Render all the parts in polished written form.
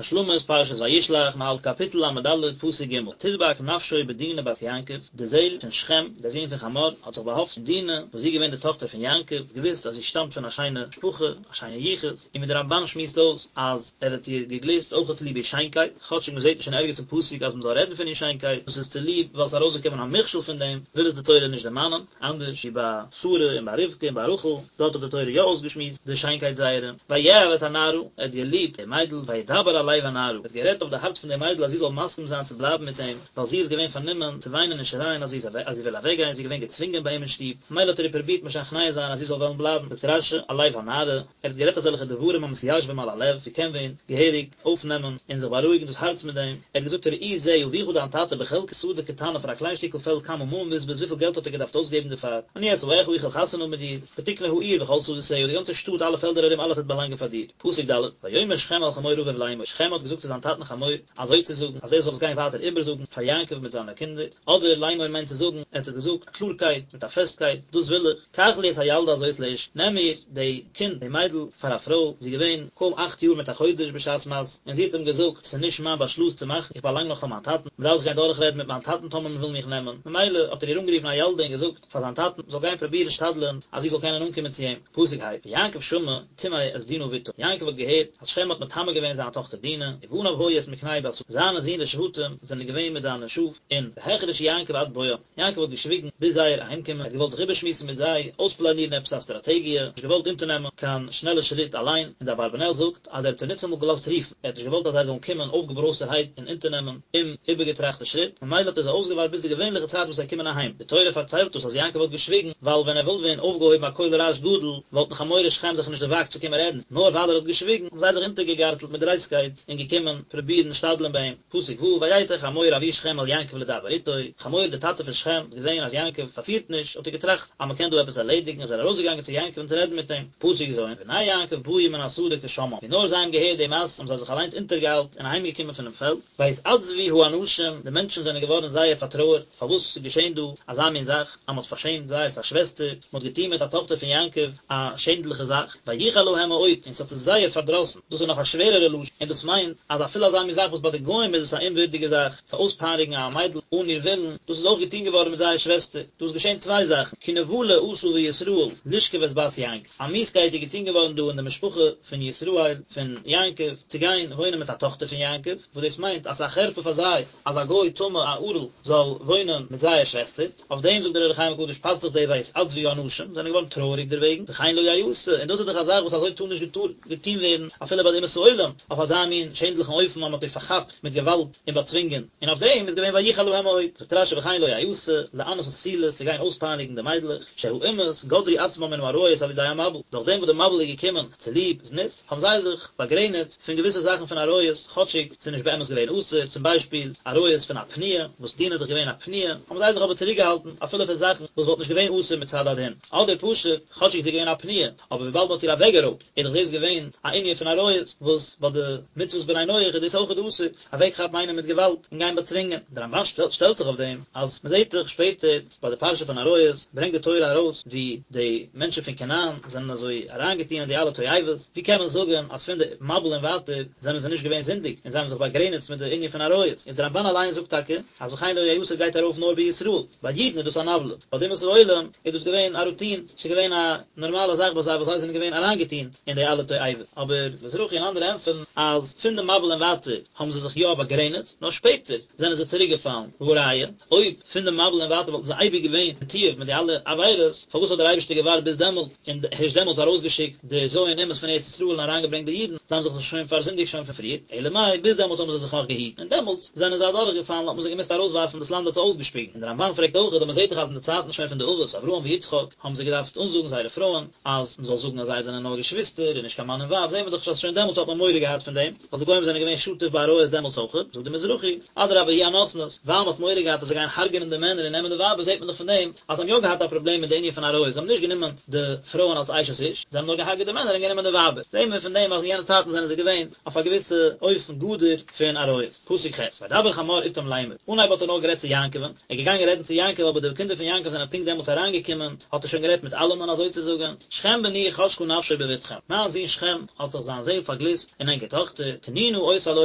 השלמת פרשת וישלח, מ'האלט קאפיטל ל"ד פסוק ג', תדבק נפשו בדינה בת יעקב, די זעהל פון שכם, דער זון פון חמור, האט זיך באהאפטן אין דינה, וואס זי איז געווען די טאכטער פון יעקב, געוואוסט אז זי שטאמט פון א שיינע משפחה, א שיינע יחוס, און ווי דער רמב"ן שמועסט אויס אז ער האט איר געגליסט אויך צוליב איר שיינקייט, כאטשיג מ'זעט נישט אין ערגעץ אין פסוק אז מ'זאל רעדן פון איר שיינקייט, דאס איז צוליב ווייל ס'איז ארויסגעקומען א מכשול פון דעם, וויל עס די תורה נישט דערמאנען. אנדערש ווי ביי שרה און ביי רבקה און ביי רחל, דארט האט די תורה יא אויסגעשמועסט די שיינקייט זייערע. ויאהב את הנערה, ער האט געליבט די מיידל, וידבר על לב הנערה, ער האט גערעדט אויף די הארץ פון די מיידל אז זי זאל מסכים זיין צו בלייבן מיט אים, ווייל זי איז געווען פארנומען צו וויינען און שרייען אז זי אז זי וויל אוועקגיין, זי איז געווען געצווינגען ביי אים אין שטוב, ממילא האט ער איר פרובירט משכנע זיין אז זי זאל וועלן בלייבן, זאגט רש"י, על לב הנערה, ער האט גערעדט אזעלכע דברים המתיישבים על הלב, ווי קען ווען געהעריג אויפנעמען און זיך בארואיגן דאס הארץ מיט דעם, ער האט געזאגט ראי זה אביך דיין טאטע בחלקת שדה קטנה פאר א קליין שטיקל פעלד כמה ממון בזבז וויפיל געלט האט ער געדארפט אויסגעבן דערפאר, אני אשאך איך וועל חתונה האבן מיט דיר, ותקנה העיר וכל שדותיה די גאנצע שטאט אלע פעלדער ארום אלעס וועט באלאנגען פאר דיר. פסוק ד', ויאמר שכם אל חמור אביו לאמור, שכם האט געזאגט צו זיין טאטן חמור, אזוי צו זאגן, אז ער זאל עס גיין ווייטער איבערזאגן פאר יעקב מיט זיינע קינדער, אדער לאמור מיינט צו זאגן, ער האט עס געזאגט קלארקייט, מיט א פעסטקייט, דאס וויל איך, קח לי את הילדה הזאת לאשה, נעם מיר די קינד, די מיידל, פאר א פרוי, זי איז געווען קוים אכט יאר מיט א חודש בשעת מעשה, און זי האט אים געזאגט, ס'איז נישט מיין באשלוס צו מאכן, איך באלאנג נאך פאר מיין טאטן, מ'דארף זיך גיין דורכרעדן מיט מיין טאטן טאמער מ'וויל מיך נעמען, ממילא האט ער איר אנגערופן הילדה און געזאגט פאר זיין טאטן, זאל גיין פרובירן שתדל'ען אז זי זאל קענען אנקומען צו אים, פסוק ה', ויעקב שמע טמא את דינה בתו, יעקב האט געהערט אז שכם האט מטמא געווען זיין טאכטער דינה, ובניו היו את מקנהו בשדה, זיינע זין די שבטים זענען געווען מיט זיינע שאף, און והחריש יעקב עד בואם. יעקב האט געשוויגן ביז זייער אהיימקומען, ער האט געוואלט זיך איבערשמועסן מיט זיי, אויספלאנירן עפעס א סטראטעגיע, נישט געוואלט אונטערנעמען קיין שנעלע שריט אליין, און דער אברבנאל זאגט אז ער האט זיי ניטאמאל געלאזט רופן, ער האט נישט געוואלט אז זיי זאלן קומען אויפגעברויזטערהייט און אונטערנעמען אומאיבערגעטראכטע שריט, ממילא האט ער זיי אויסגעווארט ביז די געווענליכע צייט וואס זיי קומען אהיים. די תורה פארציילט אונז אז יעקב האט געשוויגן, ווייל ווען ער וואלט ווען אויפגעהויבן א קול רעש גדול, וואלטן חמור ושכם זיך נישט דערוואגט צו קומען רעדן, נאר ווייל ער האט געשוויגן, האבן זיי זיך אונטערגעגארטלט מיט דרייסטקייט און געקומען פרובירן שתדל'ן ביי אים. פסוק ו', ויצא חמור אבי שכם אל יעקב לדבר איתו, חמור דער טאטע פון שכם האט געזען אז יעקב פארפירט נישט, האט ער געטראכט אז מען קען דא עפעס ערלעדיגן, איז ער ארויסגעגאנגען צו יעקב און צו רעדן מיט אים, פסוק ז', ובני יעקב באו מן השדה כשמעם, ווי נאר זיי האבן געהערט די מעשה האבן זיי זיך אליינס אונטערגעאיילט און אהיימגעקומען פונעם פעלד, ויתעצבו האנשים, די מענטשן זענען געווארן זייער פארטרויערט, פארוואס איז געשען דא אזא מין זאך, אז מען האט פארשעמט זייערס א שוועסטער, מען האט געטון מיט א טאכטער פון יעקב א שענדליכע זאך, ויחר להם מאוד, און ס'האט זיי זייער פארדראסן, דאס איז נאך א שווערערע לשון, און דאס מיינט אז אפילו אזא מין זאך וואס ביי די גוים איז עס א אומווירדיגע זאך, צו אויספייניגן א מיידל אן איר ווילן, דאס איז אויך געטון געווארן מיט זייער שוועסטער, דא איז געשען צוויי זאכן, כי נבלה עשה בישראל לשכב את בת יעקב, א מיאוסקייט איז געטון געווארן דא אין די משפחה פון ישראל, פון יעקב, צו גיין וואוינען מיט א טאכטער פון יעקב, וואס דאס מיינט אז ס'איז א חרפה פאר זיי אז א גוי טמא א ערל זאל וואוינען מיט זייער שוועסטער. אויף דעם זאגט דער אור החיים הקדוש פאסט זיך די ויתעצבו האנשים, זענען געווארן טרויעריג דערוועגן, וכן לא יעשה, און דאס איז דאך א זאך וואס אזוי טאר נישט געטון ווערן אפילו ביי די אומות העולם, אויף אזא מין שענדליכן אופן אז מען האט איר פארכאפט מיט געוואלד און באצווינגען, און אויף דעם איז געווען ויחר להם מאוד, זאגט רשי וכן לא יעשה, לענות את הבתולות צו גיין אויספייניגן די מיידלעך, שהאומות גדרו עצמם מן העריות על ידי המבול, דורך דעם וואס די מבול איז געקומען צוליב זנות, האבן זיי זיך באגרעניצט פון געוויסע זאכן פון עריות, כאטשיג ס'איז נישט באמת געווען אסור, צום ביישפיל, עריות פון א פנויה, וואס דינה איז דאך געווען א פנויה, האבן זיי זיך אבער צוריקגעהאלטן אפילו פון זאכן וואס וואלט נישט געווען אסור מצד הדין, אדער פשוט, כאטשיג זי איז געווען א פנויה, אבער וויבאלד מ'האט איר אוועקגערויבט, איז דאך דאס געווען א ענין פון עריות, וואס ביי די מצוות בני נח איז דאס אויכעט אסור, אוועקכאפן איינעם מיט געוואלד און גיין באצווינגען. דער רמבן שטעלט זיך אויף דעם, אז מ'זעט דאך שפעטער, ביי די פרשה פון עריות ברענגט די תורה ארויס ווי די מענטשן פון כנען זענען אזוי אריינגעטון אין די אלע תועבות, ווי קען מען זאגן אז פון די מבול און ווייטער זענען זיי נישט געווען זינדיג און זיי האבן זיך באגרעניצט מיט די ענין פון עריות, איז די רמבן אליין זאגט טאקע אז וכן לא יעשה גייט ארויף נאר בישראל, ביי אידן איז דאס אן עוולה, ביי די אומות העולם איז דאס געווען א רוטין, ס'איז געווען א נארמאלע זאך ביי זיי וואס זיי זענען געווען אריינגעטון אין די אלע תועבות, אבער מזרחי און אנדערע ענטפערן אז פון די מבול און ווייטער האבן זיי זיך יא באגרעניצט, נאר שפעטער זענען זיי צוריקגעפאלן, והא ראיה, אויב פון די מבול און ווייטער וואלטן זיי אייביג געווען מתועב מיט די אלע עבירות, פארוואס האט דער אייבערשטער געווארט ביז דעמאלטס און הערשט דעמאלטס ארויסגעשיקט די ז' אומות פון ארץ ישראל און אריינגעברענגט די אידן, זיי האבן זיך דאך שוין פארזינדיגט שוין פון פריער, אלא מאי ביז דעמאלטס האבן זיי זיך נאך געהיטן און דעמאלטס זענען זיי אדורכגעפאלן האט מען זיי געמוזט ארויסווארפן דאס לאנד האט זיי אויסגעשפיגן, און דער רמבן פרעגט אויך אז מען זעט דאך אז אין די צייטן שוין פון די אבות אברהם ויצחק האבן זיי געדארפט אנזאגן זייערע פרויען אז מען זאל זאגן אז זיי זענען נאר געשוויסטער און נישט קיין מאן און ווייב, זעט מען דאך אז שוין דעמאלטס האט מען מורא געהאט פון דעם. ווייל די גוים זענען געווען שטוף בעריות דעמאלטס אויכעט, זאגט די מזרחי, אדרבה היא הנותנת, ווייל מ'האט מורא געהאט אז זיי גייען הרג'נען די מענער און נעמען די ווייבער זעט מען דאך פון דעם אז זיי האבן יא געהאט א פראבלעם מיט די ענין פון עריות, זיי האבן נישט גענומען די פרויען אלס אשת איש, זיי האבן נאר געהארגעט די מענער און גענומען די ווייבער, זעט מען פון דעם אז אין יענע צייטן זענען זיי געווען אויף א געוויסע אופן גדור פון עריות. פסוק ח', וידבר חמור אתם לאמר, אנהייב האט ער נאר גערעדט צו יעקב'ן, ער איז געגאנגען רעדן צו יעקב אבער די קינדער פון יעקב זענען פונקט דעמאלטס אריינגעקומען, האט ער שוין גערעדט מיט אלעמען אזוי צו זאגן, שכם בני חשקה נפשו בבתכם, מיין זון שכם האט זיך זיין זעהל פארגליסט אין ענקער טאכטער. טאכטער, תנו נא אותה לו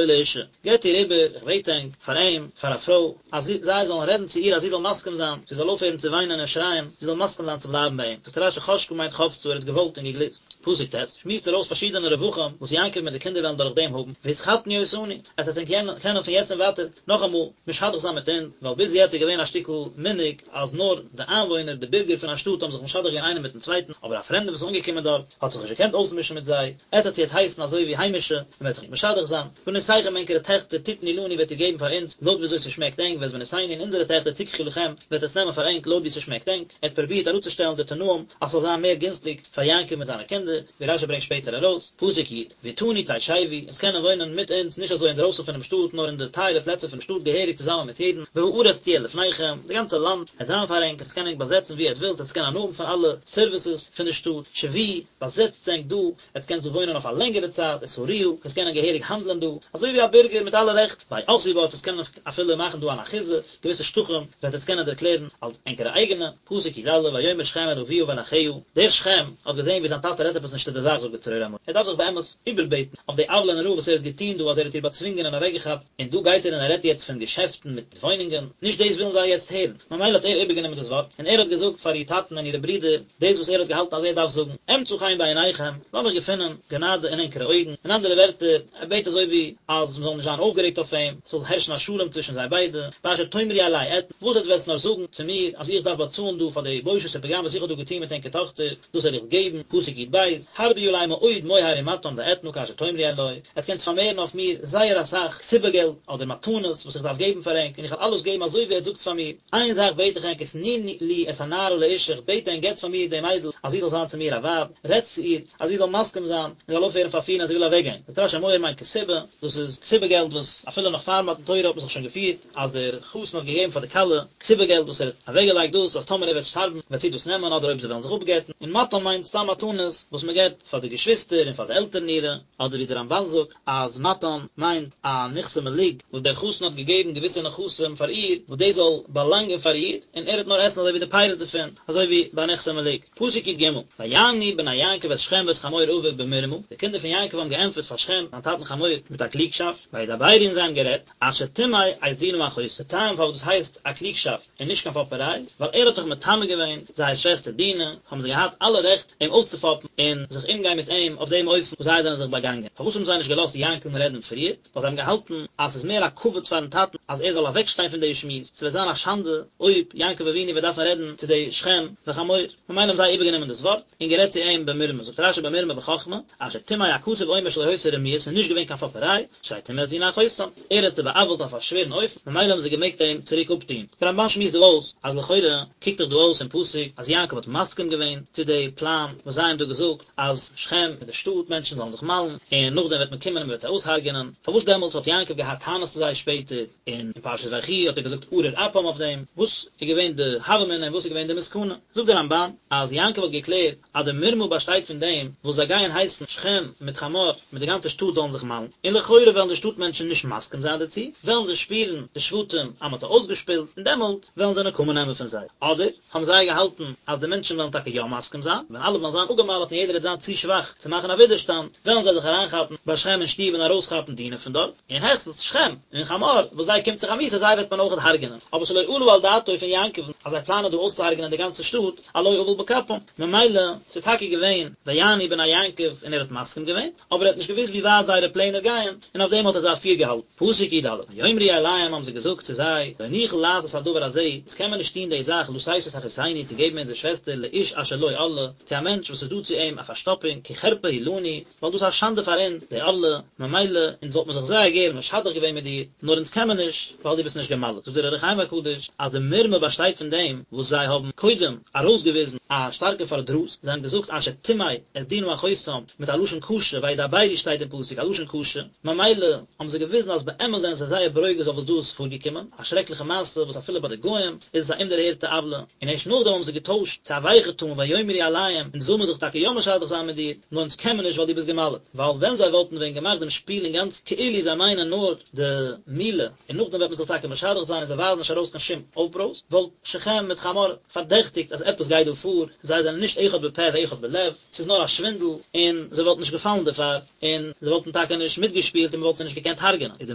לאשה, געבט איר איבער, איך בעט ענק, פאר אים, פאר א פרוי, אז זיי זאלן רעדן צו איר אז זי זאל מסכים זיין, זי זאל אויפהערן צו וויינען און שרייען, זי זאל מסכים זיין צו בלייבן ביי אים. זאגט רשי חשקה מיינט חפצה, ער האט געוואלט און געגליסט. פסוק ט', שמועסט ער אויס פארשידענע רווחים וואס יעקב מיט די קינדער וועלן דורך דעם האבן, והתחתנו אותנו, עטס וועט ענק קענען פון יעצט און ווייטער נאכאמאל משדך זיין מיט אונז, ווייל ביז יעצט איז געווען א שטיקל מנהג אז נאר די איינוואוינער, די בירגער פון א שטאט האבן זיך משדך געווען איינער מיטן צווייטן, אבער א פרעמדער וואס איז אנגעקומען דארט האט זיך נישט געקענט אויסמישן מיט זיי, עטס וועט יעצט הייסן אזוי ווי היימישע, און מ'וועט זיך משדך זיין, בנותיכם ענקערע טעכטער תתנו לנו וועט איר געבן פאר אונז לויט ווי אזוי ס'שמעקט ענק, ואת בנותינו און אונזערע טעכטער תקחו לכם וועט עטס נעמען פאר ענק לויט ווי ס'שמעקט ענק, ער האט פרובירט אראפצושטעלן די תנאים אז ס'זאל זיין מער גינסטיג פאר יעקב מיט זיינע קינדער, ווי רשי ברענגט שפעטער ארויס, פסוק י', ואתנו תשבו, עטס קענען וואוינען מיט אונז, נישט אזוי אינדרויסן פונעם שטאט, נאר אין די טייערע פלעצער פונעם שטאט געהעריג צוזאמען מיט יעדן, והארץ תהיה לפניכם, די גאנצע לאנד וועט זיין פאר ענק, עטס קענען ענק באזעצן וואו עטס ווילט, עטס קענען הנאה האבן פון אלע סערוויסעס פון די שטאט, שבו, באזעצטס ענק דא, עטס קענטס דא וואוינען אויף א לענגערע צייט, ושארוה, עטס קענען געהעריג האנדלען דא, אזוי ווי א בירגער מיט אלע רעכט, והאחזו בה, עטס קענען אפילו מאכן דא אן אחיזה, געוויסע שטחים וועט עטס קענען דערקלערן אלס ענקערע אייגענע, פסוק י א, ויאמר שכם אל אביה ואל אחיה, דער שכם האט געזען ווי זיין טאטע רעדט עפעס נישט צו די זאך זאגט די צרור המור, ער דארף זיך באמת איבערבעטן אויף די עוולה נוראה וואס ער האט געטון דא אז ער האט איר באצווינגען און אוועקגעכאפט, און דא גייט ער און ער רעדט יעצט פון געשעפטן מיט וואוינונגען, נישט דאס ווילן זיי יעצט הערן, ממילא האט ער איבערגענומען דאס ווארט, און ער האט געזאגט פאר איר טאטן און אירע ברידער, דאס וואס ער האט געהאלטן אז ער דארף זאגן, אמצא חן בעיניכם, לאמיך געפינען גענאדע אין ענקערע אויגן, אין אנדערע ווערטער, ער בעט אזוי ווי אז מען זאל נישט זיין אויפגערעגט אויף אים, ס'זאל הערשן א שלום צווישן זיי ביידע, באשר תאמרו אלי אתן, וואס עטס וועטס נאר זאגן צו מיר אז איך דארף באצאלן דא פאר די בושת ופגם וואס איך האב דא געטון מיט ענקער טאכטער, דאס וועל איך געבן, פסוק י ב, הרבו עלי מאוד מוהר ומתן ואתנה כאשר תאמרו אלי, עטס קענטס פארמערן אויף מיר זייער אסאך כתובה געלט אדער מתנות וואס איך דארף געבן פאר ענק, און איך וועל אלעס געבן אזוי ווי עטס זאגטס פאר מיר. איין זאך בעט איך ענק ותנו לי את הנערה לאשה, איך בעט ענק געטס פאר מיר די מיידל אז זי זאל זיין צו מיר א ווייב, רעדטס צו איר אז זי זאל מסכים זיין און זאל אויפהערן פארפירן אז זי וויל אוועקגיין. זאגט רשי מוהר מיינט כתובה, דאס איז כתובה געלט וואס אפילו נאך פאר מתן תורה האט מען זיך שוין געפירט אז דער חתן האט געגעבן פאר די כלה כתובה געלט וואס ער האט אוועקגעלייגט דאס אז טאמער ער וועט שטארבן וועט זי דאס נעמען אדער אויב זיי וועלן זיך אפגט'ן, און מתן מיינט סתם מתנות וואס מען געבט פאר די געשוויסטער און פאר די עלטערן אירע. אדער ווי דער רמבן זאגט אז מתן מיינט א נכסי מלוג וואס דער חתן האט געגעבן געוויסע נכסים פאר איר וואס דאס זאל באלאנגען פאר איר און ער וועט נאר עסן אזוי ווי די פירות דערפון אזוי ווי ביי נכסי מלוג. פסוק י ג, ויענו בני יעקב את שכם ואת חמור אביו במרמה, די קינדער פון יעקב האבן געענטפערט פאר שכם זיין טאטן חמור מיט א קלוגשאפט, וידברו און זיי האבן גערעדט, אשר טמא את דינה אחותם, די טעם פארוואס דאס הייסט א קלוגשאפט, און נישט קיין פאפעריי, ווייל ער האט דאך מטמא געווען זייער שוועסטער דינה, האבן זיי געהאט אלע רעכט אים אויסצופאפן און זיך אומגיין מיט אים אויף דעם אופן וואס זיי זענען זיך באגאנגען. פארוואס האבן זיי נישט געלאזט יעקב'ן רעדן פריער? ווייל זיי האבן געהאלטן אז ס'איז מער א כבוד פארן טאטן אז ער זאל אוועקשטיין פון די שמועס, ס'וועט זיין א שאנדע אויב יעקב אבינו וועט דארפן רעדן צו די שכם וחמור, ממילא האבן זיי איבערגענומען דאס ווארט און גערעדט צו אים במרמה, זאגט רשי במרמה בחכמה, אשר טמא הכתוב אומר שלא היתה רמיה, ס'איז נישט געווען קיין פאפעריי, שהרי טמא את דינה אחותם, ער האט זיי בא'עוול'ט אויף א שווערן אופן, ממילא האבן זיי געמעגט אים צוריק אפטוהן. דער רמבן שמועסט דא אויס, אז לכאורה קוקט דאך דא אויס אין פסוק אז יעקב האט מסכים געווען צו די פלאן וואס זיי האבן דא געזאגט אז שכם מיט די שטאט מענטשן זאלן זיך מל'ן, און נאכדעם וועט מען קומען און מען וועט זיי אויסהרג'ענען, פארוואס דעמאלטס האט יעקב געהאט טענות צו זיי שפעטער, און אין פרשת ויחי האט ער געזאגט ארור אפם אויף דעם, וואס איז געווען די הוה אמינא און וואס איז געווען די מסקנא? זאגט דער רמבן אז יעקב האט געקלערט אז די מרמה באשטייט פון דעם וואס זיי גייען הייסן שכם מיט חמור מיט די גאנצע שטאט זאלן זיך מל'ן, און לכאורה וועלן די שטאט מענטשן נישט מסכים זיין דערצו, וועלן זיי שפירן די שבטים אז מען האט זיי אויסגעשפילט, און דעמאלט וועלן זיי נקמה נעמען פון זיי. אדער האבן זיי געהאלטן אז די מענטשן וועלן טאקע יא מסכים זיין, ווען אלע וועלן זיין אפגעמל'ט און יעדער וועט זיין צו שוואך צו מאכן א ווידערשטאנד, וועלן זיי זיך אריינכאפן ביי שכם אין שטוב און ארויסכאפן דינה פון דארט, און העכסטנס שכם און חמור וואס זיי קומט זיך א מיתה זיי וועט מען אויכעט הרג'נען, אבער שלא עלה על דעתו פון יעקב'ן אז זיי פלאנען דא אויסצוהרג'נען די גאנצע שטאט, על לא עוול בכפם, ממילא ס'איז טאקע געווען ויענו בני יעקב און ער האט מסכים געווען, אבער ער האט נישט געוואוסט ווי ווייט זייערע פלענער גייען, און אויף דעם האט ער זיי פירגעהאלטן. פסוק י ד, ויאמרו אליהם האבן זיי געזאגט צו זיי, לא נוכל לעשות הדבר הזה, אונז קען מען נישט טון די זאך לתת את אחותנו צו געבן אונזער שוועסטער לאיש אשר לו ערלה, צו א מענטש וואס איז דא צו אים א פארשטאפונג, כי חרפה היא לנו, ווייל דאס איז א שאנדע פאר אונז, די ערלה, ממילא, אונז וואלט מען זיך זייער גערן משדך געווען מיט דיר, נאר אונז קען מען נישט, ווייל דו ביסט נישט גע'מל'ט. זאגט דער אור החיים הקדוש, אז די מרמה באשטייט פון דעם וואס זיי האבן קודם ארויסגעוויזן א שטארקע פארדרוס, זיי האבן געזאגט אשר טמא את דינה אחותם מיט א לשון קשה, וידברו שטייט אין פסוק א לשון קשה, ממילא האבן זיי געוויזן אז באמת זענען זיי זייער ברוגז אויף וואס דא איז פארגעקומען, א שרעקליכע מעשה וואס אפילו ביי די גוים איז עס א אומדערהערטע עוולה, און ערשט נאכדעם האבן זיי געטוישט צו א ווייכע טאן ויאמרו אליהם, אונז וויל מען זיך טאקע יא משדך זיין מיט דיר, נאר אונז קען מען נישט ווייל דו ביסט גע'מל'ט, ווייל ווען זיי וואלטן ווען געמאכט דעם שפיל אינגאנצן כאילו זיי מיינען נאר די מילה, און נאכדעם וועט מען זיך טאקע משדך זיין און זיי ווייזן נישט ארויס קיין שום אויפברויז, וואלט שכם מיט חמור פארדעכטיגט אז עפעס גייט דא פאר, זיי זענען נישט אחד בפה ואחד בלב, ס'איז נאר א שווינדל, און זיי וואלטן נישט געפאלן דערפאר, און זיי וואלטן. טאקע נישט מיטגעשפילט און מען וואלט זיי נישט געקענט הרג'נען, איז די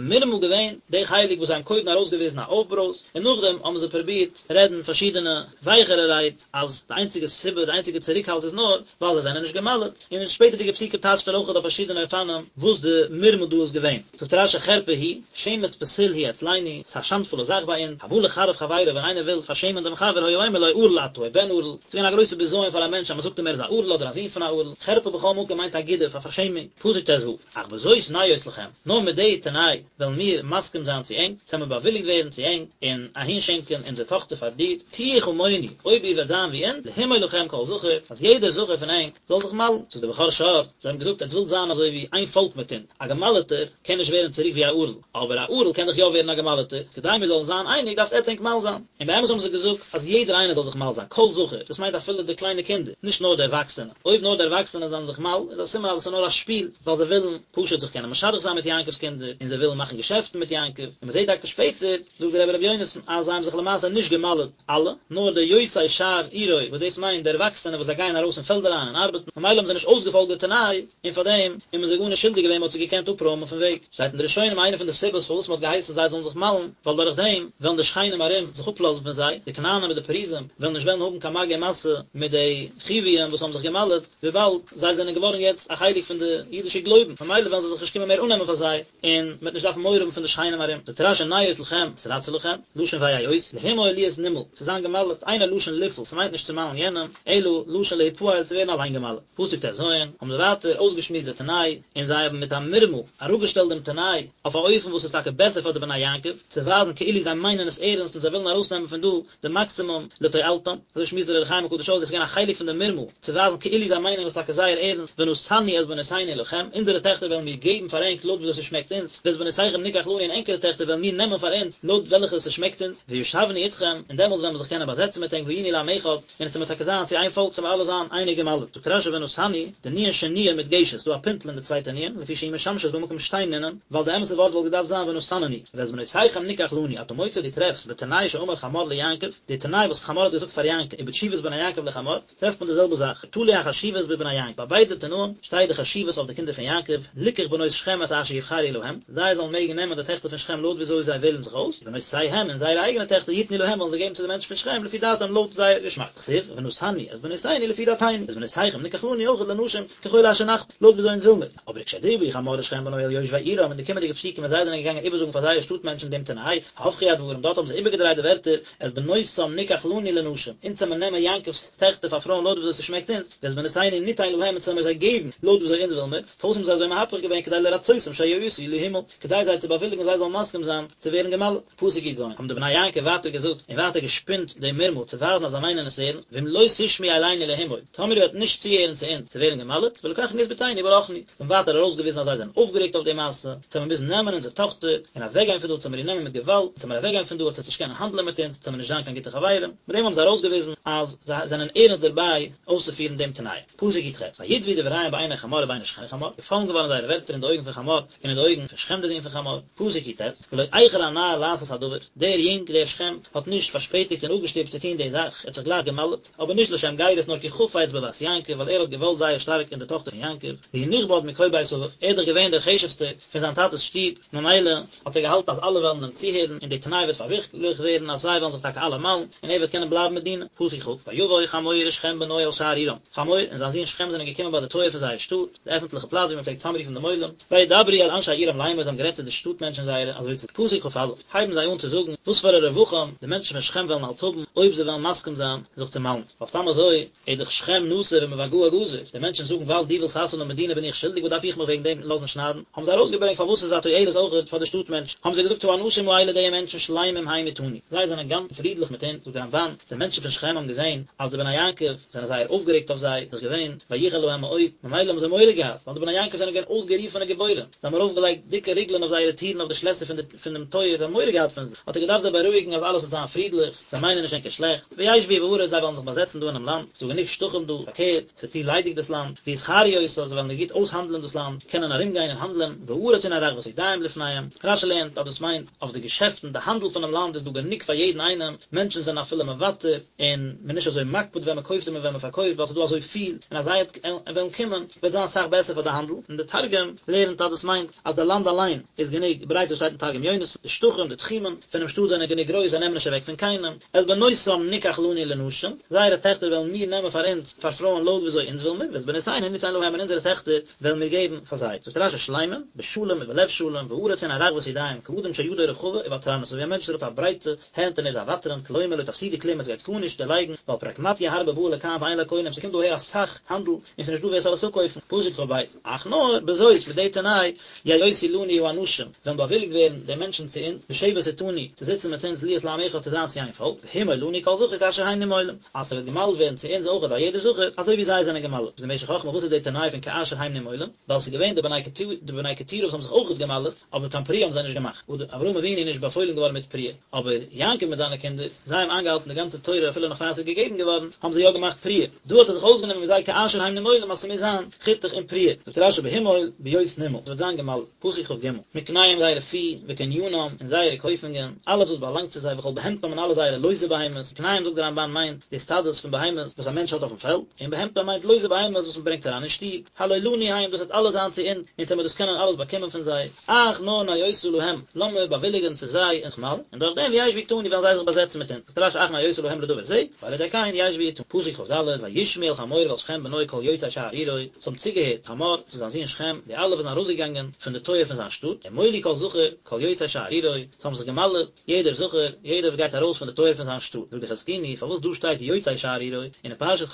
מרמה געווען די חלק וואס זיי האבן קודם ארויסגעוויזן א אויפברויז, און נאכדעם האבן זיי פרובירט רעדן פארשידענע ווייכערע רייד, אז די איינציגע סיבה, די איינציגע צוריקהאלט איז נאר ווייל זיי זענען נישט גע'מל'ט, און אין שפעטערדיגע פסוקים טייטשט ער אויכעט אויף פארשידענע אופנים וואס די מרמה דא איז געווען. זאגט רש"י חרפה היא, שמץ פסול הוא אצלנו, ס'איז א שאנדפולע זאך ביי אונז, הבא לחרף חברו ווען איינער וויל פארשעמען דעם חבר היה אומר לו ערל אתה או בן ערל, ס'איז געווען א גרויסע בזיון פאר א מענטש אז מ'זאגט אים ער איז א ערל אדער א זון פון א ערל, חרפה בכל מקום מיינט א גידוף, א פארשעמונג, פסוק ט"ו, אך בזאת נאות לכם, נאר מיט די תנאי וועלן מיר מסכים זיין צו ענק, ס'עמיר באוויליגט ווערן צו ענק, און אהינשענקען אונזער טאכטער פאר דיר, תהיו כמונו, אויב איר וועט זיין ווי אונז, להמול לכם כל זכר, אז יעדער זכר פון ענק זאל זיך מל'ן. זאגט דער בכור שור, זיי האבן געזאגט, עטס ווילט זיין אזוי ווי איין פאלק מיט אונז, א געמל'טער קען נישט ווערן צוריק ווי א ערל, אבער א ערל קען דאך יא ווערן א געמל'טער, כדי מיר זאלן זיין אייניג דארפט עטס ענק מל זיין. און באמת האבן זיי געזאגט אז יעדער איינער זאל זיך מל זיין, כל זכר, דאס מיינט אפילו די קליינע קינדער, נישט נאר די ערוואקסענע. אויב נאר די ערוואקסענע זענען זיך מל, איז א סימן אז עס איז נאר א שפיל, ווייל זיי ווילן פשוט זיך קענען משדך זיין מיט יעקב'ס קינדער, און זיי ווילן מאכן געשעפטן מיט יעקב, און מען זעט טאקע שפעטער, זאגט דער רבי רבי יונתן, אז זיי האבן זיך למעשה נישט געמל'ט אלע, נאר די יוצאי שער עירו, וואס דאס מיינט די ערוואקסענע וואס זיי גייען ארויס אין פעלד אריין און ארבעטן, ממילא האבן זיי נישט אויסגעפאלגט די תנאי, און פאר דעם איז מען זיי גארנישט שולדיג געווען, מען האט זיי געקענט אפרוימען פון וועג. שטייט אין די ראשונים איינע פון די סיבות פארוואס מען האט געהייסן זיי זאלן זיך מל'ן, ווייל דורך דעם וועלן די שכנים ארום זיך אפלאזן פון זיי, די כנענים מיט די פריזים וועלן נישט וועלן האבן קיין מגע ומשא מיט די חיוויים וואס האבן זיך געמל'ט, וויבאלד זיי זענען געווארן יעצט א חלק פון די אידישע גלויבן, ממילא וועלן זיי זיך נישט קומען מער אננעמען פאר זיי, און מען וועט נישט דארפן מורא האבן פון די שכנים ארום. זאגט רש"י נאות לכם, נתרצה לכם, לשון ויאות, להימול להיות נימול, צו זיין געמל'ט, אינו לשון לפעול, ס'מיינט נישט צו מל'ן יענעם, אלא לשון להיפעל, צו ווערן אליין געמל'ט. פסוק ט"ז, האבן זיי ווייטער אויסגעשמועסט די תנאי, און זיי האבן מיט א מרמה אראפגעשטעלט דעם תנאי אויף א אופן וואס איז טאקע בעסער פאר די בני יעקב, צו ווייזן כאילו זיי מיינען עס ערנסט און זיי ווילן ארויסנעמען פון דא די מאקסימום לתועלתם, אזוי שמועסט דער אור החיים הקדוש אויס, דאס איז געווען א חלק פון די מרמה, צו ווייזן כאילו זיי מיינען עס טאקע זייער ערנסט, ונתנו את בנותינו לכם, אונזערע טעכטער וועלן מיר געבן פאר ענק לויט וויאזוי ס'שמעקט אונז, ואת בנותיכם ניקח לנו און ענקערע טעכטער וועלן מיר נעמען פאר אונז לויט וועלכע ס'שמעקט אונז, וישבנו אתכם, און דעמאלטס וועלן מיר זיך קענען באזעצן מיט ענק והיינו לעם אחד, און עס וועט טאקע זיין צו איין פאלק, ס'וועלן אלע זיין אייניג געמל'ט. זאגט רש"י ונתנו, די נו"ן שניה מודגשת, ס'דא א פינטל אין די צווייטע נו"ן, לפי שהיא משמשת במקום שתי נו"נין, ווייל די אמת'ע ווארט וואלט געדארפט זיין ונתננו, ואת בנותיכם ניקח לנו, אתה מוצא דו טרעפסט בתנאי שאמר חמור ליעקב, די תנאי וואס חמור האט געזאגט פאר יעקב, ובתשובת בני יעקב לחמור, טרעפט מען די זעלבע זאך, תלוי החשיבות בבני יעקב, ביי ביידע תנאים שטייט די חשיבות אויף די קינדער פון יעקב, ליקח בנות שכם את אשר יבחרו להם, זיי זאלן מעגן נעמען די טעכטער פון שכם לויט וויאזוי זיי וועלן זיך אויס, ובנותיהם און זייערע אייגענע טעכטער יתנו להם וועלן זיי געבן צו די מענטשן פון שכם לפי דעתם לויט זייער געשמאק, כתיב, ונתנו את בנותינו לפי דעתינו, ואת בנותיכם ניקח לנו אויכעט לנשים ככל אשר נחפוץ, לויט וויאזוי אונז וויל מיר. אבער וכשדברו חמור ושכם בנו אל יושבי עירם אין די קומענדיגע פסוקים ווען זיי זענען געגאנגען איבערזאגן פאר זייערע שטאט מענטשן דעם תנאי, הפכו הדברים, דארט האבן זיי איבערגעדרייט די ווערטער, את בנותם ניקח לנו לנשים, אונז וועלן מיר נעמען יעקב'ס טעכטער פאר פרויען לויט וויאזוי ס'שמעקט אונז, ואת בנותינו ניתן להם אונז וועלן מיר זיי געבן לויט וויאזוי אונז וויל מיר, פארוואס האבן זיי אזוי מהפך געווען כדי לרצותם שיאותו להימול, כדי זיי צו באוויליגן זיי זאלן מסכים זיין צו ווערן געמל'ט. פסוק י"ז, האבן די בני יעקב ווייטער געזאגט און ווייטער געשפינט די מרמה צו ווייזן אז זיי מיינען עס ערנסט, ואם לא תשמעו אלינו להימול, טאמער איר וועט נישט צוהערן צו אונז צו ווערן געמל'ט, ולקחנו את בתנו וברחנו, זיי האבן ווייטער ארויסגעוויזן אז זיי זענען אויפגערעגט אויף די מעשה, צו מיר מוזן נעמען אונזער טאכטער און אוועקגיין פון דא, צו מיר איר נעמען מיט געוואלד, צו מיר אוועקגיין פון דא, עטס וועט נישט קענען האנדלען מיט אונז, צו מיר נישט זיין קיין גוטע חברים, מיט דעם האבן זיי ארויסגעוויזן אז זיי זענען ערנסט דערביי אויסצופירן דעם תנאי. פסוק י"ח, ויטבעו דבריהם בעיני חמור ובעיני שכם חמור, געפאלן געווארן זייערע ווערטער אין די אויגן פון חמור און אין די אויגן פון שכם דער זון פון חמור, פסוק י"ט, ולא איחר הנער לעשות הדבר, דער יונג, דער שכם, האט נישט פארשפעטיגט און אפגעשטופט צו טון די זאך, ער האט זיך גלייך געמל'ט, אבער נישט לשם גירות נאר כי חפץ בבת יעקב, ווייל ער האט געוואלט זייער שטארק אין די טאכטער פון יעקב, והוא נכבד מכל בית אביו, ער איז דאך געווען דער חשוב'סטער פון זיין טאטע'ס שטוב, ממילא האט ער געהאלטן אז אלע וועלן אים צוהערן און די תנאי וועט פארווירקליכט ווערן אז זיי וועלן זיך טאקע אלע מל'ן און ער וועט קענען בלייבן מיט דינה. פסוק כ, ויבא חמור ושכם בנו אל שער עירם, חמור און זיין זון שכם זענען געקומען ביי די טויער פון זייער שטאט, די עפנטליכע פלאץ וואו מען פלעגט צאמרופן דעם עולם, וידברו אל אנשי עירם לאמר, זיי האבן גערעדט צו די שטאט מענטשן זייערע, אזוי צו פסוק כא, הייבן זיי אן צו זאגן וואס פאר א רווחים די מענטשן פון שכם וועלן אלץ האבן אויב זיי וועלן מסכים זיין זיך צו מל'ן, ווייל סתם אזוי איז דאך שכם נשוי ומבגאה גזור, די מענטשן זאגן ווייל דו ווילסט חתונה האבן מיט דינה בין איך שולדיג וואס דארף איך מיך וועגן דעם לאזן שניידן, האבן זיי ארויסגעברענגט פארוואס ס'איז א תועלת אויכעט פאר די שטאט מענטשן, האבן זיי געזאגט האנשים האלה די מענטשן שלמים הם אתנו, זיי זענען גאנץ פרידליך מיט אונז, זאגט דער רמב"ן, די מענטשן פון שכם האבן געזען אז די בני יעקב זענען זייער אויפגערעגט אויף זיי, איז דאך געווען ויחר להם מאוד, ממילא האבן זיי מורא געהאט, ווייל די בני יעקב זענען געווען אויסגערופענע גיבורים, זיי האבן ארויפגעלייגט דיקע ריגלען אויף זייערע טירן אויף די שלעסער פון דעם טויער, זיי האבן מורא געהאט פון זיי, האט ער געדארפט זיי בארואיגן אז אלעס וועט זיין פרידליך. זיי מיינען נישט ענקער שלעכט, וישבו בארץ זיי וועלן זיך באזעצן דא אינעם לאנד, ס'איז דא גענוג שטחים דא, פארקערט, ס'איז צו ליידיג דאס לאנד, ויסחרו אותה, זיי וועלן גוט אויסהאנדלען דאס לאנד, קענען ארומגיין און האנדלען, והארץ הנה רחבת ידיים לפניהם, רש"י לערנט אז דאס מיינט אויף די געשעפטן, די האנדל פונעם לאנד איז דא גענוג פאר יעדן איינעם, מענטשן זענען אפילו מוותר, און מ'איז נישט אזוי מקפיד ווען מ'קויפט און ווען מ'פארקויפט ווייל ס'איז דא אזוי פיל, און אז זיי וועלן קומען וועט זיין אסאך בעסער פאר די האנדל, און די תרגום. תרגום לערנט אז דאס מיינט אז די לאנד אליין איז גענוג ברייט וואס שטייט אין תרגום יונתן, די שטחים, די תחומים, פונעם שטאט זענען גענוג גרויס זיי נעמען נישט אוועק פון קיינעם, את בנותם נקח לנו לנשים, זייערע טעכטער וועלן מיר נעמען פאר אונז פאר פרויען לויט וויאזוי אונז וויל מיר, ואת בנותינו נתן להם און אונזערע טעכטער וועלן מיר געבן פאר זיי. זאגט רשי שלמים, בשלום ובלב שלם, והארץ הנה רחבת ידיים, כאדם שידו רחבה וותרנית, אזוי ווי א מענטש וואס האט א ברייטע הענט און ער איז א ותרן, כלומר לא תפסידו כלום עטס גייטס גארנישט דערלייגן, ווייל פרקמטיא הרבה באה לכאן ואין לה קונים, ס'קומט דא אהער אסאך האנדל און ס'איז נישט דא ווער ס'זאל עס אפקויפן, פסוק כב, אך נאר בזאת מיט די תנאי יאותו לנו האנשים, וועלן באוויליגט ווערן די מענטשן צו אונז, לשבת אתנו, צו זיצן מיט אונז להיות לעם אחד צו זיין צו איין פאלק, והמול לנו כל זכר כאשר הם נמולים, אז ס'וועט געמל'ט ווערן צו אונז אויכעט א יעדער זכר, אזוי ווי זיי זענען געמל'ט. זאגט די משך חכמה וואס איז די תנאי פון כאשר הם נמולים? ווייל ס'איז געווען די בני קטורה וואס האבן זיך אויכעט געמל'ט, אבער קיין פריעה האבן זיי נישט געמאכט, אברהם אבינו איז נישט באפוילן געווארן מיט פריעה, אבער יעקב מיט זיינע קינדער, זיי האבן איינגעהאלטן די גאנצע תורה אפילו נאך פאר עס איז געגעבן געווארן, האבן זיי יא געמאכט פריעה. דא האט ער זיך אויסגענומען מיט זיי כאשר הם נמולים אז ס'מוז זיין חיתוך און פריעה. זאגט רשי בהמול בהיות נימול, ס'וועט זיין געמל'ט, פסוק כג, מקניהם זייערע פי, וקנינם, און זייערע קויפונגען, אלעס וואס באלאנגט צו זיי, וכל בהמתם און אלע זייערע לויזע בהמות, מקניהם זאגט דער רמבן מיינט די סטאדעס פון בהמות וואס א מענטש האט אויפן פעלד, און בהמתם מיינט לויזע בהמות וואס מ'ברענגט אריין אין שטוב, הלא לנו הם, דאס וועט אלעס זיין צו אונז, אונז וועמיר דאס קענען אלעס באקומען פון זיי, אך נאר נאותה להם, לאמיר באוויליגען צו זיי און זיך מל'ן, און דורך דעם וישבו אתנו וועלן זיי זיך באזעצן מיט אונז, זאגט רשי אך נאותה להם לדבר זה, ועל ידי כן ישבו אתנו. פסוק כד, וישמעו אל חמור ואל שכם בנו כל יוצאי שער עירו, עס האבן צוגעהערט חמור צו זיין זון שכם, די אלע וואס זענען ארויסגעגאנגען פון די טויער פון זיין שטאט, ומולו כל זכר, כל יוצא שער עירו, עס האבן זיך געמל'עט, יעדער זכר, יעדער וואס גייט ארויס פון די טויער פון זיין שטאט, זאגט די חזקוני, פארוואס דא שטייט יוצאי שער עירו, און אין פרשת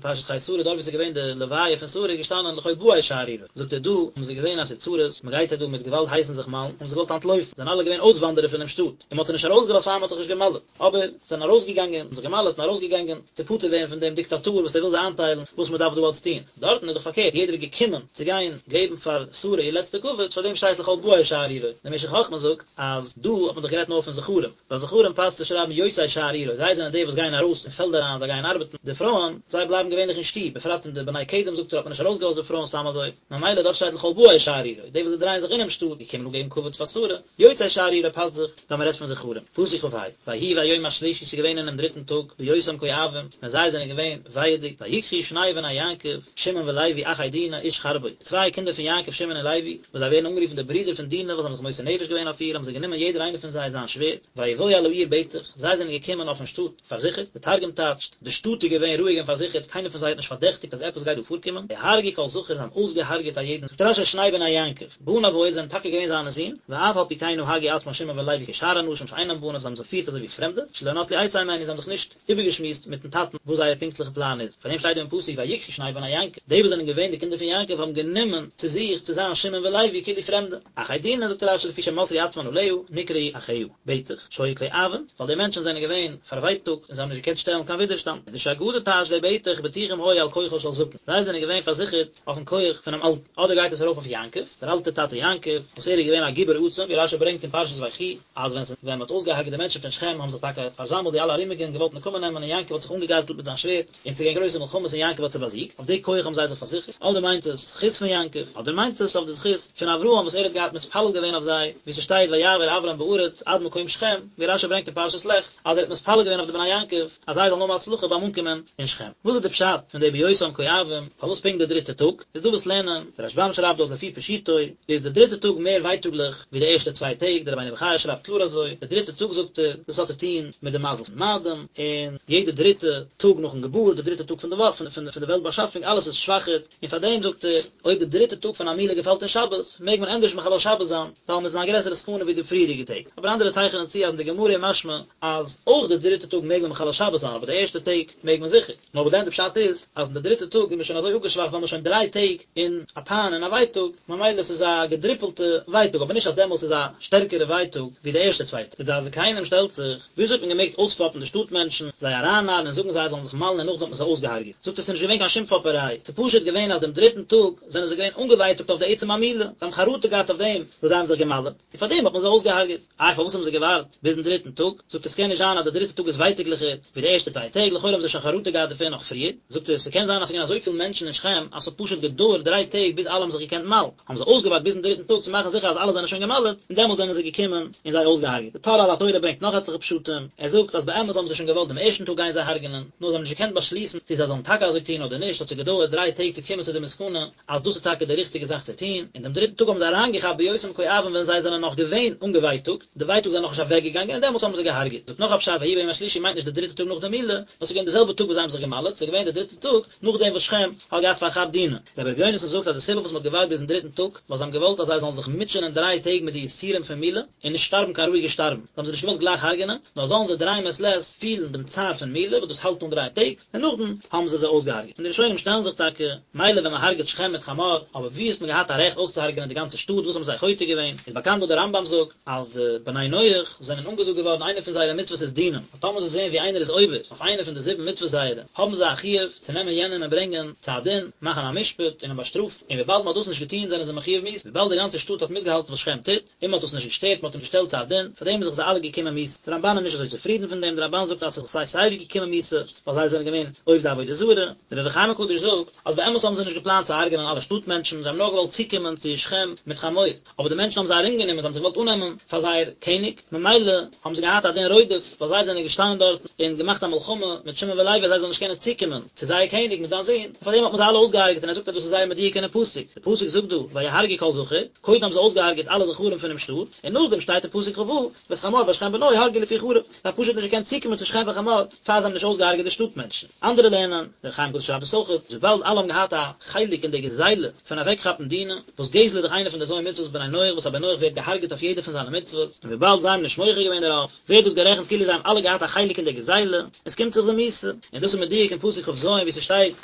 פרשת חיי שרה דארט ווי עס איז געווען די לוויה פון שרה איז געשטאנען לכל באי שער עירו, זאגט ער דא האבן זיי געזען אז ס'איז צרות, מ'גייט זיי דא מיט געוואלד הייסן זיך מל'ן, האבן זיי געוואלט אנטלויפן, זענען אלע געווען אויסוואנדערער פונעם שטאט, און מ'האט זיי נישט ארויסגעלאזט פאר מ'האט זיך נישט געמל'ט, אבער זענען ארויסגעגאנגען, זיך געמל'ט און ארויסגעגאנגען, צו פטור ווערן פון דעם דיקטאטור וואס ער וויל זיי איינטיילן וואס מ'דארף דא אלץ טון. דארטן איז דאך פארקערט, יעדער איז געקומען צו גיין געבן פאר שרה איר לעצטע כבוד, פאר דעם שטייט לכל באי שער עירו. דער משך חכמה זאגט אז דא האט מען דאך גערעדט נאר פון זכרים, ביי זכרים פאסט צו שרייבן יוצאי שער עירו, זיי זענען די וואס גייען ארויס אין פעלד אריין, זיי גייען ארבעטן, די פרויען, זיי בלייבן געווענליך אין שטוב, בפרט אין די בני קדם זאגט ער האט מען נישט ארויסגעלאזט די פרויען סתם אזוי, ממילא דארט שטייט לכל באי שער עירו, די וואס זיי דרייען זיך אינעם שטאט, געקומען אפגעבן כבוד פאר שרה. יוצאי שער עירו פאסט זיך ווען מען רעדט פון זכרים. פסוק כה, ויהי ביום השלישי ס'איז געווען אינעם דריטן טאג, בהיותם כואבים, ווען זיי זענען געווען ווייעדיג, ויקחו שני בני יעקב, שמעון ולוי אחי דינה, איש חרבו, די צוויי קינדער פון יעקב שמעון און לוי, וואס זיי ווערן אנגערופן די ברידער פון דינה וואס האבן זיך מוסר נפש געווען אויף איר, האבן זיי גענומען יעדער איינער פון זיי זיין שווערד, ויבואו אל העיר בטח, זיי זענען געקומען אויפן שטאט פארזיכערט, די תרגום טייטשט, די שטאט איז געווען רואיג און פארזיכערט, קיינער פון זיי האט נישט פארדעכטיגט אז עפעס גייט דא פארקומען, ויהרגו כל זכר, זיי האבן אויסגעהארגעט א יעדן, זאגט רשי שני בני יעקב. בניו היו זענען טאקע געווען זיינע זין, ואף על פי כן נהגו עצמן שמעון ולוי כשאר אנשים שאינם בניו זיי האבן זיך געפירט אזוי ווי פרעמדע, שלא נטלו עצה הימנו זיי האבן זיך נישט איבערגעשמועסט מיטן טאטן וואס זייער פונקטליכע פלאן איז, פאר דעם שטייט דא אין פסוק ויקחו שני בני יעקב, די וואס זענען געווען די קינדער פון יעקב האבן גענומען צו זיך צו זיין שמעון ולוי כאילו פרעמדע. אחי דינה זאגט רשי לפי שמסרו עצמן עליה, נקראו אחיה, בטח, שהיו כואבים, ווייל די מענטשן זענען געווען פארווייטאגט און זיי האבן נישט געקענט שטעלן קיין ווידערשטאנד. מדרש אגדה טייטשט די בטח בטוחים היו על כוחו של זקן, זיי זענען געווען פארזיכערט אויפן כח פונעם אלטן, אדער גייט עס ארויף אויף יעקב, דער אלטער טאטע יעקב, וואס ער איז געווען א גיבור עצום, ווי רשי ברענגט אין פרשת ויחי, אז ווען ווען מ'האט אויסגעהארגעט די מענטשן פון שכם האבן זיך טאקע פארזאמלט די אלע ארומיגע און געוואלט נקמה נעמען און יעקב האט זיך אנגעגארטלט מיט זיין שווערד, און ס'איז געווען גרויסע מלחמות און יעקב האט זיי באזיגט, אויף די כח האבן זיי זיך פארזיכערט, אדער מיינט עס זכות פון יעקב, אדער מיינט עס אויף די זכות פון אברהם וואס ער האט געהאט מתפלל געווען אויף זיי, ווי ס'שטייט ויעבר אברם בארץ עד מקום שכם, ווי רשי ברענגט אין פרשת לך, אז ער האט מתפלל געווען אויף די בני יעקב אז זיי זאלן האבן הצלחה ביים אנקומען אין שכם. וואס איז די פשט פון די בהיותם כואבים, פארוואס פונקט די דריטע טאג? איז דא וואס לערנען, דער רשבם שרייבט דאס לפי פשוטו, איז די דריטע טאג מער ווייטאגליך ווי די ערשטע צוויי טעג, דער רבינו בחיי שרייבט קלאר אזוי, די דריטע טאג זאגט ער, דאס האט צו טון מיט די מזל פון מאדים, און יעדע דריטע טאג נאכן געבורט, די דריטע טאג פון די וואך, פון די וועלט באשאפונג, אלעס איז שוואכער, און פאר דעם זאגט ער, אויב די דריטע טאג פון א מילה געפאלט אין שבת, מעג מען ענדערש מחלל שבת זיין, ווייל מען איז אין א גרעסערע סכנה ווי די פריערדיגע טעג. אבער אנדערע צייכענען צו אז אין די גמרא איז משמע אז אויך די דריטע טאג מעג מען מחלל שבת זיין, אבער די ערשטע טעג מעג מען זיכער. נאר וואס דען די פשט איז, אז אין די דריטע טאג איז מען שוין אזוי אפגעשוואכט ווייל מען איז שוין דריי טעג אין א פיין און א ווייטאג, ממילא עס איז א געדריפלטע ווייטאג, אבער נישט אז דעמאלטס איז א שטערקערע ווייטאג ווי די ערשטע צוויי טעג. די דעת זקנים שטעלט זיך, וויאזוי האט מען געמעגט אויספאפן די שטאט מענטשן, זיי ארייננארן און זאגן זיי זאלן זיך מל'ן און נאכדעם האט מען זיי אויסגעהארגעט? זאגט ער ס'איז נישט געווען קיין שום פאפעריי, ס'איז פשוט געווען אז דעם דריטן טאג זענען זיי געווען אנגעווייטאגט אויף די עצם המילה, זיי האבן חרטה געהאט אויף דעם וואס זיי האבן זיך געמל'ט, און פארדעם האט מען זיי אויסגעהארגעט. איי פארוואס האבן זיי געווארט ביזן דריטן טאג? זאגט ער ס'קען נישט זיין אז די דריטע טאג איז ווייטאגליכער ווי די ערשטע צוויי טעג, לכאורה האבן זיי שוין חרטה געהאט דערפון נאך פריער, זאגט ער ס'קען זיין אז ס'געווען אזויפיל מענטשן אין שכם אז ס'האט פשוט געדויערט דריי טעג ביז אלע האבן זיך געקענט מל'ן, האבן זיי אויסגעווארט ביזן דריטן טאג צו מאכן זיכער אז אלע זענען שוין געמל'ט, און דעמאלט זענען זיי געקומען און זיי אויסגעהארגעט. די טור על התורה ברענגט נאך עטליכע פשטים, ער זאגט אז באמת האבן זיי שוין געוואלט דעם ערשטן טאג גיין זיי הרג'נען, נאר זיי האבן נישט געקענט באשליסן צו זיי זאלן טאקע אזוי טון אדער נישט, האט זיי געדויערט דריי טעג צו קומען צו די מסקנא אז דאס איז טאקע. טאקע די ריכטיגע זאך צו טון, און דעם דריטן טאג האבן זיי אריינגעכאפט בהיותם כואבים ווען זיי זענען נאך געווען אנגעווייטאגט, די ווייטאג זענען נאך נישט אוועקגעגאנגען און דעמאלטס האבן זיי געהארגעט. זאגט נאך א פשט ויהי ביום השלישי מיינט נישט די דריטע טאג נאך די מילה, נאר ס'איז געווען די זעלבע טאג וואס זיי האבן זיך געמל'עט, ס'איז געווען די דריטע טאג נאכדעם וואס שכם האט געהאט פארכאפט דינה. רבי ר' יונתן זאגט אז די סיבה וואס מ'האט געווארט ביזן דריטן טאג, ווייל זיי האבן געוואלט אז זיי זאלן זיך מוטשענען דריי טעג מיט די יסורים פון מילה, און נישט שטארבן קיין רואיגע שטארבן, זיי האבן זיי נישט געוואלט גלייך הרג'נען, נאר זאלן זיי דריי מעת לעת פילן דעם צער פון מילה וואס דאס האלט אן דריי טעג, און נאכדעם האבן זיי זיי אויסגעהארגעט. און די ראשונים שטעלן זיך טאקע, מילא ווען מען הרג'עט שכם מיט חמור, אבער ווי האט מען געהאט א רעכט אויסצוהרג'ענען די גאנצע שטאט, וואס האבן זיי חוטא געווען? איז באקאנט וואס דער רמב"ם זאגט, אז די בני נח זענען אנגעזאגט געווארן איינע פון זייערע מצוות איז דינים, אז טאמער זיי זעען ווי איינער איז עובר אויף איינע פון די זיבן מצוות זייערע, האבן זיי א חיוב צו נעמען יענעם און ברענגען צו א דין, מאכן א משפט און אים באשטראפן, און וויבאלד מען האט דאס נישט געטון זענען זיי מחויב מיתה, וויבאלד די גאנצע שטאט האט מיטגעהאלטן וואס שכם טוט, און מען האט עס נישט געשטערט, מען האט אים געשטעלט צו א דין, פאר דעם איז זיך זיי אלע געקומען מיתה. דער רמב"ן איז נישט אזוי צופרידן פון דעם, דער רמב"ן זאגט אז ס'איז זיך סיי סיי ווי געקומען מיתה, ווייל זיי זענען געווען עובדי עבודה זרה. דער אור החיים הקדוש זאגט, אז באמת האבן זיי נישט געפלאנט צו הרג'נען אלע שטאט מענטשן, זיי האבן נאר געוואלט צוקומען צו שכם מיט חמור, אבער די מענטשן האבן זיי ארומגענומען, זיי האבן זיך געוואלט אננעמען פאר זייער קעניג, ממילא האבן זיי געהאט א דין רודף, ווייל זיי זענען געשטאנען דארט און געמאכט א מלחמה מיט שמעון ולוי אז זיי זאלן נישט קענען צוקומען צו זייער קעניג מיט זיין זון, און פאר דעם האט מען זיי אלע אויסגעהרג'עט, און ער זאגט אז דאס איז זייער מדויק אינעם פסוק, די פסוק זאגט דא ויהרגו כל זכר, קודם האבן זיי אויסגעהרג'עט אלע זכרים פונעם שטאט, און נאכדעם שטייט אין פסוק כ"ו, ואת חמור ואת שכם בנו הרגו לפי חרב, זיי האבן פשוט נישט געקענט צוקומען צו שכם וחמור פאר זיי האבן נישט אויסגעהרג'עט די שטאט מענטשן. אנדערע לערנען, דער אור החיים הקדוש שרייבט עס אויך, אז וויבאלד אלע האבן געהאט א חלק אין די גזילה פון אוועקכאפן דינה, וואס גזל איז דאך איינע פון די ז' מצוות בני נח וואס א בן נח ווערט געהארגעט אויף יעדע פון זיינע מצוות, און וויבאלד זיי האבן נישט מוחה געווען דערויף, ווערט דאס גערעכנט כאילו זיי האבן אלע געהאט א חלק אין די גזילה, און ס'קומט זיך זיי מיתה. און דאס איז מדויק אין פסוק כ"ז וואו ס'שטייט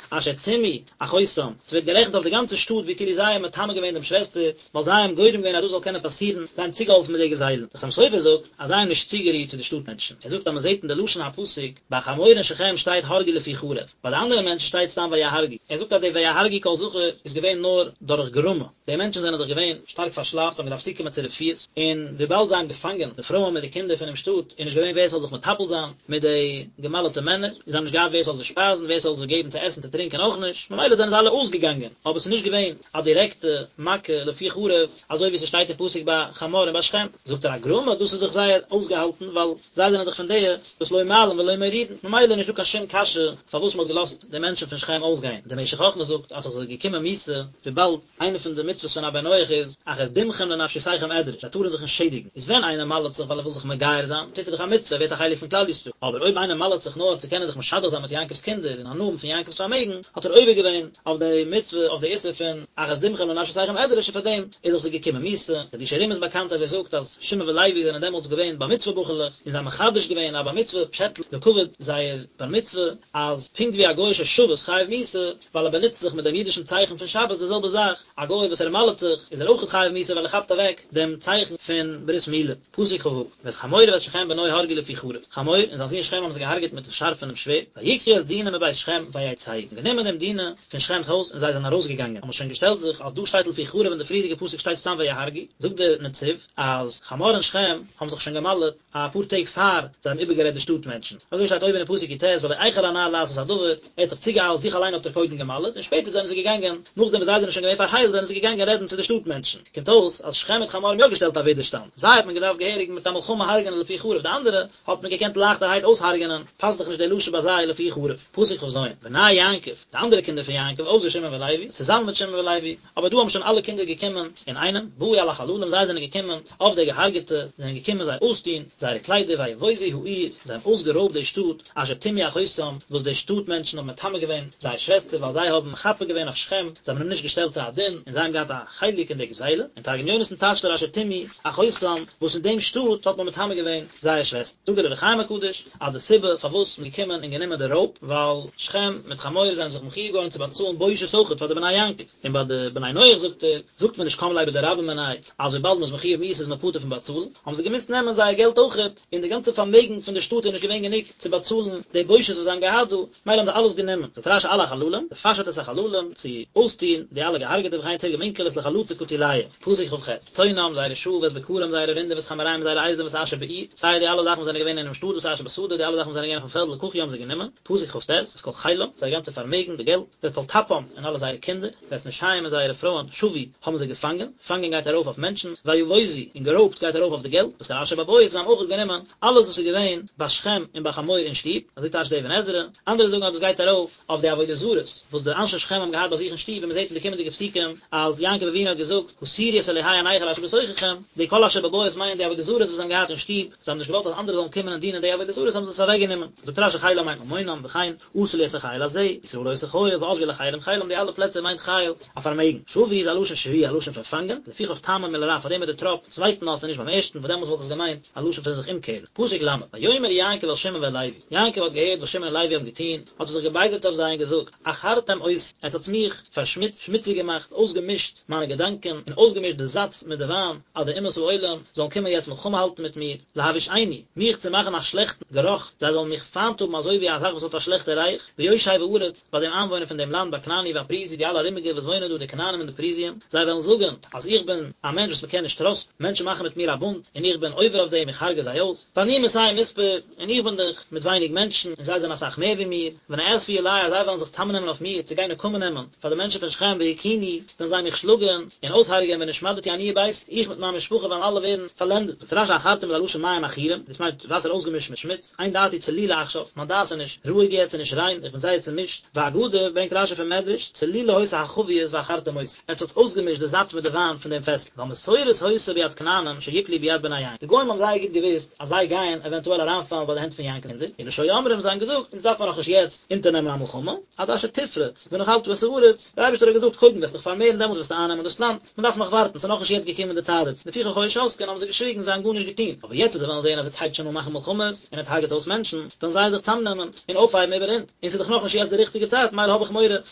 אשר טמאו אחותם, ס'ווערט גערעכנט אויף די גאנצע שטאט ווי כאילו זיי האבן מטמא געווען דעם שוועסטער, ווייל זיי האבן גורם געווען אז דאס זאל קענען פאסירן, זיי האבן צוגעהאלפן מיט די גזילה. דער חתם סופר זאגט אז זיי האבן נישט צוגערירט צו די שטאט מענטשן. ער זאגט אז מען זעט אין די לשון הפסוק, ביי חמור און שכם שטייט הרגו לפי חרב, ביי די אנדערע מענטשן שטייט סתם ויהרגו. ער זאגט אז די ויהרגו כל זכר איז געווען נאר דורך גרמא. די מענטשן זענען דאך געווען שטארק פארשלאפט, זיי האבן געדארפט צוקומען צו רפואות, און וויבאלד זיי האבן געפאנגען די פרויען מיט די קינדער פונעם שטאט, איז נישט געווען ווער ס'זאל זיך מטפל זיין מיט די געמל'טע מענער, און זיי האבן נישט געהאט ווער ס'זאל זיי שפייזן, ווער ס'זאל זיי געבן צו עסן צו טרינקען אויך נישט, ממילא זענען זיי אלע אויסגעגאנגען, אבער ס'איז נישט געווען א דירעקטע מכה לפי חרב, אזוי ווי ס'שטייט אין פסוק ביי חמור און ביי שכם. זאגט ער א גרמא, דאס איז דאך זייער אויסגעהאלטן, ווייל זיי זענען דאך פון די וואס לא מעלין ולא מורידין, ממילא איז נישטא קיין שום קשיא פארוואס מ'האט געלאזט די מענטשן פון שכם אויסגיין. דער משך חכמה זאגט אז ס'איז געקומען מיתה וויבאלד איינע פון די מצוות פון א בן נח איז אך את דמכם לנפשותיכם אדרש, זיי טארן זיך נישט שעדיגן, איז ווען איינער מל'ט זיך ווייל ער וויל זיך מגייר זיין, טוט ער דאך א מצוה, ער ווערט א חלק פון כלל ישראל, אבער אויב איינער מל'ט זיך נאר צו קענען זיך משדך זיין מיט יעקב'ס קינדער און הנאה האבן פון יעקב'ס פארמעגן, האט ער עובר געווען אויף די מצוה, אויף די איסור פון אך את דמכם לנפשותיכם אדרש און פאר דעם איז דאך זיי געקומען מיתה. חידושי הרי"ם איז באקאנט אז ער זאגט אז שמעון ולוי זענען דעמאלטס געווען בר מצוה בחור'לעך און זיי האבן מחדש געווען א בר מצוה פשעטל לכבוד זייער בר מצוה, אז פונקט ווי א גוי ששבת חייב מיתה, ווייל ער באנוצט זיך מיט דעם אידישן צייכן פון שבת, די זעלבע זאך, א גוי וואס ער מל'ט זיך, איז ער אויך חייב מיתה ווייל ער כאפט אוועק דעם צייכן פון ברית מילה. פסוק כ"ו, ואת חמור ואת שכם בנו הרגו לפי חרב, חמור און זיין זון שכם האבן זיי געהארגעט מיטן שארף פונעם שווערד, ויקחו את דינה מבית שכם ויצאו, און גענומען דעם דינה פון שכם'ס הויז און זיי זענען ארויסגעגאנגען, האבן שוין געשטעלט זיך אז דא שטייט לפי חרב אין די פריערדיגע פסוק שטייט סתם ויהרגו, זאגט דער נצי"ב אז חמור און שכם האבן זיך שוין געמל'ט, אפאר טעג פאר זיי האבן איבערגערעדט די שטאט מענטשן. אזוי שטייט אויבן אין פסוק י"ט ולא איחר הנער לעשות הדבר, ער האט זיך צוגעאיילט, זיך אליין האט ער קודם געמל'עט, און שפעטער זענען זיי געגאנגען, נאכדעם וואס זיי זענען שוין געווען פארהיילט זענען זיי געגאנגען רעדן צו די שטאט מענטשן. קומט אויס אז שכם מיט חמור האבן יא געשטעלט א ווידערשטאנד. זיי האט מען געדארפט געהעריג מיט א מלחמה הרג'נען לפי חרב, די אנדערע האט מען געקענט לייכטערהייט אויסהרג'נען, פאסט זיך נישט די לשון ביי זיי לפי חרב. פסוק כ"ז, בני יעקב, די אנדערע קינדער פון יעקב, אויסער שמעון ולוי, צוזאמען מיט שמעון ולוי, אבער דא האבן שוין אלע קינדער געקומען אינאיינעם, באו על החללים, זיי זענען געקומען אויף די געהארגעטע, זענען געקומען זיי אויסטון זייערע קליידער, ויבוזו העיר, זיי האבן אויסגערויבט די שטאט, אשר טמאו אחותם, וואס די שטאט מענטשן האבן מטמא געווען זייער שוועסטער, ווייל זיי האבן מחפה געווען אויף שכם, זיי האבן אים נישט געשטעלט צו א דין, און זיי האבן געהאט א חלק אין די גזילה, און תרגום יונתן טייטשט ער אשר טמאו אחותם, וואס אין דעם שטאט האט מען מטמא געווען זייער שוועסטער. זאגט דער אור החיים הקדוש, אז די סיבה פארוואס מ'איז געקומען און גענומען די רויב, ווייל שכם מיט חמור זענען זיך מחויב געווארן צו באצאלן בושת אויכעט פאר די בני יעקב, און ביי די בני נח זאגט ער, זאגט מען נישט קם ליה בדרבה מיניה, אז וויבאלד מ'איז מחויב מיתה איז מען פטור פון באצאלן, האבן זיי געמוזט נעמען זייער געלט אויכעט, און די גאנצע פארמעגן פון די שטאט איז נישט געווען גענוג צו באצאלן די בושת וואס זיי האבן געהאט דא, מילא האבן זיי אלעס גענומען. זאגט רש"י על החללים, לפשט את החללים, צו אויסטון די אלע געהארגעטע וכן תרגם אונקלוס לחלצא קטילייהו. פסוק כ"ח, צאנם, זייערע שאף, ואת בקרם, זייערע רינדער, ואת חמוריהם, זייערע אייזלען, ואת אשר בעיר, סיי די אלע זאכן וואס זענען געווען אינעם שטאט, ואת אשר בשדה, די אלע זאכן וואס זענען געווען אויפן פעלד, לקחו האבן זיי גענומען, פסוק כ"ט, את כל חילם, זייער גאנצע פארמעגן, די געלט, ואת כל טפם, און אלע זייערע קינדער, ואת נשיהם און זייערע פרויען, שבו, האבן זיי געפאנגען, פאנגען גייט ארויף אויף מענטשן, ויבוזו, און גערויבט גייט ארויף אויף די געלט, ואת כל אשר בבית, זיי האבן אויך גענומען אלעס וואס איז געווען ביי שכם און ביי חמור אין שטוב, אזוי טייטשט דער אבן עזרא, אנדערע זאגן אז דאס גייט ארויף אויף די עבודה זרות וואס די אנשי שכם האבן געהאט ביי זיך אין שטוב, ווי מען זעט אין די קומענדיגע. קומענדיגע פסוקים אז יעקב אבינו האט געזאגט הסירו את אלהי הנכר אשר בתוככם, די כל אשר בבית מיינט די עבודה זרות וואס זיי האבן געהאט אין שטוב, זיי האבן נישט געוואלט אז אנדערע זאלן קומען און דינען די עבודה זרות האבן זיי עס אוועק גענומען. זאגט רשי חילם מיינט ממונם, וכן עשו לי את החיל הזה, ישראל עושה חיל, ועזבו אל אחרים חילם די אלע פלעצער מיינט חיל א פארמעגן. שבו איז א לשון שביה א לשון פון פאנגען, לפיכך טעמו מלרע פארדעם איז די טראפ צווייטן אות און נישט ביים ערשטן וואס דעמאלס וואלט עס געמיינט א לשון פון זיך אומקערן. פסוק ל', ויאמר יעקב אל שמעון ואל לוי, יעקב האט געהערט וואס שמעון און לוי האבן געטון, האט ער זיך געבייזערט אויף זיי און געזאגט, עכרתם אותי, עטס האטס מיך פארשמוצט, שמוציג געמאכט, אויסגעמישט מיינע געדאנקען, און אויסגעמישט די זאץ מיט די וויין, אז די אומות העולם זאלן קומען יעצט מלחמה האלטן מיט מיר, להבאישני, מיך צו מאכן א שלעכטן גערוך, זיי זאלן מיך פיינט האבן אזוי ווי א זאך וואס האט א שלעכטע ריח, ביושב הארץ, ביי דעם איינוואוינער פון דעם לאנד, בכנעני והפריזי, די אלע ארומיגע וואס וואוינען דא, די כנענים און די פריזיים, זיי וועלן זאגן, אז איך בין א מענטש וואס מען קען נישט טראסטן, מענטשן מאכן מיט מיר א בונד, און איך בין עובר אויף דעם, איך הרגע זיי אויס, ואני מתי מספר, און איך בין דאך מיט ווייניג מענטשן, און זיי זענען אסאך מער ווי מיר, ונאספו עלי אז זיי וועלן זיך צאמנעמען אויף מיר, צו גיין נקמה נעמען פאר די מענטשן פון שכם והכוני, וועלן זיי מיך שלאגן, און אויסהרגען ונשמדתי אני וביתי, איך מיט מיין משפחה וועלן אלע ווערן פארלענדעט. זאגט רשי עכרתם איז א לשון מים עכורים, דאס מיינט וואסער אויסגעמישט מיט שמוץ, אין דעתי צלולה עכשיו, מיין דעת איז נישט רואיג יעצט און נישט ריין, איך בין זייער צומישט, ואגדה, ברענגט רשי פון מדרש, צלולה היתה החבית ועכרתם אותה, עטס האטס אויסגעמישט די זאץ מיט די וויין פון דעם פעסל, ווייל מסורת היתה ביד כנענים שיפלו ביד בני יעקב, די גוים האבן זייער גוט געוואוסט אז זיי גייען עווענטועל אריינפאלן ביי די הענט פון יעקב'ס קינדער, אלא שהיו אומרים, זיי האבן געזאגט, אונז דארף מען נאכנישט יעצט אונטערנעמען א מלחמה, עד אשר תפרה, ונחלת את הארץ, דער אייבערשטער האט געזאגט קודם וועסט דיך פארמערן דעמאלטס וועסטו אייננעמען דאס לאנד, מען דארף נאך ווארטן, ס'איז נאכנישט יעצט געקומען די צייט דערצו, לפיכך היו שותקין האבן זיי געשוויגן, זיי האבן גארנישט געטון, אבער יעצט אז זיי וועלן זען אז עטס הייבט שוין אן מאכן מלחמות, און עטס הרג'עטס אויס מענטשן, וועלן זיי זיך צאמנעמען, און אויפהייבן איבער אונז, און ס'איז דאך נאכנישט יעצט די ריכטיגע צייט, מילא האב איך מורא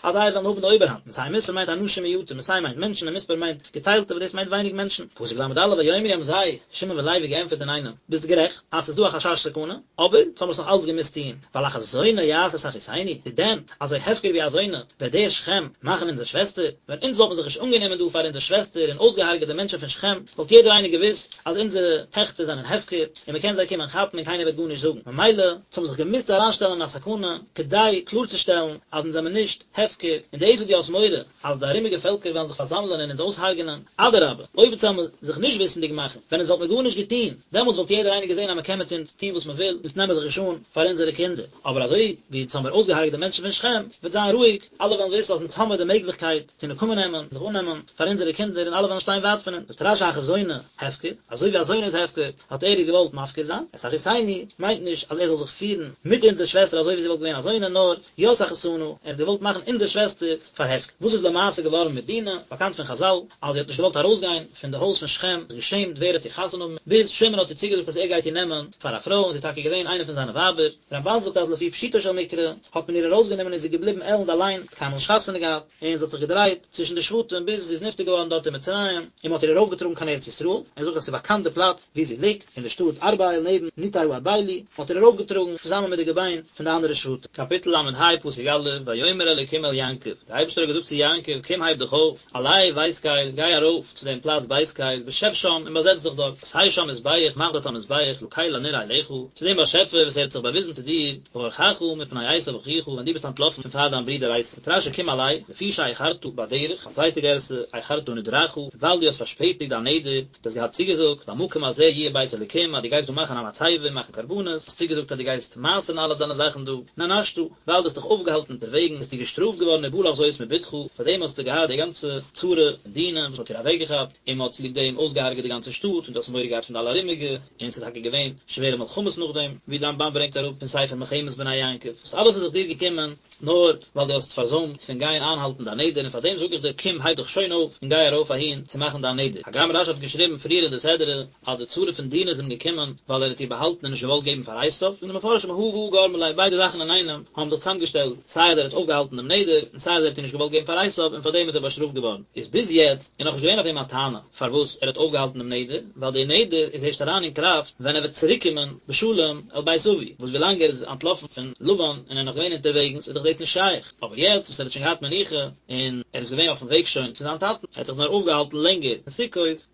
אז זיי וועלן האבן די אויבערהאנט, מתי מספר מיינט אנשים מועטים, מתי מיינט מענטשן און מספר מיינט געציילטע וואס דאס מיינט ווייניג מענטשן. פסוק ל"א ויאמרו האבן זיי, שמעון ולוי געענטפערט אינאיינעם, ביסט גערעכט אז ס'איז דא א חשש סכנה, אבער אונז האבן עס נאך אלץ געמוזט טון, ווייל הכזונה יעשה את אחותנו, צו דען אזוי הפקר ווי א זונה וועט דער שכם מאכן אונזער שוועסטער? ווען אונז וואלטן זיך נישט אנגענומען דא פאר אונזער שוועסטער און אויסגעהארגעט די מענטשן פון שכם, וואלט יעדער איינער געוואוסט אז אונזערע טעכטער זענען הפקר און מען קען זיי קומען כאפן און קיינער וועט גארנישט זאגן. ממילא, אונז האבן זיך געמוזט אריינשטעלן אין א סכנה כדי קלארצושטעלן אז אונז זעמיר נישט הפקר, און דאס וואס דו האסט מורא אז די ארומיגע פעלקער וועלן זיך פארזאמלען און אונז אויסהרג'נען, אדרבה, אויב אונז וועלן זיך נישט וויסנדיג מאכן, ווען אונז וואלט מיר גארנישט געטון, דעמאלטס וואלט יעדער איינער געזען אז מען קען מיט אונז טון וואס מען וויל, אונז נעמען זיך נישט אן פאר אונזערע קינדער. אבער אזוי ווי אונז האמיר אויסגעהרג'ט די מענטשן פון שכם, וועט זיין רואיג, אלע וועלן וויסן אז אונז האמיר די מעגליכקייט צו נקמה נעמען, זיך אננעמען פאר אונזערע קינדער און אלע וועלן שטיין ווייט פון אונז. זאגט רש"י הכזונה הפקר, אזוי ווי א זונה איז הפקר, האט ער איר געוואלט מפקיר זיין, את אחותנו מיינט נישט אז ער זאל זיך פירן מיט אונזער שוועסטער אזוי ווי זי וואלט געווען א זונה, נאר ית אחותנו, ער האט געוואלט מאכן אונזער שוועסטער פאר הפקר. וואס איז למעשה געווארן מיט דינה? באקאנט פון חז"ל אז זי האט נישט געוואלט ארויסגיין פון די הויז פון שכם, זיך געשעמט ווער וועט איר חתונה האבן, ביז שמעון האט איר צוגעזאגט אז ער גייט איר נעמען פאר א פרוי און זי איז טאקע געווען איינע פון זיינע ווייבער. רמב"ן זאגט אז לפי פשוטו של מקרא האט מען איר ארויסגענומען און זי איז געבליבן עלנד אליין, האט קיינמאל נישט חתונה געהאט, און זי האט זיך געדרייט צווישן די שבטים ביז זי איז נפטר געווארן דארט אין מצרים, און מען האט איר ארויפגעטראגן קיין ארץ ישראל, ער זאגט אז ס'איז באקאנט די פלאץ וואו זי ליגט, אין די שטאט ארבעל נעבן ניתאי הארבלי, מען האט איר ארויפגעטראגן צוזאמען מיט די געביין פון די אנדערע שבטים. קאפיטל ל"ה פסוק א', ויאמר אלקים אל יעקב, דער אייבערשטער האט געזאגט צו יעקב, קום הייב דיך אויף, עלה בית קל, גיי ארויף צו דעם פלאץ בית קל, ושב שם, און באזעץ דיך דארט, עשה שם מזבח, מאך דארט א מזבח, לקל הנראה אליך, צו דעם באשעפער וואס ער האט זיך באוויזן צו דיר, בברחך מפני עשו אחיך, ווען דו ביסט אנטלאפן פון פאר דיין ברודער עשו. זאגט רש"י קום עלה, לפי שאיחרת בדרך, א צווייטע גירסא, איחרת נדרך, וויבאלד דו האסט פארשפעטיגט דיין נדר, דו האסט געהאט צוגעזאגט, במקום הזה יהיה בית אלוקים, אז דו גייסט דא מאכן א מצבה און מאכן קרבנות, האסט צוגעזאגט אז דו גייסט מעשר'ן אלע דיינע זאכן דא, נענשת, ווייל דו האסט דיך אויפגעהאלטן אונטערוועגן, ביסטו געשטראפט געווארן ובא לך זאת מבתך, פאר דעם האסטו געהאט די גאנצע צרה פון דינה וואס מ'האט איר אוועקגעכאפט, און מ'האט צוליב דעם אויסגעהארגעט די גאנצע שטאט, און דו האסט מורא געהאט פון די אלע ארומיגע, און ס'איז טאקע געווען שווערע מלחמות נאכדעם, ווי די רמב"ן ברענגט אראפ אין ספר מלחמת בני יעקב, וואס אלעס איז זיך דיר געקומען נאר ווייל דו האסט פארזוימט פון גיין איינהאלטן דיין נדר, און פאר דעם זאג איך דיר קום הייב דיך שוין אויף און גיי ארויף אהין צו מאכן דיין נדר. הגם רש"י האט געשריבן פריער אין די סדרה אז די צרה פון דינה איז אים געקומען ווייל ער האט איר באהאלטן און נישט געוואלט געבן פאר עשיו, זאגן די מפרשים הא והא גרמא ליה ביידע זאכן אינאיינעם האבן זיך צוזאמגעשטעלט, סיי אז ער האט אויפגעהאלטן דעם נדר, און סיי אז ער האט איר נישט געוואלט געבן פאר עשיו, און פאר דעם איז ער באשטראפט געווארן. איז ביז יעצט איז נאכנישט געווען אויף אים א טענה פארוואס ער האט אויפגעהאלטן דעם נדר, ווייל דער נדר איז ערשט אריין אין קראפט ווען ער וועט צוריקקומען בשלום אל בית אבי, וואס ווילאנג ער איז אנטלאפן פון לבן און ער איז נאך געווען אונטערוועגנס איז דאך דאס נישט שייך, אבער יעצט וואס ער האט שוין געהאט מנוחה און ער איז געווען אויפן וועג שוין צו זיין טאטן, ער האט זיך נאר אויפגעהאלטן לענגער אין סוכות.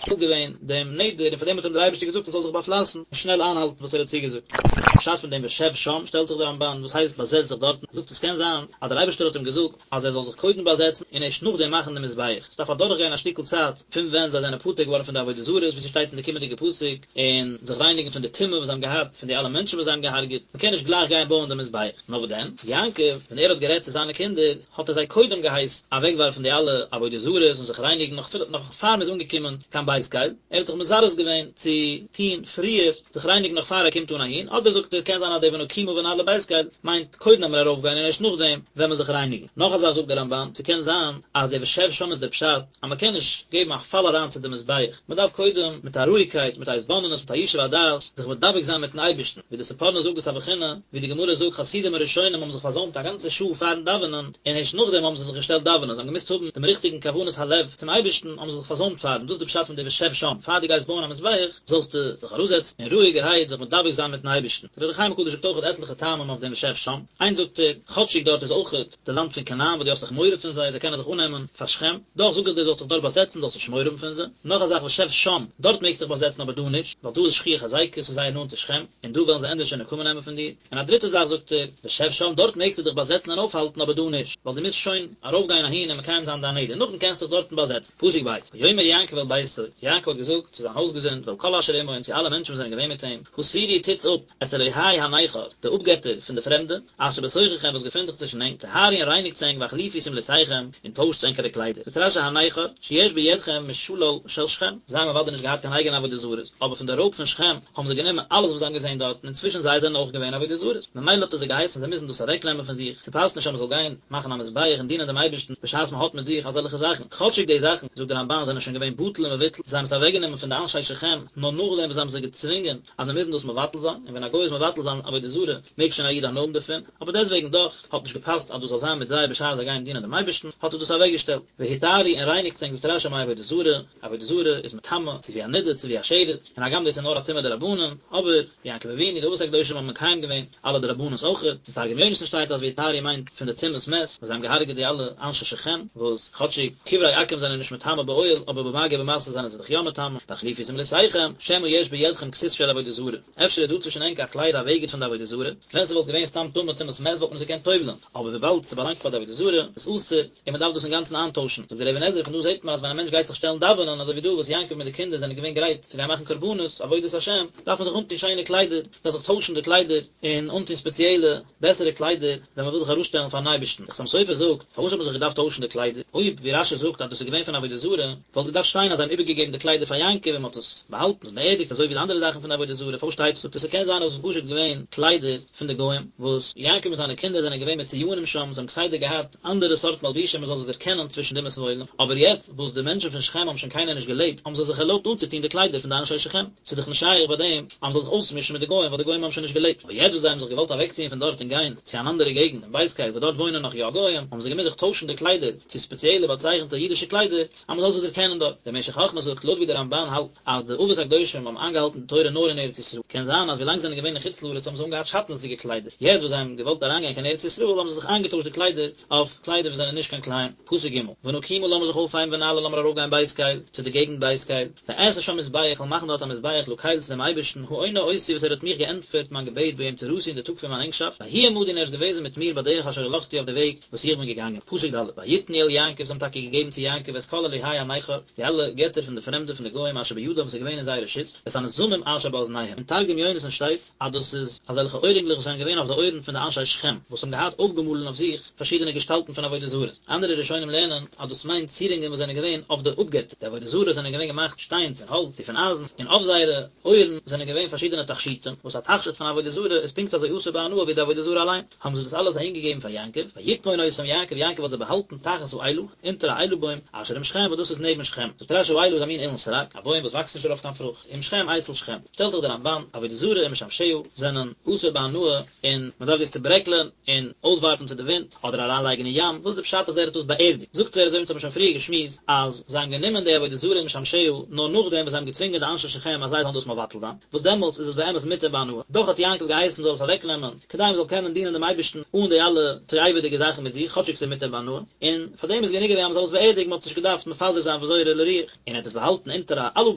געווען דעם נדר און פאר דעם האט אים דער אייבערשטער געזאגט ער זאל זיך באפלייסן און שנעל איינהאלטן וואס ער האט צוגעזאגט. פשט פון דעם ושב שם שטעלט זיך דער רמבן וואס הייסט באזעץ זיך דארטן, ער זאגט עס קען זיין אז דער אייבערשטער האט אים געזאגט אז ער זאל זיך קודם באזעצן און ערשט נאכדעם מאכן די מזבח, עס דארף אדורך גיין א שטיקל צייט פון ווען זיי זענען פטור געווארן פון די עבודה זרות ווי ס'שטייט אין די קומענדיגע פסוק, און זיך רייניגן פון די טומאה וואס זיי האבן געהאט פון די אלע מענטשן וואס זיי האבן געהארגעט, מען קען נישט גלייך גיין בויען די מזבח. נאר וואס דען, יעקב ווען ער האט גערעדט צו זיינע קינדער, האט ער זיי קודם געהייסן אוועקווארפן די אלע עבודה זרות און זיך רייניגן נאך אפילו נאך פאר מען איז אנגעקומען קיין בית קל, ער האט זיך מזרז געווען צו טון פריער זיך רייניגן נאך פאר ער קומט אן אהין, אדער זאגט ער קען זיין אז די ונקומה ונעלה בית קל מיינט קודם ווען מיר ארויפגיין און ערשט נאכדעם ווען מען זיך רייניגן. נאך א זאך זאגט דער רמבן, ס'קען זיין אז די ושב שם איז דער פשט אז מען קען נישט געבן א פאל אריין צו די מזבח, מען דארף קודם מיט א רואיגקייט, מיט א התבוננות, מיט א ישוב הדעת, זיך מדבק זיין מיטן אייבערשטן, ווי די ספורנו זאגט דאס א בחינה, ווי די גמרא זאגט חסידים הראשונים האבן זיך פארזוימט א גאנצע שעה פארן דאווענען, און הערשט נאכדעם האבן זיי זיך געשטעלט דאווענען, זיי האבן געמוזט האבן דעם ריכטיגן כוונת הלב צום אייבערשטן, האבן זיי זיך פארזוימט פארן, דאס איז די פשט פון די ושב שם, פאר דו גייסט בויען א מזבח, זאלסטו זיך אראפזעצן און רואיגערהייט זיך מדבק זיין מיטן אייבערשטן. דער אור החיים הקדוש זאגט אויך עטליכע טעמים אויף דעם ושב שם, איינס זאגט ער, כאטשיג דארט איז אויכעט די לאנד פון כנען וואס דו האסט דאך מורא פון זיי, זיי קענען זיך אננעמען פאר שכם, דאך זאג איך דיר זאלסט דיך דארט באזעצן, זאלסט נישט מורא האבן פון זיי. נאך א זאך ושב שם, דארט מעגסט דיך באזעצן אבער דא נישט, ווייל דא איז שכיח היזיקא, ס'איז זייער נאנט צו שכם, און דא וועלן זיי ענדערש נקמה נעמען פון דיר. און א דריטע זאך זאגט ער, ושב שם, דארט מעגסטו דיך באזעצן און אויפהאלטן אבער דא נישט, ווייל דו מוזט שוין ארויפגיין אהין און מקיים זיין דיין נדר, נאכדעם קענסטו דיך דארטן באזעצן. פסוק ב', ויאמר יעקב אל ביתו, יעקב האט געזאגט צו זיין הויזגעזינד ואל כל אשר עמו און צו אלע מענטשן וואס זענען געווען מיט אים, הסירו טוטס אפ, את אלהי הנכר, די אפגעטער פון די פרעמדע, אשר בתוככם וואס געפינט זיך צווישן ענק, טהרו און רייניגטס ענק והחליפו שמלותיכם, און טוישטס ענקערע קליידער. זאגט רשי הנכר, שיש בידכם משלל של שכם, זיי האבן אוודאי נישט געהאט קיין אייגענע עבודה זרות, אבער פון די רויב פון שכם האבן זיי גענומען אלעס וואס זיי האבן געזען דארטן, און צווישן זיי זענען אויך געווען עבודה זרות, ממילא האט ער זיי געהייסן זיי מוזן דאס אוועקנעמען פון זיך, ס'פאסט נישט אז מ'זאל גיין מאכן א מזבח און דינען דעם אייבערשטן בשעת מ'האט מיט זיך אזעלכע זאכן, כאטשיג די זאכן, זאגט דער רמבן, זענען שוין געווען בטל ומבוטל, זיי האבן עס אוועקגענומען פון די אנשי שכם, נאר נאכדעם וואס זיי האבן זיי געצווינגען אז זיי מוזן דאס מבטל זיין, און ווען א גוי איז מבטל זיין עבודה זרה, מעג שוין א איד הנאה האבן דערפון, אבער דעסטוועגן דאך, האט נישט געפאסט אז דאס זאל זיין מיט זיי בשעת זיי גייען דינען דעם אייבערשטן, האט ער דאס אוועקגעשטעלט. והטהרו און רייניגטס ענק זאגט רשי מעבודה זרה, עבודה זרה איז מטמא, צו ווי א נדה, צו ווי א שרץ, און הגם דאס איז נאר א טומאה דרבנן, אבער, יעקב אבינו, די אבות הקדושים האבן מקיים געווען אלע דרבנן'ס אויכעט, אין תרגום יונתן שטייט אז והטהרו מיינט פון די טומאת מת, וואס זיי האבן געהארגעט די אלע אנשי שכם, וואס כאטשיג קברי עכו"ם זענען נישט מטמא באוהל, אבער במגע ובמשא זענען זיי דאך יא מטמא, והחליפו שמלותיכם, שמא יש בידכם כסות של עבודה זרה, אפשר איז דא צווישן ענק א קלייד א בגד פון די עבודה זרה, ווען ס'וואלט געווען סתם טמא טומאת מת וואלט מען עס געקענט טובל'ן, אבער וויבאלד ס'באלאנגט פאר די עבודה זרה, איז אסור, און מ'דארף דאס אינגאנצן איינטוישן. זאגט דער אבן עזרא, פון דא זעט מען אז ווען א מענטש גייט זיך שטעלן דאווענען, אזוי ווי דא וואס יעקב מיט די קינדער זענען געווען גרייט צו גיין מאכן קרבנות, עבודת השם, דארף מען זיך אנטון שיינע קליידער, מ'דארף זיך טוישן די קליידער, און אנטון ספעציעלע, בעסערע קליידער, ווען מ'וויל זיך ארויסשטעלן פארן אייבערשטן. דער חתם סופר זאגט, פארוואס האט מען זיך געדארפט טוישן די קליידער? אויב, ווי רשי זאגט, אז דאס איז געווען פון עבודה זרה, וואלט געדארפט שטיין אז זיי האבן איבערגעגעבן די קליידער פאר יעקב און מ'האט עס באהאלטן, עס באערדיגט, אזוי ווי די אנדערע זאכן פון די עבודה זרה. פארוואס שטייט? זאגט ער, ס'קען זיין אז עס איז פשוט געווען קליידער פון די גוים, וואס יעקב מיט זיינע קינדער זענען געווען מצויינים שם, זיי האבן כסדר געהאט אנדערע סארט מלבושים מען זאל זיי דערקענען צווישן די אומות העולם, אבער יעצט וואס די מענטשן פון שכם האבן שוין קיינער נישט געלעבט, האבן זיי זיך ערלויבט אנצוטון די קליידער פון די אנשי שכם, ס'איז דאך נישט שייך ביי דעם אז מען זאל זיך אויסמישן מיט די גוים ווייל די גוים האבן שוין נישט געלעבט, אבער יעצט וואס זיי האבן זיך געוואלט אוועקציען פון דארט און גיין צו אן אנדערע געגנט אין בית קל וואו דארט וואוינען נאך יא גוים, האבן זיי געמוזט זיך טוישן די קליידער צו ספעציעלע באצייכנטע אידישע קליידער, אז מען זאל זיך דערקענען דארט. דער משך חכמה זאגט, לויט ווי דער רמבן האלט אז די אבות הקדושים האבן איינגעהאלטן די תורה נאר אין ארץ ישראל, קען זיין אז ווילאנג זיי זענען געווען אין חוץ לארץ האבן זיי אנגעהאט שעטנז'דיגע קליידער, יעצט וואס זיי האבן געוואלט אריינגיין קיין ארץ ישראל האבן זיי זיך איינגעטוישט די קליידער אויף קליידער וואס זענען נישט קיין כלאים. פסוק ג', ונקומה לאמיר זיך אויפהייבן ונעלה לאמיר ארויפגיין בית קל, צו די געגנט בית קל, ואעשה שם מזבח, איך וועל מאכן דארט א מזבח לקל צו דעם אייבערשטן, העונה אותי וואס ער האט מיך געענטפערט מיין געבעט ביום צרתי אין די טאג פון מיין ענגשאפט, ויהי עמדי און ער איז געוועזן מיט מיר בדרך אשר הלכתי אויף די וועג, וואס איך בין געגאנגען. פסוק ד', ויתנו אל יעקב, זיי האבן טאקע געגעבן צו יעקב את כל אלהי הנכר, די אלע געטער פון די פרעמדע פון די גוים אשר בידם וואס איז געווען אין זייער רשות, ואת הנזמים אשר באזניהם. אין תרגום יונתן שטייט אז דאס איז אזעלכע אוירינגלעך וואס זענען געווען אויף די אויערן פון די אנשי שכם, וואס האבן געהאט אויפגעמאלן אויף זיך פארשידענע געשטאלטן פון עבודה זרות. אנדערע ראשונים לערנען אז דאס מיינט צירונגען וואס זענען געווען אויף די אפגעטער, די עבודה זרות זענען געווען געמאכט שטיין צו האלץ צו פון אייזן, און אויף זייערע אויערן זענען געווען פארשידענע תכשיטים, וואס א תכשיט פון עבודה זרה איז פונקט אזוי אסור בהנאה ווי די עבודה זרה אליין. האבן זיי דאס אלעס אהינגעגעבן פאר יעקב, ויטמון אותם יעקב, יעקב האט זיי באהאלטן תחת האלה, אונטער א אלה בוים, אשר עם שכם, וואס דאס איז נעבן שכם. זאגט רשי האלה איז א מין אילן סרק, א בוים וואס וואקסט נישט דערויף קיין פרוכט, עם שכם אצל שכם. שטעלט זיך דער רמבן, עבודה זרה ומשמשיה זענען אסור בהנאה, און מען דארף דאס צוברעקלען און אויסווארפן צו די ווינט, אדער אריינלייגן אין ים, וואס איז די פשט אז ער האט דאס באערדיגט? זאגט ער, אזוי ווי אונז האבן שוין פריער געשמועסט, אז זיי האבן גענומען די עבודה זרה ומשמשיה נאר נאכדעם וואס זיי האבן געצווינגען די אנשי שכם אז זיי זאלן דאס מבטל זיין, וואס דעמאלטס איז עס באמת מותר בהנאה, דאך האט יעקב געהייסן מען זאל עס אוועקנעמען, כדי מען זאל קענען דינען דעם אייבערשטן אן די אלע תועבה'דיגע זאכן מיט זיך, כאטשיג ס'איז מותר בהנאה, און פאר דעם איז גענוג געווען אז מען זאל עס באערדיגן, מען האט עס נישט געדארפט מפזר זיין וזורה לרוח. און ער האט עס. באהאלטן אונטער א אלון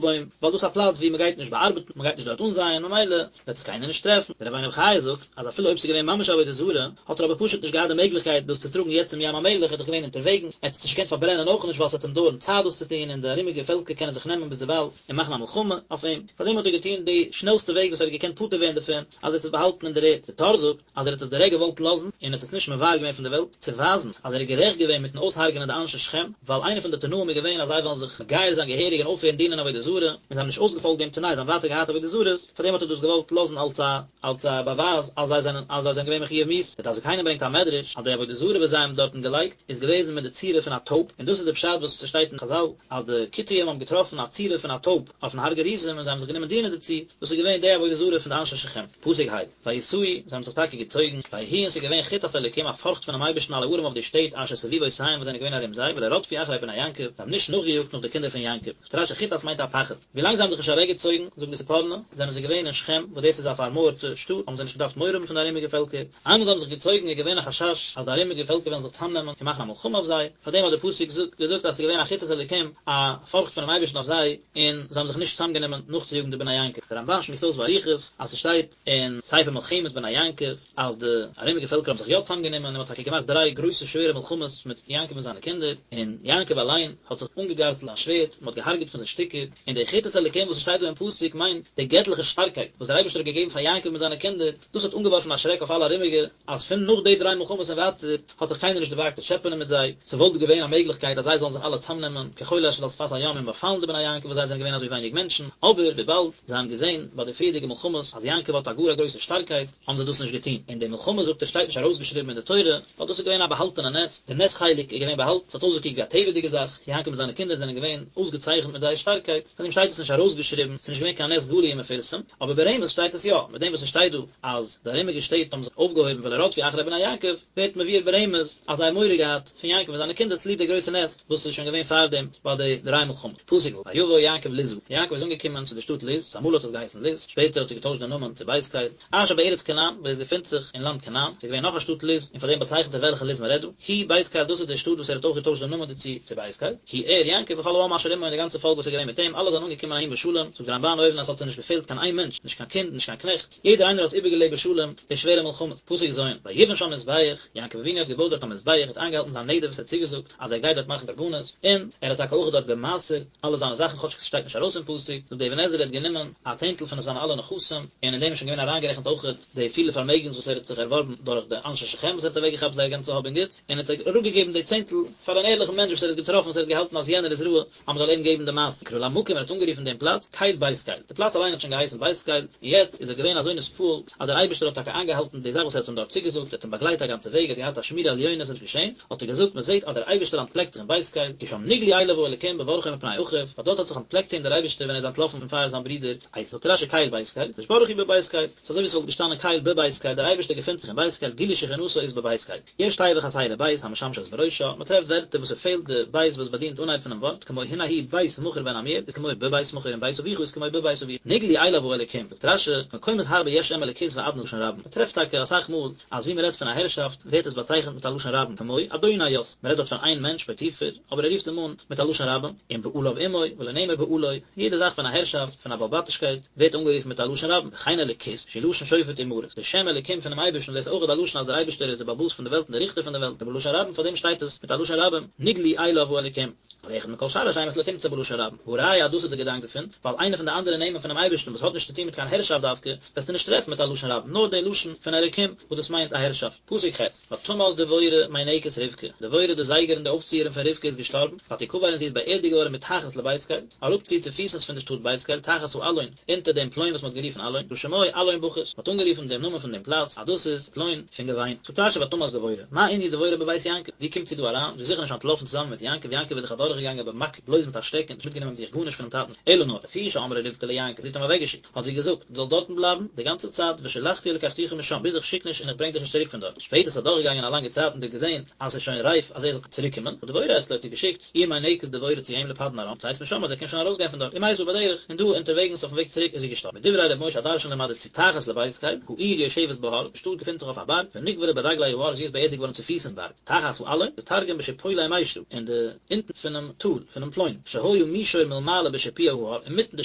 בוים, ווייל דאס איז א פלאץ וואו מען גייט נישט באארבעטן, מען גייט נישט דארט אנזייען, ממילא וועט עס קיינער נישט טרעפן. דער רבינו בחיי זאגט אז אפילו אויב ס'איז געווען ממש עבודה זרה, האט ער אבער פשוט נישט געהאט די מעגליכקייט דאס צו טראגן יעצט צום ים המלח, ער איז דאך געווען אונטערוועגן, ער האט עס נישט געקענט פארברענען אויך נישט ווייל ס'וועט אים דויערן צייט דאס צו טון און די ארומיגע פעלקער קענען זיך נעמען ביזדערווייל און מאכן א מלחמה אויף אים, פארדעם האט ער געטון די שנעלסטע וועג וואס ער האט געקענט פטור ווערן דערפון, אז ער האט עס באהאלטן אין דער ערד. דער טור זאגט אז ער האט עס דירעקט געוואלט לאזן און האט עס נישט מבער געווען פון דער וועלט, צו ווייזן אז ער איז גערעכט געווען מיטן אויסהרג'ענען די אנשי שכם, ווייל איינער פון די תנאים איז געווען אז זיי וועלן זיך מגייר זיין געהעריג און אויפהערן דינען עבודה זרה, און זיי האבן נישט אויסגעפאלגט דעם תנאי, זיי האבן ווייטער געהאט עבודה זרות, פארדעם האט ער דאס געוואלט לאזן אלס א אלס א באווייז אז זיי זענען אז זיי זענען געווען מחויב מיתה. דער דעת זקנים ברענגט א מדרש אז די עבודה זרה וואס זיי האבן דארטן געלייגט איז געוועזן מיט די צורה פון א טויב, און דאס איז די פשט וואס ס'שטייט אין חזל אז די כותים האבן געטראפן א צורה פון א טויב אויפן הר גריזים און זיי האבן זיך גענומען דינען דערצו, דאס איז געווען די עבודה זרה פון די אנשי שכם. פסוק ה, ויסעו, זיי האבן זיך טאקע געצויגן, ויהי און ס'איז געווען חתת אלוקים א פארכט פונעם אייבערשטן על הערים אויף די שטעט אשר סביבותיהם וואס זענען געווען ארום זיי, ולא רדפו אחרי בני יעקב, זיי האבן נישט נאכגעיאגט נאך די קינדער פון יעקב. זאגט רשי חתת מיינט א פחד. ווילאנג זיי האבן זיך נישט אוועקגעצויגן, זאגט די ספורנו, זענען זיי געווען אין שכם, וואס דאס איז א פארמויערטע שטאט, האבן זיי נישט געדארפט מורא האבן פון די ארומיגע פעלקער. איינמאל זיי האבן זיך געצויגן איז געווען א חשש אז די ארומיגע פעלקער וועלן זיך צאמנעמען און מאכן א מלחמה אויף זיי, פארדעם האט דער פסוק געזאגט אז עס איז געווען א חתת אלוקים, א פארכט פונעם אייבערשטן אויף זיי, און זיי האבן זיך נישט צאמגענומען נאכצויאגן די בני יעקב. דער רמבן שמועסט אויס באריכות אז ס'שטייט אין ספר מלחמת בני יעקב אז די ארומיגע פעלקער האבן זיך יא צאמגענומען און מ'האט טאקע געמאכט דריי גרויסע שווערע מלחמות מיט יעקב און זיינע קינדער, און יעקב אליין האט זיך אנגעגארטלט זיין שווערד, מ'האט געהארגעט פון זיי שטיקער, און די חתת אלוקים וואס ס'שטייט דא אין פסוק מיינט די געטליכע שטארקייט וואס דער אייבערשטער האט געגעבן פאר יעקב מיט זיינע קינדער, דאס האט אנגעווארפן א שרעק אויף אלע ארומיגע, אז פון נאך די דריי מלחמות און ווייטער האט זיך קיינער נישט דערוואגט צו טשעפענען מיט זיי, ס'וואלט געווען א מעגליכקייט אז זיי זאלן זיך אלע צאמנעמען כחול אשר על שפת הים און באפאלן די בני יעקב וואס זיי זענען געווען אזוי ווייניג מענטשן, אבער וויבאלד זיי האבן געזען ביי די פריערדיגע מלחמות אז יעקב האט א גאר א גרויסע שטארקייט, האבן זיי דאס נישט געטון, און די מלחמה זאגט ער שטייט נישט ארויסגעשריבן אין די תורה, ווייל דאס איז געווען א באהאלטענע נס, די נס חלק איז געווען באהאלטן, ס'האט אויסגעקוקט ווי א טבע'דיגע זאך, יעקב מיט זיינע קינדער זענען געווען אויסגעצייכנט מיט זייער שטארקייט, פארדעם שטייט עס נישט ארויסגעשריבן, ס'איז נישט געווען קיין נס גלוי ומפורסם, אבער ברמז שטייט עס יא, מיט דעם וואס עס שטייט דא אז די ארומיגע שטעט האבן זיך אויפגעהויבן ולא רדפו אחרי בני יעקב, ווערט מבואר ברמז אז זיי האבן מורא געהאט פון יעקב און זיינע קינדער צוליב די גרויסע נס וואס איז שוין געווען פארדעם ביי די דריי מלחמות. פסוק ו', ויבא יעקב לוזה, יעקב איז אנגעקומען צו די שטאט לוז, אמאל האט עס געהייסן לוז, שפעטער האט ער געטוישט די נאמען צו בית קל, אשר בארץ כנען, וואו עס געפינט זיך אין לאנד כנען, ס'איז געווען נאך א שטאט לוז, און פאר דעם באצייכנט ער וועלכע לוז מען רעדט דא, היא בית קל דאס איז די שטאט וואס ער האט אויך געטוישט די נאמען דערצו צו בית קל, הוא ער, יעקב, וכל העם אשר עמו און די גאנצע פאלק וואס איז געווען מיט אים, אלע זענען אנגעקומען אהין בשלום, זאגט די רמבן אויבן אז עס האט זיי נישט געפעלט קיין איין מענטש, נישט קיין קינד, נישט קיין קנעכט, יעדער איינער האט איבערגעלעבט בשלום די שווערע מלחמות. פסוק ז', ויבן שם מזבח, יעקב אבינו האט געבויט דארט א מזבח, ער האט איינגעהאלטן זיין נדר וואס ער האט צוגעזאגט אז ער גייט דארט מאכן קרבנות, און ער האט טאקע אויך דארט גע'מעשר'ט אלע זיינע זאכן כאטשיג ס'שטייט נישט ארויס אין פסוק, זאגט די אבן עזרא ער האט גענומען א צענטל פון זיינע אלע נכסים, און אין דעם איז שוין געווען אריינגערעכנט אויך די פילע פארמעגנס וואס ער האט זיך ערווארבן דורך די אנשי שכם וואס ער האט אוועקגעכאפט זייער גאנצע האב און גוטס, און ער האט אראפגעגעבן די צענטל פאר אן ערליכן מענטש וואס ער האט געטראפן וואס ער האט געהאלטן אז יענער איז ראוי אז מען זאל אים געבן די מעשר. ויקרא למקום ער האט אנגערופן דעם פלאץ קל בית קל, די פלאץ אליין האט שוין געהייסן בית קל, און יעצט איז ער געווען אזוי נתפעל אז דער אייבערשטער האט טאקע איינגעהאלטן די זאך וואס ער האט אים דארט צוגעזאגט, ער האט אים באגלייט א גאנצע וועג, ער האט געהאט א שמירה עליונה, עס איז נישט געשען, האט ער געזאגט, מען זעט אז דער אייבערשטער אנטפלעקט זיך אין בית קל, כי שם נגלו אליו האלוקים בברחו מפני אחיו, ווייל דארט האט זיך אנטפלעקט צו אים דער אייבערשטער ווען ער איז אנטלאפן פון פאר זיין ברודער עשו. זאגט רשי קל בית קל, הקדוש ברוך הוא בבית קל, ס'איז אזוי ווי ס'וואלט געשטאנען קל בבית קל, דער אייבערשטער געפינט זיך אין בית קל, גילוי שכינתו איז בבית קל. יש תיבה חסרה בית המשמשת בראשה, מען טרעפט ווערטער וואס ס'פעלט די בית וואס באדינט אנהייב פונעם ווארט, כמו הנה הוא בית מכיר בן עמיאל איז כמו בבית מכיר און בית אביך איז כמו בבית אביך. נגלו אליו האלוקים, זאגט רשי, מקומות הרבה יש שם אלוקות ואדנות לשון רבים, מען טרעפט טאקע אסאך מאל אז ווי מען רעדט פון א הערשאפט ווערט עס באצייכנט מיט א לשון רבים, כמו אדוני יוסף, מען רעדט דארט פון איין מענטש פוטיפר, אבער ער רופט אים אן מיט א לשון רבים, און בעליו עמו, ולא נאמר בעלו, יעדע זאך פון א הערשאפט, פון א בעל-בתישקייט, ווערט אנגערופן מיט א לשון רבים, וכן אלוקות, שהוא לשון שופט ומרות, די שם אלוקים פונעם אייבערשטן, דאס איז אויך א לשון אז דער אייבערשטער איז דער בעל הבית פון די וועלט און דער ריכטער פון די וועלט, ובלשון רבים, פאר דעם שטייט עס מיט א לשון רבים, נגלו אליו האלוקים. אבל אחד מכל שאר השמות לא תמצא בלשון רבים, והא ראיה אז דאס איז די געדאנק דערפון, ווייל איינע פון די אנדערע נעמען פונעם אייבערשטן וואס האט נישט צוטון מיט קיין הערשאפט דווקא, וועסטו נישט טרעפן מיט א לשון רבים, נאר די לשון פון אלוקים וואס דאס מיינט א הערשאפט. פסוק ח', ותמת דבורה מינקת רבקה, דבורה די זייגערין די אויפציערין פון רבקה איז געשטארבן, ותקבר און זי איז באערדיגט געווארן מתחת לבית קל, אראפצו צופיסנס פון די שטאט בית קל, תחת האלון, אונטער דעם פלוין וואס מען האט גערופן אלון, ששמו אלון בכות, מען האט אנגערופן דעם נאמען פון דעם פלאץ אז דאס איז פלוין פון געוויין. זאגט רשי ותמת דבורה, מה ענין דבורה בבית יעקב, ווי קומט זי דא אריין, זי איז זיכער נישט אנטלאפן צוזאמען מיט יעקב, יעקב איז דאך אדורכגעגאנגען במקל בלויז מיט א שטעקן, נישט מיטגענומען מיט זיך גארנישט פונעם טאטן, אלא נאר, לפי שאמרה רבקה ליעקב, זי האט אים אוועקגעשיקט. האט זי געזאגט, דו זאלסט דארטן בלייבן די גאנצע צייט, ושלחתי ולקחתיך משם, ביז איך שיק נישט און איך ברענג דיך נישט צוריק פון דארט. שפעטער איז אדורכגעגאנגען א לאנגע צייט און זי האט געזען אז ס'איז שוין רייף אז ער זאל צוריק קומען, דבורה אצלו האט זי געשיקט איר מינקת דבורה צו אים לפדן ארם, לצאת משם אז ער קען שוין ארויסגיין פון דארט, ומתה בדרך, און דא אונטערוועגנס אויפן וועג צוריק איז זי געשטארבן. מדברי ר' משה הדרשן למדתי, תחת לבית קל, העיר יושבת בהר, די שטאט געפינט זיך אויף א בארג, ונקברה ברגלי ההר, זי איז באערדיגט געווארן צופיס אין בארג. תחת האלון, די תרגום בשיפולי מישרא, אין די אונטן פונעם טאל, פונעם פלוין, שהיה שהיה מישור מלמעלה בשיפוע ההר, אינמיטן די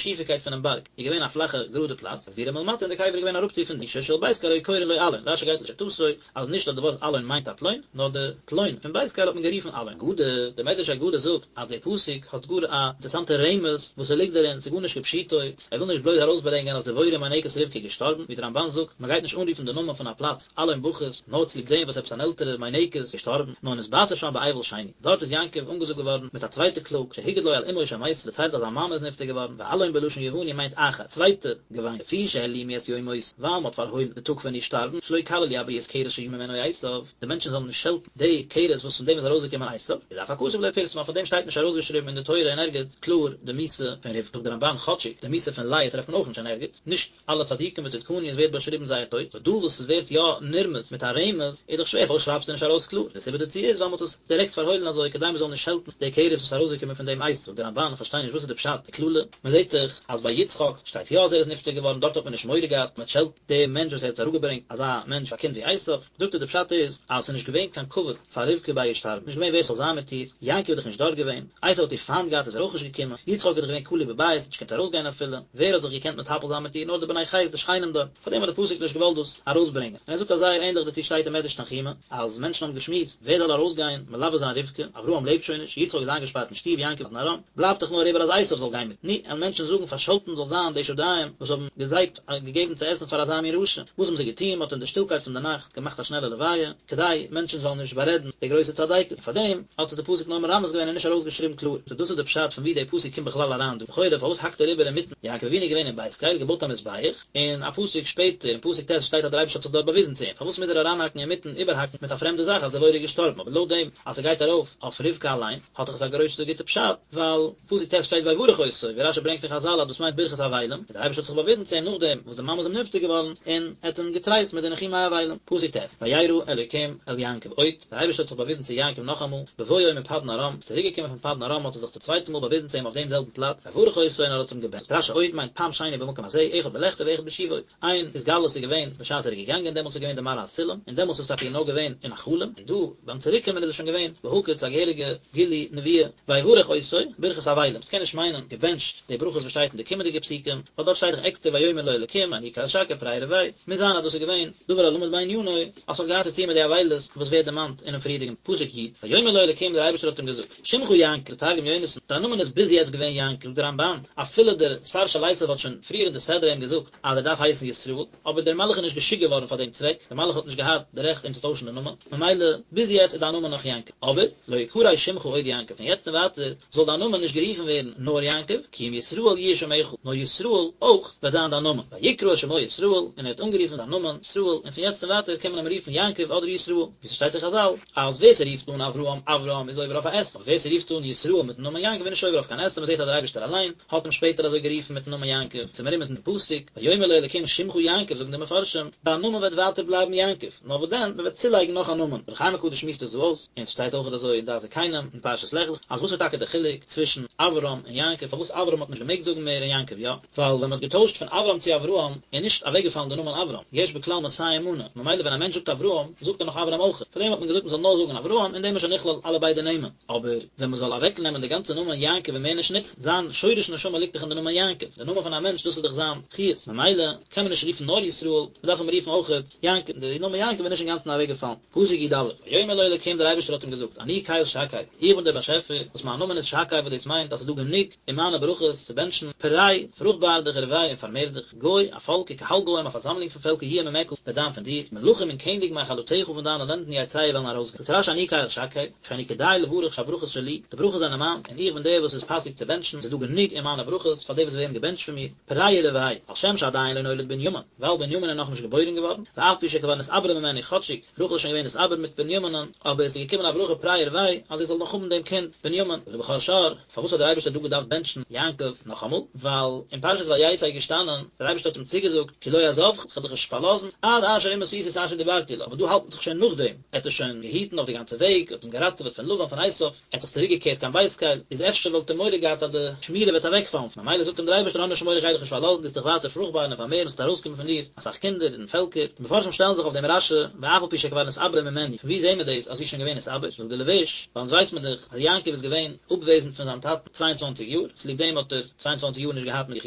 שיפיקייט פונעם בארג איז געווען א פלאכע גראדע פלאץ, וקבורה מלמטה און די קבר איז געווען אראפצו פון מישור של בית קל היו קורין לו אלון, רשי גייט לשיטתו אז נישט אז די ווארט אלון מיינט א פלוין, נאר די פלוין פון בית קל האט מען גערופן אלון. אגדה, דער מדרש אגדה זאגט אז דער פסוק האט גאר א אינטערעסאנטע רמז וואס ס'ליגט דערין, ס'איז גארנישט כפשוטו, ער וויל נישט בלויז ארויסברענגען אז דבורה מינקת רבקה איז געשטארבן, ווי דער רמבן זאגט, מען גייט נישט אנרופן די נאמען פון א פלאץ אלון בכות, נאר צוליב דעם וואס עפעס אן עלטערע מינקת איז געשטארבן, נאר נתבשר שם באבל שני. דארט איז יעקב אנגעזאגט געווארן מיט א צווייטע קלאג, שהגיד לו על אמו שמתה, דערציילט אז זיין מאמע איז נפטר געווארן, ואלון בלשון יווני מיינט אחר, צווייטע געוויין, לפי שהעלימו את יום מותה, ווייל מען האט פארהוילן די טאג פון איר שטארבן, שלא יקללו הבריות כרס שיבא ממנו עשיו, די מענטשן זאלן נישט שעלטן די כרס וואס פון דעם איז ארויסגעקומען עשיו, איז אף הכתוב לא פרסמה, פאר דעם שטייט נישט ארויסגעשריבן אין די תורה אין ערגעץ קלאר די מיתה פון רבקה, זאגט די רמבן כאטשיג די מיתה פון לאה טרעפט מען אויך נישט אין ערגעץ, נישט אלע צדיקים וצדקניות ווערט באשריבן זייער טויט, סאו דא וואס עס ווערט יא נרמז מיט א רמז איז דאך שווער פארוואס שרייבסטו נישט ארויס קלאר, די סיבה דערצו איז ווייל מען האט עס דירעקט פארהוילן אזוי כדי מען זאל נישט שעלטן די כרס וואס איז ארויסגעקומען פון דעם עשו, זאגט די רמבן איך פארשטיי נישט וואס איז די פשט די קללה, מען זעט דאך אז ביי יצחק שטייט יא אז ער איז נפטר געווארן דארט האט מען נישט מורא געהאט מען שעלט די מענטש וואס ער האט אראפגעברענגט אזא מענטש א קינד ווי עשו, זאגט ער די פשט איז אז עס איז נישט געווען קיין כבוד פאר רבקה ביי איר שטארבן, נישט געווען ווער ס'זאל זיין מיט איר, יעקב איז דאך נישט דארט געווען, עשו האט איר פיינט געהאט איז ער אויך נישט געקומען, יצחק איז דאך געווען כלוא בבית האט נישט געקענט ארויסגיין אפילו, ווער האט זיך געקענט מטפל זיין מיט איר נאר די בני חת די שכנים דארט, פארדעם האט די פסוק נישט געוואלט דאס ארויסברענגען, און ער זאגט אז זייער ענדליך דערצו שטייט אין מדרש תנחומא, אז מענטשן האבן געשמועסט ווער זאל ארויסגיין מלווה זיין רבקה, אברהם לעבט שוין נישט, יצחק איז איינגעשפארט אין שטוב, יעקב אין פדן ארם, בלייבט דאך נאר איבער אז עשו זאל גיין מיט, נו, וועלן מענטשן זאגן פארשאלטן זאל זיין די שדיים וואס האבן געזייגט געגעבן צו עסן פאר אזא מין רשע, וואס האבן זיי געטון, מען האט אין די שטילקייט פון די נאכט געמאכט א שנעלע לוויה, כדי מענטשן זאלן נישט בארעדן די גרויסע צדיקת, און פאר דעם האט עס די פסוק נאר מרמז געווען און נישט ארויסגעשריבן קלאר. סאו דאס איז די פשט פון ווי די פסוק קומט בכלל אריין דא. לכאורה פארוואס האקט ער איבער אינמיטן? יעקב אבינו איז געווען אין בית קל, געבויט א מזבח, און א פסוק שפעטער אין פסוק ט' שטייט אז דער אייבערשטער האט זיך דארט באוויזן צו אים, פארוואס מוז ער אריינהאקן אינמיטן איבערהאקן מיט א פרעמדע זאך אז דבורה איז געשטארבן, אבער לויט דעם אז ס'גייט ארויף אויף רבקה אליין האט דאך עס א גרויסע גוטע פשט, ווייל פסוק ט' שטייט ויברך אותו, ווי רשי ברענגט פון חזל אז דאס מיינט ברכת אבלים, און דער אייבערשטער האט זיך באוויזן צו אים נאכדעם וואס די מאמע איז אים נפטר געווארן, און ער האט אים געטרייסט מיט די ניחומי אבלים. פסוק ט', וירא אלוקים אל יעקב עוד, דער אייבערשטער האט זיך באוויזן צו יעקב נאכאמאל, בבואו מפדן ארם, איז צוריק געקומען פון פדן ארם האט ער זיך צום צווייטן מאל באוויזן צו אים אויף דעם זעלבן פלאץ, ויברך אותו און ער האט אים געבענטשט. רשי עוד מיינט פעם שני במקום הזה, אחד בלכתו ואחד בשובו. איין התגלות איז געווען בשעת ער איז געגאנגען, דעמאלטס איז געווען די מראה הסולם, און דעמאלטס איז טאקע נאר געווען אין א חלום, און דא ביים צוריק קומען איז עס שוין געווען בהקיץ א געהעריגע גילוי נבואה, ויברך אותו, ברכת אבלים, ס'קען נישט מיינען געבענטשט די ברכות וואס שטייט אין די קומענדיגע פסוקים, ווייל דארט שטייט דאך עקסטער ויאמר לו אלקים אני קל שקי פרה ורבה, מוז זיין אז דאס איז געווען דבר הלמד בענינו, אז ס'האט געהאט צו טון מיט די אבילות וואס ווערט דערמאנט אינעם פריערדיגן פסוק י', ויאמר לו אלקים דער אייבערשטער האט אים געזאגט, שמך יעקב, תרגום יונתן, דיין נאמען איז ביז יעצט געווען יעקב, זאגט דער רמבן, אפילו דער שר של עשיו האט שוין פריער אין די סדרה אים געזאגט אז ער דארף הייסן ישראל, אבער דער מלאך איז נישט געשיקט געווארן פאר דעם צוועק, דער מלאך האט נישט געהאט די רעכט אים צו טוישן די נאמען, ממילא ביז יעצט איז דיין נאמען נאך יעקב, אבער לא יקרא שמך עוד יעקב, פון יעצט און ווייטער זאל דיין נאמען נישט גערופן ווערן נאר יעקב, כי אם ישראל יהיה שמך, נאר ישראל אויך וועט זיין דיין נאמען, ויקרא את שמו ישראל, און ער האט אנגערופן זיין נאמען ישראל, און פון יעצט און ווייטער קען מען אים רופן יעקב אדער ישראל, ווי ס'שטייט אין חזל, אז ווער ס'רופט אן אברהם אברם איז עובר אויף א עשה, אבער ווער ס'רופט אן ישראל מיטן נאמען יעקב איז נישט עובר אויף קיין עשה, מ'זעט אז דער אייבערשטער אליין האט אים שפעטער אזוי גערופן מיטן נאמען יעקב, ס'איז מרומז אין פסוק, ויאמר לו אלקים שמך יעקב זאגן די מפרשים, דיין נאמען וועט ווייטער בלייבן יעקב, נאר וואס דען, מ'וועט צולייגן נאך א נאמען, דער אור החיים הקדוש שמועסט עס דא אויס, און ס'שטייט אויך אזוי אין דעת זקנים אין פרשת לך לך, אז וואס איז טאקע דער חילוק צווישן אברם און יעקב, פארוואס אברם האט מען נישט געמעגט זאגן מער און יעקב יא? ווייל ווען מ'האט געטוישט פון אברם צו אברהם איז נישט אוועקגעפאלן די נאמען אברם, יש בכלל מאתים מנה, ממילא ווען א מענטש זאגט אברהם זאגט ער נאך אברם אויך, פארדעם האט מען געזאגט מ'זאל נאר זאגן אברהם אין דעם איז שוין נכלל אלע ביידע נעמען, אבער ווען מ'זאל אוועקנעמען די גאנצע נאמען יעקב און מער נישט נוצן, זיין שורש נשמה ליגט דאך אין די נאמען יעקב, די נאמען פון א מענטש דאס איז דאך זיין חיות, ממילא קען מען נישט רופן נאר ישראל, מ'דארף אים רופן אויך יעקב, די נאמען יעקב איז נישט אינגאנצן אוועקגעפאלן. פסוק י א, ויאמר לו אלקים דער אייבערשטער האט אים געזאגט, אני קל שקי, איך בין דער באשעפער וואס מיין נאמען איז שקי וואס דאס מיינט אז ס'איז דא גענוג אין מיינע ברכות צו בענטשן, פרה, פרוכטבאר דיך ורבה און פארמער דיך, גוי, א פאלק, וקהל גוים, א פארזאמלונג פון פעלקער יהיה ממך, וועט זיין פון דיר, מלכים און קעניגן מחלציך פון דיינע לענדן יצאו וועלן ארויסגיין. זאגט רש י אני קל שקי, שאני כדאי לברך שהברכות שלי, די ברכות זענען מיין, און איך בין דער וואס איז פאסיג צו בענטשן, ס'איז דא גענוג אין מיינע ברכות פאר די וואס ווערן געבענטשט פון מיר, פרה ורבה, על שם שעדיין לא נולד בנימין, ווייל בנימין איז נאכנישט געבוירן געווארן, ואף פי שכבר נתעברה ממנו כאטשיג רחל איז שוין געווען נתעבר מיט בנימינ'ן, אבער עס איז געקומען א ברכה פרה ורבה אז זי זאל נאך האבן דעם קינד בנימין. זאגט דער בכור שור, פארוואס האט דער אייבערשטער דא געדארפט בענטשן יעקב נאכאמאל? ווייל אין פרשת ויצא איז געשטאנען, דער אייבערשטער האט אים צוגעזאגט, כי לא אעזבך, איך וועל דיך נישט פארלאזן, עד אשר אם עשיתי את אשר דיברתי לך, אבער דא האלט מען דאך שוין נאכדעם, ער האט עס שוין געהיטן אויף די גאנצע וועג, האט אים געראטעוועט פון לבן פון עשיו, ער האט זיך צוריק געקערט קיין בית קל, איז אפשר וואלט ער מורא געהאט אז די שמירה וועט אוועקפאלן, ממילא זאגט אים דער אייבערשטער האב נישט מורא איך גיי דיך נישט פארלאזן, דו וועסט דיך ווייטער פרוכטבארן און פארמערן, עס וועט ארויסקומען פון דיר אסאך קינדער און פעלקער, די מפרשים שטעלן זיך אויף דעם רש י, ואף על פי שכבר נתעברה ממנו, פון וואו זעהן מיר דאס אז זי איז שוין געווען נתעבר, זאגט דער לבוש, ווייל אונז ווייסט מען דאך אז יעקב איז געווען אפוועזנד פון. פון זיין טאטן צוויי און צוואנציג יאר, צוליב דעם האט ער צוויי און צוואנציג יאר נישט געהאט מיט זיך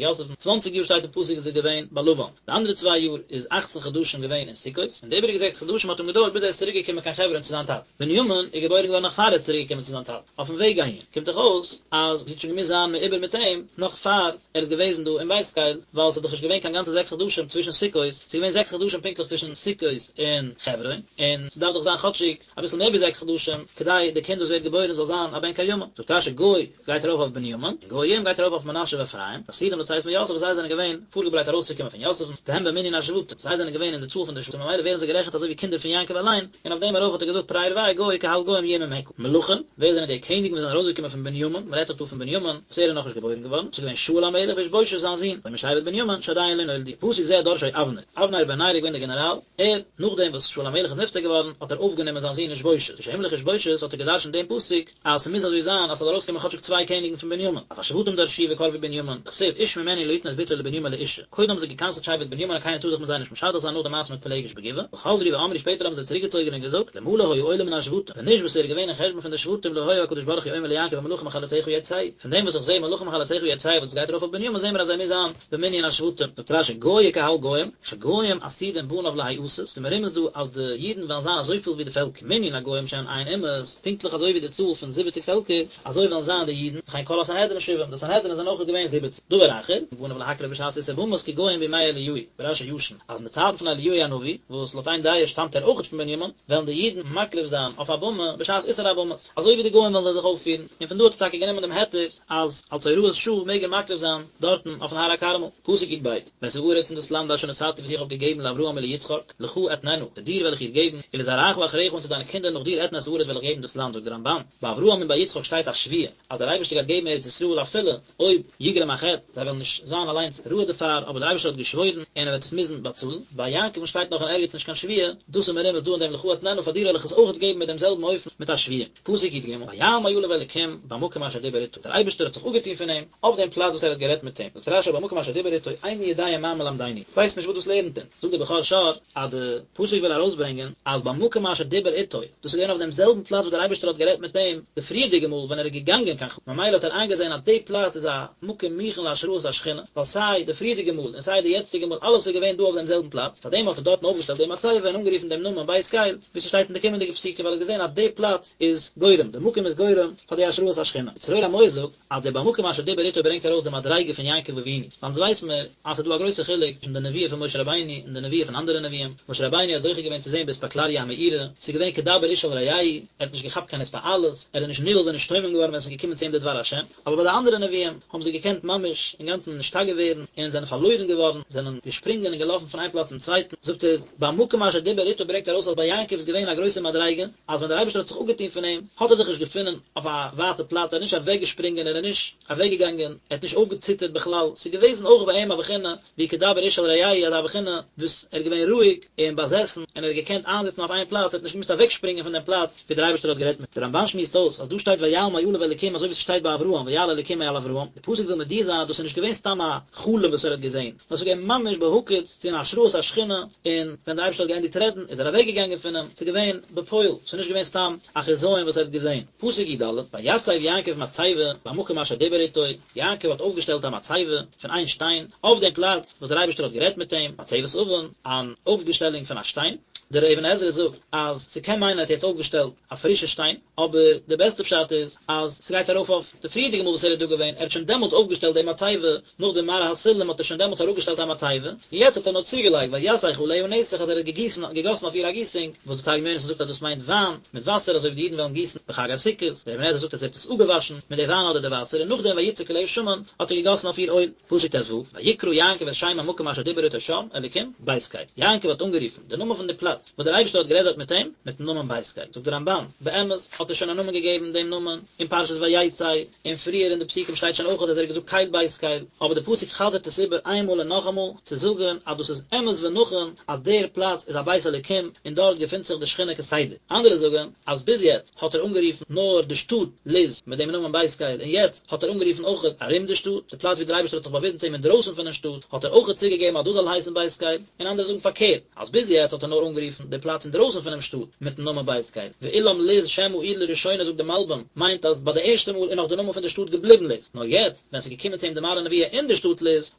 יוסף'ן, צוואנציג יאר שטייט אין פסוק איז ער געווען ביי לבן, די אנדערע צוויי יאר איז אכצן חדשים געווען אין סוכות, און די איבעריגע זעקס חדשים האט אים געדויערט ביז ער איז צוריק געקומען קיין חברון צו זיין טאטן. בנימין איז געבוירן געווארן נאך פאר ער איז צוריק געקומען צו זיין טאטן, אויפן וועג אהין, קומט דאך אויס אז זי האט שוין געמוזט זיין מעובר מיט אים נאך פאר ער איז געוועזן דא אין בית קל, ווייל ס'איז דאך נישט געווען קיין גאנצע זעקס חדשים צווישן סוכות, ס'איז געווען זעקס חדשים פונקטליך צווישן סוכות און חברון, און ס'דארף דאך זיין כאטשיג אביסל מער ווי זעקס חדשים כדי די קינד וואס ווערט געבוירן זאל זיין א בן קיימא. זאגט רשי גוי גייט ארויף אויף בנימין, און גויים גייט ארויף אויף מנשה ואפרים, עתידים לצאת מיוסף וואס זיי זענען געווען פארגעברייט ארויסצוקומען פון יוסף'ן, והם במנין השבטים, זיי זענען געווען אין די צאל פון די שבטים ממילא ווערן זיי גערעכנט אזוי ווי קינדער פון יעקב אליין, און אויף דעם ארויף האט ער געזאגט פרה ורבה גוי קהל גוים יהיה ממך. מלכים, ווער זענען די קעניגן וואס זענען ארויסגעקומען פון בנימין, מען רעדט דאך דא פון בנימין וואס ער איז נאכנישט געבוירן געווארן, ס'איז געווען שאול המלך ואיש בושת זיין זון, או משבט בנימין שעדיין לא נולדו, פסוק זה דרשו אבנר, אבנר בן נר איז געווען דער גענעראל, ער, נאכדעם וואס שאול המלך איז נפטר געווארן, האט ער אויפגענומען זיין זון איש בושת, כשהמליך איש בושת האט ער געדרשנט דעם פסוק, אז ס'מוז אזוי זיין אז ס'זאל ארויסקומען כאטשיג צוויי קעניגן פון בנימין, אף השבטים דרשו וקרבו בנימין, דכתיב איש ממנו לא יתן את בתו לבנימין לאשה, קודם האבן זיי גע'קנס'ט שבט בנימין אז קיינער טאר זיך מיט זיי נישט משדך זיין נאך די מעשה מיט פילגש בגבעה, וחזרו ואמרו שפעטער האבן זיי צוריקגעצויגן און געזאגט, אלמלא היה עולה מן השבטים, ווען נישט וואס ער איז געווען אין חשבון פון די שבטים לא היה הקדוש ברוך הוא אומר ליעקב המלכים מחלציך יצאו, פון דעם וואס איך זעה מלכים מחלציך יצאו וואס עס גייט ארויף אויף בנימין זעהן מיר אז ער מוז זיין במנין השבטים, זאגט רשי גוי וקהל גוים, שגוים עתידים בניו להיעשות, ס'איז מרומז דא אז די אידן וועלן זיין אזויפיל ווי די פעלקער, מנין הגוים שהן ע' אומות, פונקטליך אזוי ווי די צאל פון זיבעציג פעלקער, אזוי וועלן זיין די אידן, וכן כל הסנהדרין שבעים, די סנהדרין זענען אויך געווען זיבעציג. דבר אחר, בניו להקריב בשעת איסור במות כגוים בימי אליהו, ברשי ישן, אז אין די צייטן פון אליהו הנביא, וואס לויט איין דעה שטאמט ער אויכעט פון בנימין, וועלן די אידן מקריב זיין אויף א במה בשעת איסור הבמות, אזוי ווי די גוים וועלן זיי זיך אויפפירן, און פון דא האט ער טאקע גענומען דעם היתר אז אלס הוראת שעה מעג ער מקריב זיין דארטן אויפן הר הכרמל. פסוק יב, ואת הארץ און דאס לאנד אשר נתתי וואס איך האב געגעבן לאברהם וליצחק, לך אתננה, צו דיר וועל איך איר געבן, ולזרעך אחריך און צו דיינע קינדער נאך דיר אתנה את הארץ וועל איך געבן דאס לאנד, זאגט דער רמבן, ביי אברהם און ביי יצחק שטייט א שבועה אז דער אייבערשטער גייט געבן ארץ ישראל אפילו אויב יגרום החטא, זיי וועלן נישט זיין אליינס ראוי דערפאר, אבער דער אייבערשטער האט געשוואוירן און ער וועט עס מוזן באצאלן, ביי יעקב'ן שטייט נאך אין ערגעץ נישט קיין שבועה, דאס איז מרומז דא אין דעם לך אתננה פאר דיר וועל איך עס אויך געבן מיט דעם זעלבן אופן מיט א שבועה. פסוק י ג, ויעל מעליו אלקים במקום אשר דיבר איתו, דער אייבערשטער האט זיך אפגעטון פון אים, אויף דעם פלאץ וואס ער האט גערעדט מיט אים, זאגט רשי במקום אשר דיבר איתו, איני יודע מה מלמדנו, כ'ווייס נישט וואס דאס לערנט אונז, זאגט דער בכור שור, אז די פסוק וויל ארויסברענגען אז במקום אשר דיבר איתו, דאס איז געווען אויף דעם זעלבן פלאץ וואס דער אייבערשטער האט גערעדט מיט אים די פריערדיגע מאל ווען ער איז געגאנגען קיין חרן, ממילא האט ער איינגעזען אז די פלאץ איז א מקום מוכן להשראת השכינה, ווייל סיי די פריערדיגע מאל און סיי די יעצטיגע מאל אלעס איז געווען דא אויף דעם זעלבן פלאץ, פארדעם האט ער דארטן אויפגעשטעלט די מצבה און אנגערופן דעם נאמען בית קל, ווי ס'שטייט אין די קומענדיגע פסוקים ווייל ער האט געזען אז די פלאץ איז גורם, די מקום איז גורם פאר די השראת השכינה. צרור המור זאגט אז דער במקום אשר דיבר איתו ברענגט ארויס די מדריגה פון יעקב אבינו, ווייל אונז ווייס מיר אז ס'איז דא א גרויסע חילוק צווישן די נבואה פון משה רבינו און די נבואה פון אנדערע נביאים, משה רבינו האט זוכה געווען צו זען באספקלריא המאירה, ס'איז געווען כדבר איש אל רעהו, ער האט נישט געכאפט קיין התפעלות, ער איז נישט נבהל ונשתומם געווארן ווען ס'איז געקומען צו אים די דבר השם, אבער ביי די אנדערע נביאים האבן זיי געקענט ממש אינגאנצן נשתגע ווערן און זענען פארלוירן געווארן, זענען געשפרינגען און געלאפן פון איין פלאץ צום צווייטן, זאגט ער, במקום אשר דיבר איתו ברענגט ארויס אז ביי יעקב איז געווען א גרויסע מדריגה, אז ווען דער אייבערשטער האט זיך אפגעטון פון אים, האט ער זיך נישט געפונען אויף א ווייטע פלאץ, ער איז נישט אוועקגעשפרינגען, ער איז נישט אוועקגעגאנגען, ער האט נישט אויפגעציטערט בכלל, ס'איז געוועזן אויך ביי אים א בחינה ווי כדבר איש אל רעהו, אזא בחינה וואס ער איז געווען רואיג און באזעסן, און ער האט געקענט איינזיצן אויף איין פלאץ, ער האט נישט געמוזט אוועקשפרינגען פון דעם פלאץ ווי דער אייבערשטער האט גערעדט מיט אים. דער רמבן שמועסט אויס אז דא שטייט ויעל מעליו אלוקים אזוי ווי ס'שטייט ביי אברהם ויעל אלוקים מעל אברהם, די פסוק וויל מודיע זיין אז דאס איז נישט געווען סתם א חלום וואס ער האט געזען, נאר ס'איז געווען ממש בהקיץ, ס'איז געווען השראת השכינה, און ווען דער אייבערשטער האט געענדיגט רעדן איז ער אוועקגעגאנגען פון אים, ס'איז געווען בפועל, ס'איז נישט געווען סתם א חזיון וואס ער האט געזען. פסוק י ד, ויצב יעקב מצבה במקום אשר דיבר איתו, יעקב האט אויפגעשטעלט א מצבה פון איין שטיין, אויף דעם פלאץ וואס דער אייבערשטער האט גערעדט מיט אים, מצבת אבן, אן אויפגעשטעלונג פון א שטיין. דער אבן עזרא זאגט אז ס'קען מיינען ער האט יעצט אויפגעשטעלט א פרישע שטיין, אבער די בעסטע פשט איז אז ס'גייט ארויף אויף די פריערדיגע מאל וואס ער איז דא געווען, ער האט שוין דעמאלטס אויפגעשטעלט די מצבה, נאך די מראה הסולם האט ער שוין דעמאלטס אראפגעשטעלט א מצבה, און יעצט האט ער נאר צוגעלייגט ויסך עליה נסך אז ער האט געגיסן געגאסן אויף איר א גיסונג, וואס די תרגום יונתן זאגט אז דאס מיינט וויין מיט וואסער אזוי ווי די אידן וועלן גיסן בחג הסוכות, דער אבן עזרא זאגט אז ער האט עס אפגעוואשן מיט די וויין אדער די וואסער און נאכדעם ויצק עליה שמן האט ער געגאסן אויף איר אויל. פסוק ט ו, ויקרא יעקב את שם המקום אשר דיבר אתו שם, אלקים, בית קל. יעקב האט אנגערופן די נאמען פון די פלאץ וואס דער אייבערשטער האט גערעדט דארט מיט אים, מיטן נאמען בית קל. זאגט דער רמבן, באמת האט ער שוין א נאמען געגעבן דעם נאמען אין פרשת ויצא, און פריער אין די פסוקים שטייט שוין אויך אז ער האט געזאגט קל בית קל, אבער די פסוק חזר'ט עס איבער איינמאל און נאכאמאל, צו זאגן אז דאס איז אמת ונכון אז דער פלאץ איז א בית אלוקים און דארט געפינט זיך די שכינה כסדר. אנדערע זאגן אז ביז יעצט האט ער אנגערופן נאר די שטאט לוז מיט דעם נאמען בית קל און יעצט האט ער אנגערופן אויך ארום די שטאט, די פלאץ ווי דער אייבערשטער האט זיך באוויזן צו אים אינדרויסן פונעם שטאט, האט ער אויך צוגעגעבן אז דאס זאל הייסן בית קל, און אנדערע זאגן פארקערט, אז ביז יעצט האט ער נאר אנגערופן. אנגערופן די פלאץ אינדרויסן פונעם שטאט מיטן נאמען בית קל, ואולם לוז שם העיר לראשונה זאגט די מלבים, מיינט אז ביי די ערשטע מאל איז נאך די נאמען פון די שטאט געבליבן לוז, נאר יעצט ווען ס'איז געקומען צו אים די מראה נבואה אין די שטאט לוז,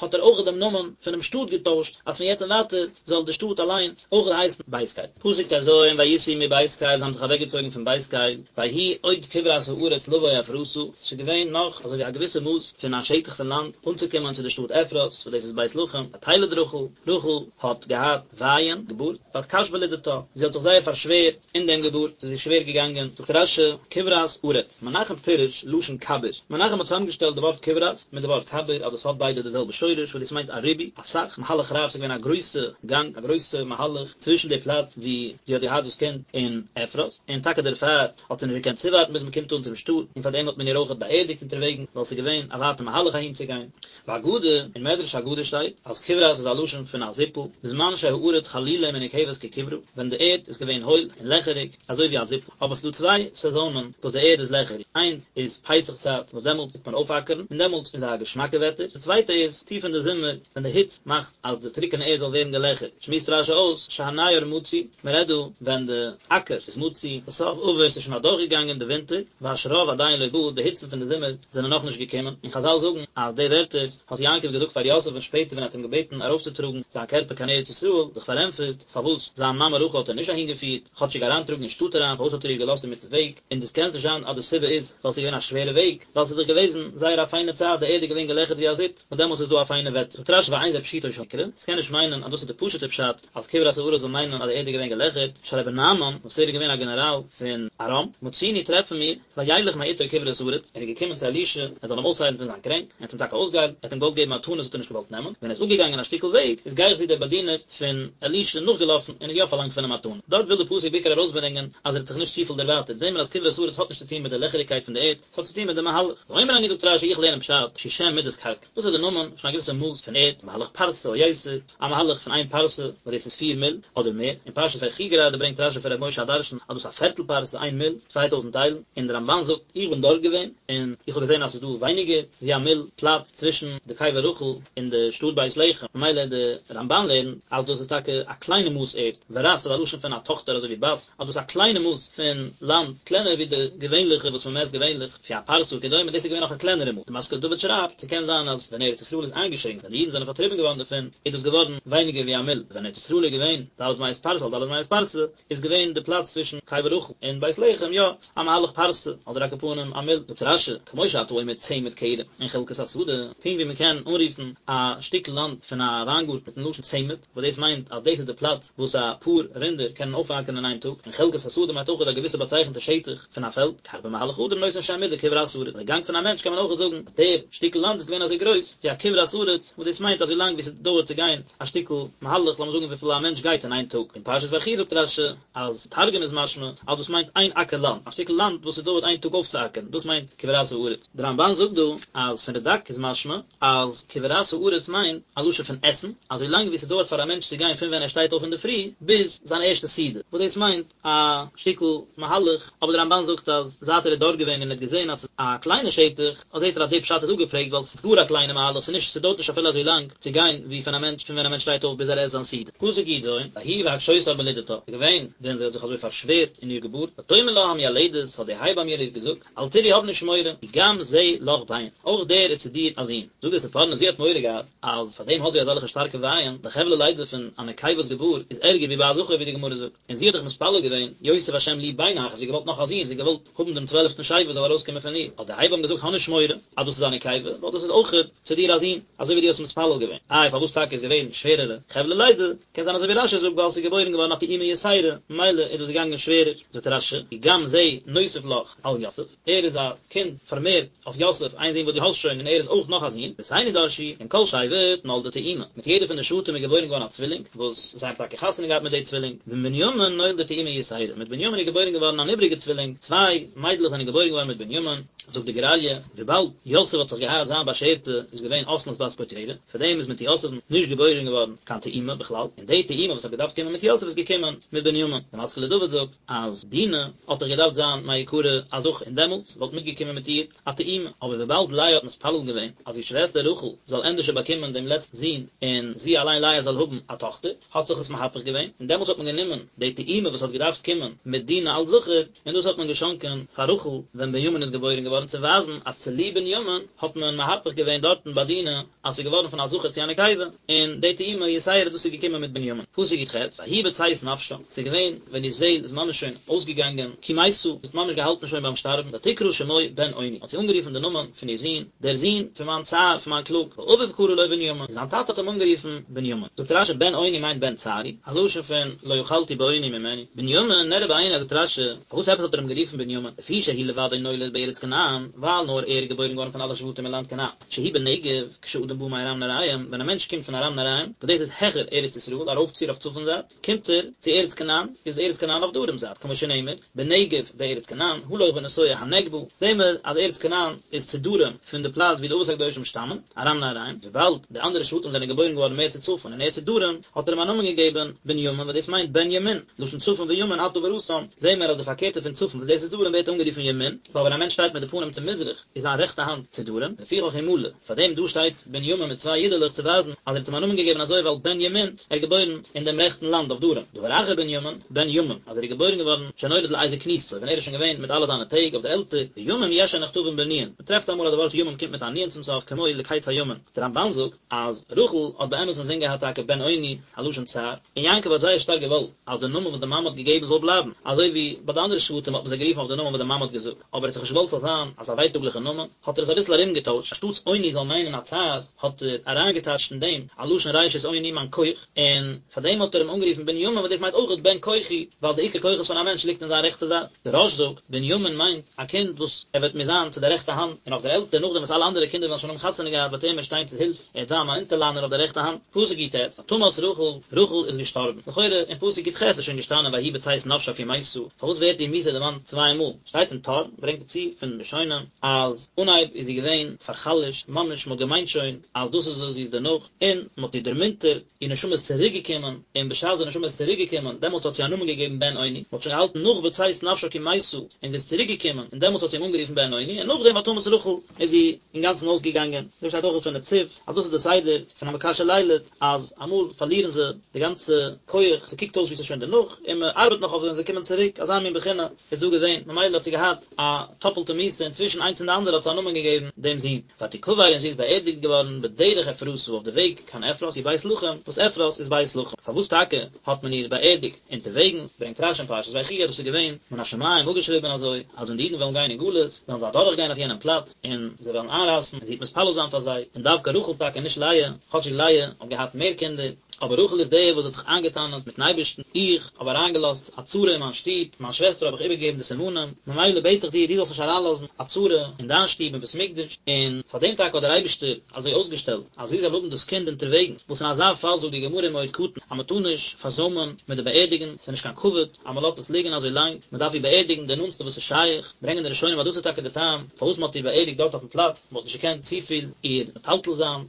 האט ער אויך דעם נאמען פונעם שטאט געטוישט, אז פון יעצט און ווייטער זאל די שטאט אליין אויך הייסן בית קל. פסוק טז, ויסעו מבית קל, זיי האבן זיך אוועקגעצויגן פון בית קל, ויהי עוד כברת הארץ לבוא אפרתה, ס'איז געווען נאך אזוי ווי א געוויסע מאס פון א שטח פון לאנד אנצוקומען צו די שטאט אפרת, וואס דאס איז בית לחם, ותלד רחל, רחל האט געהאט ווייען, געבורט, ותקש בלדתה, זי האט זיך זייער פארשווערט אין דעם געבורט, ס'איז איר שווער געגאנגען, זאגט רשי, כברת ארץ, מנחם פירש לשון כביר, מנחם האט צוזאמגעשטעלט די ווארט כברת מיט די ווארט כביר אז דאס האט ביידע די זעלבע שורש וואס דאס מיינט א ריבוי, אסאך, מהלך רב, ס'איז געווען א גרויסע גאנג, א גרויסע מהלך צווישן די פלאץ ווי זי האט געהאט דאס קינד און אפרת, און טאקע דערפאר האט זי נישט געקענט צואווארטן ביז מ'קומט אן צום שטאט, און פארדעם האט מען איר אויכעט באערדיגט אונטערוועגן, ווייל ס'איז געווען א ווייטע מהלך אהינצוגיין. ואגדה, אין מדרש אגדה שטייט אז כברת איז א לשון פון א זיפל, בזמן שהארץ חלולה ומנוקבת ככברה, ווען די ערד איז געווען הויל און לעכעריג אזוי ווי א זיפל, אבער ס'איז דא צוויי סעזאנען וואס די ערד איז לעכעריג, איינס איז פסח צייט וואס דעמאלטס טוט מען אויפאקערן און דעמאלטס איז א געשמאקע וועטער, די צווייטע איז טיף אין די זומער ווען די היץ מאכט אז די טרוקענע ערד זאל ווערן געלעכערט, שמועסט רשי אויס שהנייר מצוי, מען רעדט דא ווען די אקער איז מצוי, הסף עבר ס'איז שוין אדורכגעגאנגען די ווינטער, והשרב עדיין לא בא, די היצן פון די זומער זענען נאכנישט געקומען, און חזל זאגן אז די ווערטער האט יעקב געזאגט פאר יוסף און שפעטער ווען ער האט אים געבעטן ארויפצוטראגן זיין קערפער קיין ארץ ישראל, זיך פארענטפערט פארוואס זיין מאמע רחל האט ער נישט אהינגעפירט, כאטשיג אריינטראגן אין שטאט אריין, פארוואס האט ער איר געלאזט אינמיטן וועג, און דאס קען נישט זיין אז די סיבה איז ווייל ס'איז געווען א שווערע וועג, ווייל ס'איז דאך געוועזן זייער א פיינע צייט, די ערד איז געווען געלעכערט ווי א זיפ, און דעמאלס איז דא א פיינע וועטער. זאגט רשי ואין זה פשוטו של מקרא, ס'קען נישט מיינען אז דאס איז די פשוט'ע פשט אז כברת הארץ זאל מיינען אז די ערד איז געווען געלעכערט, שהרי בנעמן, וואס ער איז געווען א גענעראל פון ארם, מצינו טרעפן מיר, וילך מאתו כברת ארץ, ער איז געקומען צו אלישע, ער זאל אים אויסהיילן פון זיין קרענק, ער האט אים טאקע אויסגעהיילט, ער האט אים געוואלט געבן מתנות האט ער נישט געוואלט נעמען, ווען ער איז אפגעגאנגען א שטיקל וועג, איז גיחזי דער באדינער פון אלישע נאכגעלאפן און האט יא פארלאנגט פון אים מתנה. דארט וויל די פסוק בעיקר ארויסברענגען אז ער האט זיך נישט צופיל דערווייטערט, זעהן מיר אז כברת ארץ האט נישט צו טון מיט די לעכעריגקייט פון די ערד, ס'האט צו טון מיט די מהלך. ואומר אני זאגט רשי איך לערן פשט שהוא שם מדת קרקע, דאס איז די נאמען פון א געוויסע מאס פון ערד, מהלך פרסה או יותר, א מהלך פון איין פרסה, וואס דאס איז פיר מיל, אדער מער, אין פרשת ויחי גראדע ברענגט רשי פון ר' משה הדרשן אז דאס איז א פערטל פרסה, איין מיל, 2000 איילן, און די רמבן זאגט, איך בין דארט געווען, און איך האב געזען אז ס'איז דא ווייניגער ווי א מיל פלאץ צווישן די קבר רחל און די שטאט בית לחם, ממילא די רמבן לערנט אז דאס איז טאקע א קליינע מאס ערד, ורת איז א לשון פון א טאכטער אזוי ווי בת, אז דאס איז א קליינע מאס פון לאנד, קלענער ווי די געווענליכע וואס מען מעסט געווענליך, לפי הפרסה וכדומה, דאס איז געווען נאך א קלענערע מאס. די משכיל לדוד שרייבט, ס'קען זיין אז ווען ארץ ישראל איז איינגעשרינקט, ווען די אידן זענען פארטריבן געווארן דערפון, איז דאס געווארן ווייניגער ווי א מיל, ווען ארץ ישראל איז געווען ד' מאות פרסה על ד' מאות פרסה, איז געווען די פלאץ צווישן קבר רחל און בית לחם יא א מהלך פרסה, אדער על כל פנים א מיל. זאגט רשי, כמו שאתה אומר צמד כרם און חלקת השדה, פונקט ווי מען קען אנרופן א שטיקל לאנד פון א וויינגארטן מיטן לשון צמד, וואס דאס מיינט אז דאס איז די פלאץ וואס א פאר רינדער קענען אויפאקערן אין איין טאג, און חלקת השדה מיינט אויך א געוויסע באצייכנטע שטח פון א פעלד, כך במהלך אדם נותן שם מידה כברת ארץ, די גאנג פון א מענטש קען מען אויך זאגן אז דער שטיקל לאנד איז געווען אזוי גרויס ווי א כברת ארץ, וואס דאס מיינט אזוי לאנג ווי ס'דויערט צו גיין א שטיקל מהלך, לאמיר זאגן וויפיל א מענטש גייט אין איין טאג. אין פרשת ויחי זאגט רשי אז תרגום איז משמע אז דאס מיינט איין אקער לאנד, א שטיקל לאנד וואס ס'דויערט איין טאג אויפצואקערן, דאס מיינט כברת הארץ. דער רמבן זאגט דא אז פון רדק איז משמע אז כברת הארץ מיינט א לשון פון עסן, אזוי לאנג ווי ס'דויערט פאר א מענטש צו גיין פון ווען ער שטייט אויף אינדערפרי ביז זיין ערשטע סעודה, וואס דאס מיינט א שטיקל מהלך, אבער דער רמבן זאגט אז זייט ער איז דארט געווען און ער האט געזען אז ס'איז א קליינע שטח, זעט ער אז די פשט איז אפגעפרעגט ווייל ס'איז גאר א קליינע מהלך, ס'איז נישט ס'דויערט נישט אפילו אזוי לאנג צו גיין ווי פון א מענטש פון ווען א מענטש שטייט אויף ביז ער עסט זיין סעודה. פסוק י ז, ויהי בהקשותה בלדתה, ס'איז געווען ווען זי האט זיך אזוי פארשווערט אין איר געבורט, ותאמר לה המיילדת, האט די הייבאם איר געזאגט, אל תיראי האב נישט מורא, כי גם זה לך בן, אויך דער איז צו דיר א זון. זאגט דער ספורנו זי האט מורא געהאט אז פאר דעם האט זי אזעלכע שטארקע ווייען, די חבלי לידה פון א נקבה'ס געבורט איז ערגער ווי ביי א זכר ווי די גמרא זאגט, און זי האט דאך מתפלל געווען, יוסף השם לי בן אחר, זי האט געוואלט נאך א זון, זי האט געוואלט האבן דעם צוועלפטן שבט וואס זאל ארויסקומען פון איר, האט די הייבאם געזאגט האב נישט מורא אז דאס איז א נקבה, ווייל דאס איז אויך צו דיר א זון, אזוי ווי דו האסט מתפלל געווען. איי פארוואס טאקע איז געווען שווערערע חבלי לידה, קען זיין אזוי ווי רשי זאגט ווייל עס איז געבוירן געווארן א תאומה יתירה, ממילא איז דאס געגאנגען שווערער, זאגט רשי, כי גם זה נוסף לך על יוסף, ער איז א קינד פארמערט אויף יוסף, איין זון וואס דו האסט שוין און ער איז אויך נאך א זון, רבותינו דרשו, עם כל שבט נולדה תאומה, מיט יעדע פון די שבטים איז געבוירן געווארן א צווילינג, וואס זיי האבן טאקע חתונה געהאט מיט די צווילינג, ועם בנימין נולדה תאומה יתירה, מיט בנימין איז געבוירן געווארן אן איבריגע צווילינג, צוויי מיידלעך זענען געבוירן געווארן מיט בנימין, זאגט די גור אריה, וויבאלד יוסף האט זיך געהאט זיין באשערטע איז געווען אסנת בת פוטיפרע, פאר דעם איז מיט יוסף'ן נישט געבוירן געווארן קיין תאומה בכלל, און די תאומה וואס האט געדארפט קומען מיט יוסף איז געקומען מיט בנימין. דער משכיל לדוד זאגט אז דינה האט דאך געדארפט זיין מעיקרא א זכר און דעמאלטס וואלט מיטגעקומען מיט איר א תאומה, אבער וויבאלד לאה האט מתפלל געווען אז איר שוועסטער רחל זאל ענדערשער באקומען דעם לעצטן זון און זי אליין לאה זאל האבן א טאכטער, האט זיך עס מהפך געווען. און דעמאלטס האט מען גענומען די תאומה וואס האט געדארפט קומען מיט דינה אלס זכר, און דאס האט מען געשאנקען פאר רחל ווען בנימין איז געבוירן געווארן צו ווייזן אז צוליב בנימין האט מען מהפך געווען דארטן ביי דינה אז ס'איז געווארן פון א זכר צו א נקבה, און די תאומה יתירה דאס איז געקומען מיט בנימין. פסוק י"ח, ויהי בצאת נפשה, ס'איז געווען ווען איר זעהל איז ממש שוין אויסגעגאנגען, כי מתה, זי האט ממש געהאלטן שוין ביים שטארבן, ותקרא שמו בן אוני, האט זי אנגערופן די נאמען פון איר זון, דער זון פון מיין צער, פון מיין קלאג, ואביו קרא לו בנימין, און זיין טאטע האט אים אנגערופן בנימין. זאגט רש"י בן אוני מיינט בן צערי, א לשון פון לא יכלתי באוני ממנו, בנימין נראה בעיני זאגט רש"י, פארוואס עפעס האט ער אים גערופן בנימין, לפי שהוא לבדו נולד בארץ כנען, ווייל נאר ער איז געבוירן געווארן פון אלע שבטים אין לאנד כנען. שהוא בנגב, כשאדם בא מארם נהריים, ווען א מענטש קומט פון ארם נהריים, וואס דאס איז העכער ארץ ישראל, ארויפציר אויף צפון זייט, קומט ער צו ארץ כנען, איז ארץ כנען אויף דרום זייט, כמו שנאמר, בנגב בארץ כנען, הלוך ונסוע הנגבה, זעהן מיר אז ארץ כנען איז צו דרום פון די פלאץ ווי די אבות הקדושים שטאמען, ארם נהריים, וויבאלד די אנדערע שבטים זענען געבוירן געווארן מער צו צפון און ער צו דרום, האט ער אים א נאמען געגעבן בנימין וואס דאס מיינט בן ימין, לשון צפון וימין אתה בראתם, זעהן מיר אז די פארקערטע פון צפון וואס דאס איז דרום ווערט אנגערופן ימין, ווייל ווען א מענטש שטייט מיט די פנים צו מזרח, איז זיין רעכטע האנט צו דרום, לפיכך הוא מלא, פאר דעם דא שטייט בנימין מיט צוויי יודעלעך צו ווייזן אז ער האט אים א נאמען געגעבן אזוי ווייל בן ימין, ער איז געבוירן אין דעם רעכטן לאנד אויף דרום, דבר אחר בנימין, בן ימים, אז ער איז געבוירן געווארן שנולד לעת זקנותו, ווען ער איז שוין געווען מיט אלע זיינע טעג אויף דער עלטער, וימים יש שנכתבין בנון, מען טרעפט אמאל אז די ווארט ימים קומט מיט א נון צום סוף כמו לקץ הימים, דער רמב"ן זאגט אז רחל האט באמת אינזין געהאט טאקע בן אוני, א לשון צער, און יעקב האט זייער שטארק געוואלט אז די נאמען וואס די מאמע האט געגעבן זאל בלייבן, אזוי ווי ביי די אנדערע שבטים האט מען זיי גערופן אויף די נאמען וואס די מאמע האט געזאגט, אבער ער האט דאך נישט געוואלט ס'זאל זיין אזא ווייטאגליכע נאמען, האט ער עס אביסל ארומגעטוישט, אנשטאטס אוני זאל מיינען א צער, האט ער אריינגעטייטשט אין דעם א לשון ראשית אוני מיין כח, און פאר דעם האט ער אים אנגערופן בנימין וואס דאס מיינט אויכעט בן כוחי, ווייל די עיקר כוחות פון א מענטש ליגט אין זיין רעכטע זייט. דער רא"ש זאגט, בנימין מיינט א קינד וואס ער וועט מיר זיין צו די רעכטע האנט, און אויף דער עלטער נאכדעם וואס אלע אנדערע קינדער וועלן שוין האבן חתונה געהאט וועט ער מיר שטיין צו הילף, ער וועט זיין מיין אונטערלאנער אויף די רעכטע האנט. פסוק י"ט, ותמת רחל, רחל איז געשטארבן. לכאורה אין פסוק י"ח איז שוין געשטאנען ויהי בצאת נפשה כי מתה, פארוואס ווערט איר מיתה דערמאנט צוויי מאל? שטייט אין טור, ברענגט ער צו פון ראשונים, אז אנהייב איז זי געווען פאר'חלש'ט, ממש מ'האט געמיינט שוין אז דאס איז עס, זי איז דערנאך, און מ'האט איר דערמונטערט, איר נשמה איז צוריק געקומען, און בשעת די נשמה איז צוריק געקומען, דעמאלטס האט זי א נאמען געגעבן בן אוני, מ'האט שוין געהאלטן נאך בצאת נפשה כי מתה, און זי איז צוריק געקומען, און דעמאלטס האט זי אים אנגערופן בן אוני, און נאכדעם ותמת רחל איז זי אינגאנצן אויסגעגאנגען, דא שטייט אויך פון נצי"ב אז דאס איז די סדר פון א מקשה לילד, אז אמאל פארלירן זיי די גאנצע כח, ס'קוקט אויס ווי ס'איז שוין דערנאך, און מ'ארבעט נאך אויף זיי און זיי קומען צוריק, אזא מין בחינה איז דא געווען, ממילא האט זי געהאט א טאפלטע מיתה, און צווישן איינס און די אנדערע האט זי א נאמען געגעבן דעם זון. ותקבר און זי איז באערדיגט געווארן בדרך אפרתה אויף די וועג קיין אפרת היא בית לחם, וואס אפרת איז בית לחם. פארוואס טאקע האט מען איר באערדיגט אונטערוועגנס, ברענגט רש"י אין פרשת ויחי אז דאס איז געווען מן השמים אפגעשריבען אזוי, אז ווען די אידן וועלן גיין אין גלות, וועלן זיי אדורך גיין אויף יענעם פלאץ, און זיי וועלן איינרייסן, און זי וועט מתפלל זיין פאר זיי, און דווקא רחל טאקע נישט לאה, כאטשיג לאה האט געהאט מער קינדער, אבער רחל איז די וואס האט זיך איינגעטענה'ט מיטן אייבערשטן, איך האב אריינגעלאזט א צרה אין מיין שטוב, מיין שוועסטער האב איך איבערגעגעבן די סימנים, ממילא בעט איך דיר דו זאלסט נישט אריינלאזן א צרה אין דיין שטוב אין בית מקדש, און פאר דעם טאקע האט דער אייבערשטער אזוי אויסגעשטעלט אז זי זאל האבן דאס קינד אונטערוועגנס, וואס אין אזא פאל זאגט די גמרא אין מועד קטן אז מען טאר נישט פארזוימען מיט די באערדיגן, ס'איז נישט קיין כבוד אז מען לאזט עס ליגן אזוי לאנג, מען דארף איר באערדיגן די נאנטסטע וואס איז שייך, ברענגען די ראשונים אז דאס איז טאקע די טעם פארוואס מען האט איר באערדיגט דארט אויפן פלאץ, מען האט נישט געקענט צופיל איר מטלטל זיין.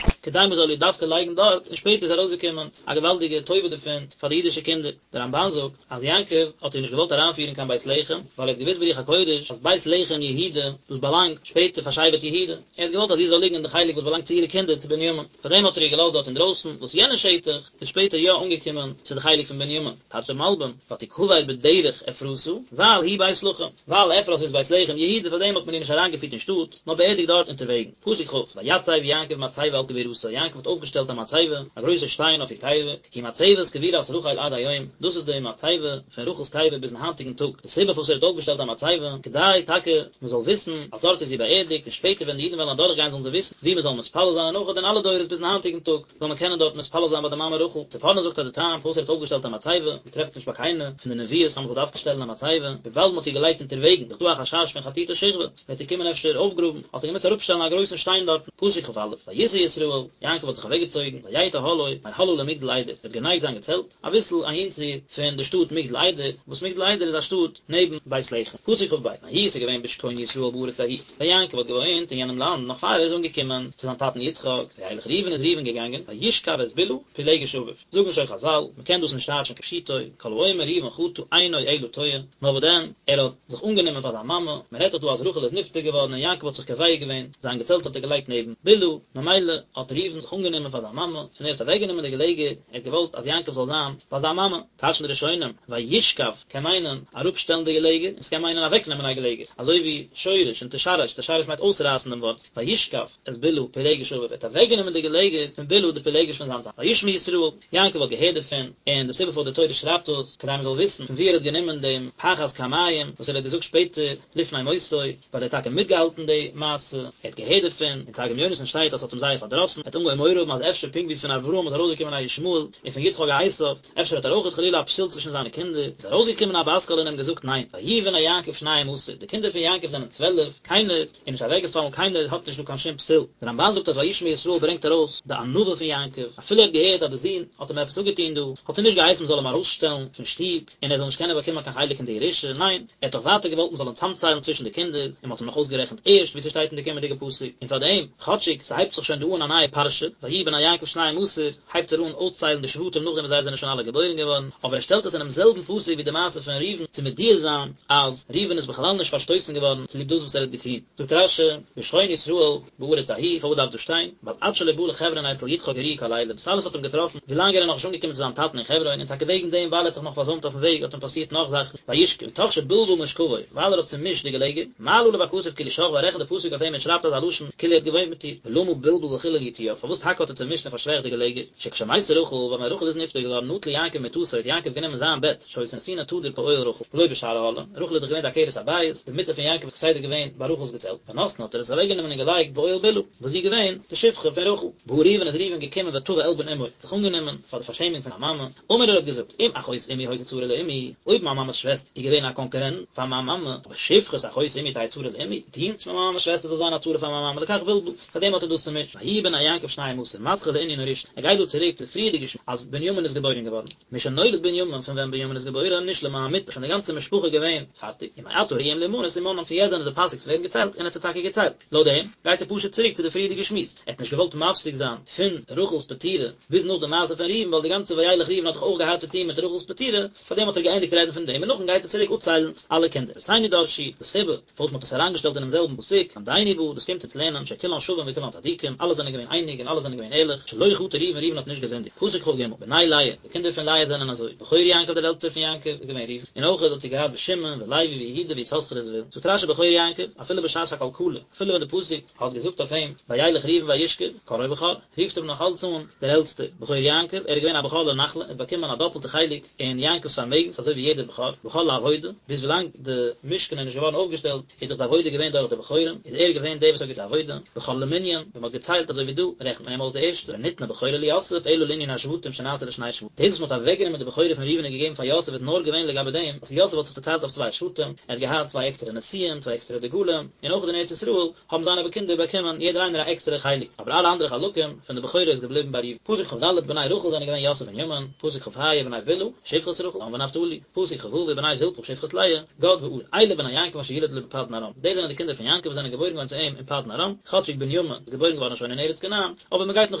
כדי מען זאל איר דווקא לייגן דארט, און שפעטער איז ארויסגעקומען א געוואלדיגע טובה דערפון פאר די אידישע קינדער. דער רמב"ן זאגט אז יעקב האט איר נישט געוואלט אריינפירן קיין בית לחם, ווייל ער האט געוואוסט ברוח הקודש אז בית לחם יהודה, דאס באלאנגט שפעטער פאר שבט יהודה, ער האט געוואלט אז זי זאל ליגן אין די חלק וואס באלאנגט צו אירע קינדער צו בנימין, פארדעם האט ער איר געלאזט דארט אינדרויסן, וואס יענע שטח איז שפעטער יא אנגעקומען צו די חלק פון בנימין. טייטשט דער מלבי"ם, ותקבר בדרך אפרתה, ווייל היא בית לחם, ווייל אפרת איז בית לחם יהודה פארדעם האט מען איר נישט אריינגעפירט אין שטאט, נאר באערדיגט דארט אונטערוועגן. פסוק כ', ויצב יעקב מצבה על קבורתה, יעקב האט אויפגעשטעלט א מצבה, א גרויסע שטיין אויף איר קבר, היא מצבת קבורת רחל עד היום, דאס איז די מצבה פון רחל'ס קבר ביזן היינטיגן טאג, די סיבה פארוואס ער האט אויפגעשטעלט א מצבה, כדי טאקע מען זאל וויסן אז דארט איז זי באערדיגט, און שפעטער ווען די אידן וועלן אדורכגיין זאלן זיי וויסן וואו מען זאל מתפלל זיין, און אויך אין אלע דורות ביזן היינטיגן טאג זאל מען קענען דארט מתפלל זיין ביי די מאמע רחל. ספורנו זאגט אז די טעם פארוואס ער האט אויפגעשטעלט א מצבה, מען טרעפט נישט ביי קיינע פון די נביאות אז מען זאל דווקא שטעלן א מצבה, וויבאלד מען האט איר געלייגט אונטערוועגן, איז דאך דא א חשש פון חטוטי שכבי, וועט איר קומען אפשר אויפגראבן, האט ער געמוזט אראפשטעלן א גרויסן שטיין דארטן, פסוק כ"א, ויסע ישראל, יעקב האט זיך אוועקגעצויגן, ויט אהלו, מהלאה למגדל עדר, ער האט גענייגט זיין געצעלט, אביסל אהינצו פון די שטאט מגדל עדר, וואס מגדל עדר איז א שטאט נעבן בית לחם, פסוק כ"ב, ויהי ס'איז געווען בשכון ישראל בארץ ההיא, ווען יעקב האט געוואוינט אין יענעם לאנד נאך פאר ער איז אנגעקומען צו זיין טאטן יצחק, וילך ראובן איז ראובן געגאנגען, וישכב את בלהה, פילגש אביו. זאגן שוין חזל, מען קען דאס נישט טייטשן כפשוטו, כל האומר ראובן חטא אינו אלא טועה, נאר וואס דען, ער האט זיך אנגענומען פאר זיין מאמע, מען רעדט דאך דא אז רחל איז נפטר געווארן און יעקב האט זיך קובע געווען, זיין געצעלט האט ער געלייגט נעבן בלהה, ממילא האט ראובן. ראובן זיך אנגענומען פאר זיין מאמע, און ער האט אוועקגענומען די געלעגער, ער האט געוואלט אז יעקב זאל זיין ביי זיין מאמע. טייטשן די ראשונים, וישכב קען מיינען אראפשטעלן די געלעגער, און ס'קען מיינען אוועקנעמען א געלעגער, אזוי ווי שורש און תשרש, תשרש מיינט אויסרייסן דעם ווארצל, וישכב את בלהה פילגש אביו, ער האט אוועקגענומען די געלעגער פון בלהה די פילגש פון זיין טאטע. וישמע ישראל, יעקב האט געהערט דערפון, און די סיבה פארוואס די תורה שרייבט דאס, כדי מען זאל וויסן פון וואו ער האט גענומען דעם פחז כמים וואס ער האט געזאגט שפעטער לפני מותו, ווייל ער האט טאקע מיטגעהאלטן די מעשה, ער האט געהערט דערפון, אין תרגום יונתן שטייט אז ס'האט אים זייער פארדראסן, ער האט אנגעהויבן מורא האבן אז אפשר פונקט ווי פון אברהם איז ארויסגעקומען א ישמעאל, און פון יצחק א עשו, אפשר האט ער אויכעט חלילה א פסול צווישן זיינע קינדער, איז ארויסגעקומען א בת קול און אים געזאגט ניין, ויהיו בני יעקב שניים עשר, די קינדער פון יעקב זענען צוועלף, קיינער איז נישט אוועקגעפאלן, קיינער האט נישט דא קיין שום פסול. דער רמבן זאגט אז וישמע ישראל ברענגט ארויס די ענווה פון יעקב, אפילו ער האט געהערט אז די זון האט אים עפעס אפגעטון דא, האט ער נישט געהייסן מען זאל אים ארויסשטעלן פון שטוב, און ער זאל נישט קענען באקומען קיין חלק אין די ירושה, ניין, ער האט דאך ווייטער געוואלט מען זאל אים צאמציילן צווישן די קינדער, און מען האט אים נאך אויסגערעכנט ערשט, ווי ס'שטייט אין די קומענדיגע פסוק, און פארדעם, כאטשיג ס'הייבט זיך שוין דא אן א נייע פרשה, ויהיו בני יעקב שניים עשר, הייבט ער אן אויסציילן די שבטים נאכדעם וואס זיי זענען שוין אלע געבוירן געווארן, אבער ער שטעלט עס אינעם זעלבן פסוק ווי די מעשה פון ראובן צו מודיע זיין אז ראובן איז בכלל נישט פארשטויסן געווארן צוליב דאס וואס ער האט געטון. זאגט רש"י, בשכון ישראל בארץ ההיא, פארוואס דארף דאס שטיין? ווייל עד שלא בא לחברון אצל יצחק אירעו כל אלה, דאס אלעס האט אים געטראפן ווילאנג ער איז נאכנישט אנגעקומען צו זיין טאטן אין חברון, און טאקע וועגן דעם ווייל ער האט זיך נאך פארזוימט אויפן וועג האט אים פאסירט נאך זאכן, וישכב, מתוך שבלבל משכבו, ווייל ער האט צומישט די געלעגער, מעלה עליו הכתוב כאילו שכבה, רעכנט די פסוק אויף אים און שרייבט אזא לשון כאילו ער האט געוואוינט מיט איר, ולמה בלבל וחילל יצועיו, פארוואס טאקע האט ער צומישט און פארשוועכט די געלעגער, שכשמתה רחל, ווען רחל איז נפטר געווארן נטל יעקב מטתו האט יעקב גענומען זיין בעט, שהיתה נתונה תדיר באוהל רחל, ולא בשאר אהלים, רחל איז דאך געווען די עקרת הבית, די מיטה פון יעקב איז כסדר געווען ביי רחל'ס געצעלט, ונתנה האט ער עס אוועקגענומען און געלייגט באוהל בלהה, וואס זי איז געווען די שפחה פון רחל. בא ראובן איז ראובן געקומען ותבע עלבון אמו, האט זיך אנגענומען פאר די פארשעמונג פון זיין מאמע, אמר ער האט געזאגט, אם אחות אמי היתה צרה לאמי, אויב מיין מאמע'ס שוועסטער איז געווען א קאנקורענט פאר מיין מאמע, אבער שפחת אחות אמי תהא צרה לאמי, דינסט פון מיין מאמע'ס שוועסטער זאל זיין א צרה פאר מיין מאמע, לכך בלבל, פאר דעם האט ער דאס צומישט, ויהיו בני יעקב שניים עשר, מתחיל לענין הראשון, ער גייט דא צוריק צו פריערדיגע שמועס אז בנימין איז געבוירן געווארן, משנולד בנימין, פון ווען בנימין איז געבוירן, נשלמה המיטה, שוין די גאנצע משפחה געווען פארטיג, ומעתה ראויים להימנות ומנאן, פון יעצט זענען זיי פאסיג צו ווערן געציילט, און ער האט זיי טאקע געציילט. לויט דעם גייט ער פשוט צוריק צו די פריערדיגע שמועס, ער האט נישט געוואלט מפסיק זיין פון רחל'ס פטירה ביז נאך די מעשה פון ראובן ווייל די גאנצע וילך ראובן האט דאך אויך געהאט צו טון מיט רחל'ס פטירה, פארדעם האט ער געענדיגט רעדן פון דעם און נאכדעם גייט ער צוריק אפציילן אלע קינדער. רבותינו דרשו, די סיבה פארוואס מ'האט עס אריינגעשטעלט אינעם זעלבן פסוק, ללמדנו בא, דאס קומט אונז לערנען שכולן שווים וכולן צדיקים, אלע זענען געווען אייניג און אלע זענען געווען ערליך, שלא חטא ראובן ראובן האט נישט געזינדיגט. פסוק כ"ג, בני לאה, די קינדער פון לאה זענען אזוי, בכור יעקב דער עלטסטער פון יעקב איז געווען ראובן, און אויך האט זי געהאט ושמעון ולוי ויהודה ויששכר וזבולון. זאגט רש"י בכור יעקב, אפילו בשעת הקלקלה, אפילו ווען די פסוק האט געזאגט אויף אים וילך ראובן וישכב, קראו בכור, רופט אים נאך אלץ אן דער עלטסטער, בכור יעקב, ער איז געווען א בכור לנחלה, ער האט באקומען א דאפלטע חלק אין יעקב'ס פארמעגנס אזוי ווי יעדער בכור, בכור לעבודה, ביז ווילאנג די משכן איז נישט געווארן אויפגעשטעלט, איז דאך די עבודה געווען דורך די בכורים, איז ער געווען דער וואס האט געטון עבודה, בכור למנין, ווען מען האט געציילט אזוי ווי דא, רעכנט מען אים אויס די ערשטע, ולא ניתנה בכורה ליוסף אלא לענין השבטים שנעשה לשני שבטים, דאס וואס מען האט אוועקגענומען די בכורה פון ראובן און געגעבן פאר יוסף איז נאר געווען לגבי דעם אז יוסף האט זיך צוטיילט אויף צוויי שבטים, ער האט געהאט צוויי עקסטערע נשיאים, צוויי עקסטערע דגלים, און אויך אין ארץ ישראל האבן זיינע קינדער באקומען יעדער איינער א עקסטערע חלק, אבער אלע אנדערע חלקים פון די בכורה איז געבליבן ביי ראובן. פסוק כ"ד, בני רחל זענען געווען יוסף און בנימין, פסוק כ"ה, בני בלהה, שפחת רחל, דן ונפתלי, פסוק כ"ו, ובני זלפה שפחת לאה, גד ואשר, אלה בני יעקב אשר ילד לו בפדן ארם, דאס זענען די קינדער פון יעקב וואס זענען געבוירן געווארן צו אים אין פדן ארם, כאטשיג בנימין איז געבוירן געווארן שוין אין ארץ כנען, אבער מען גייט נאך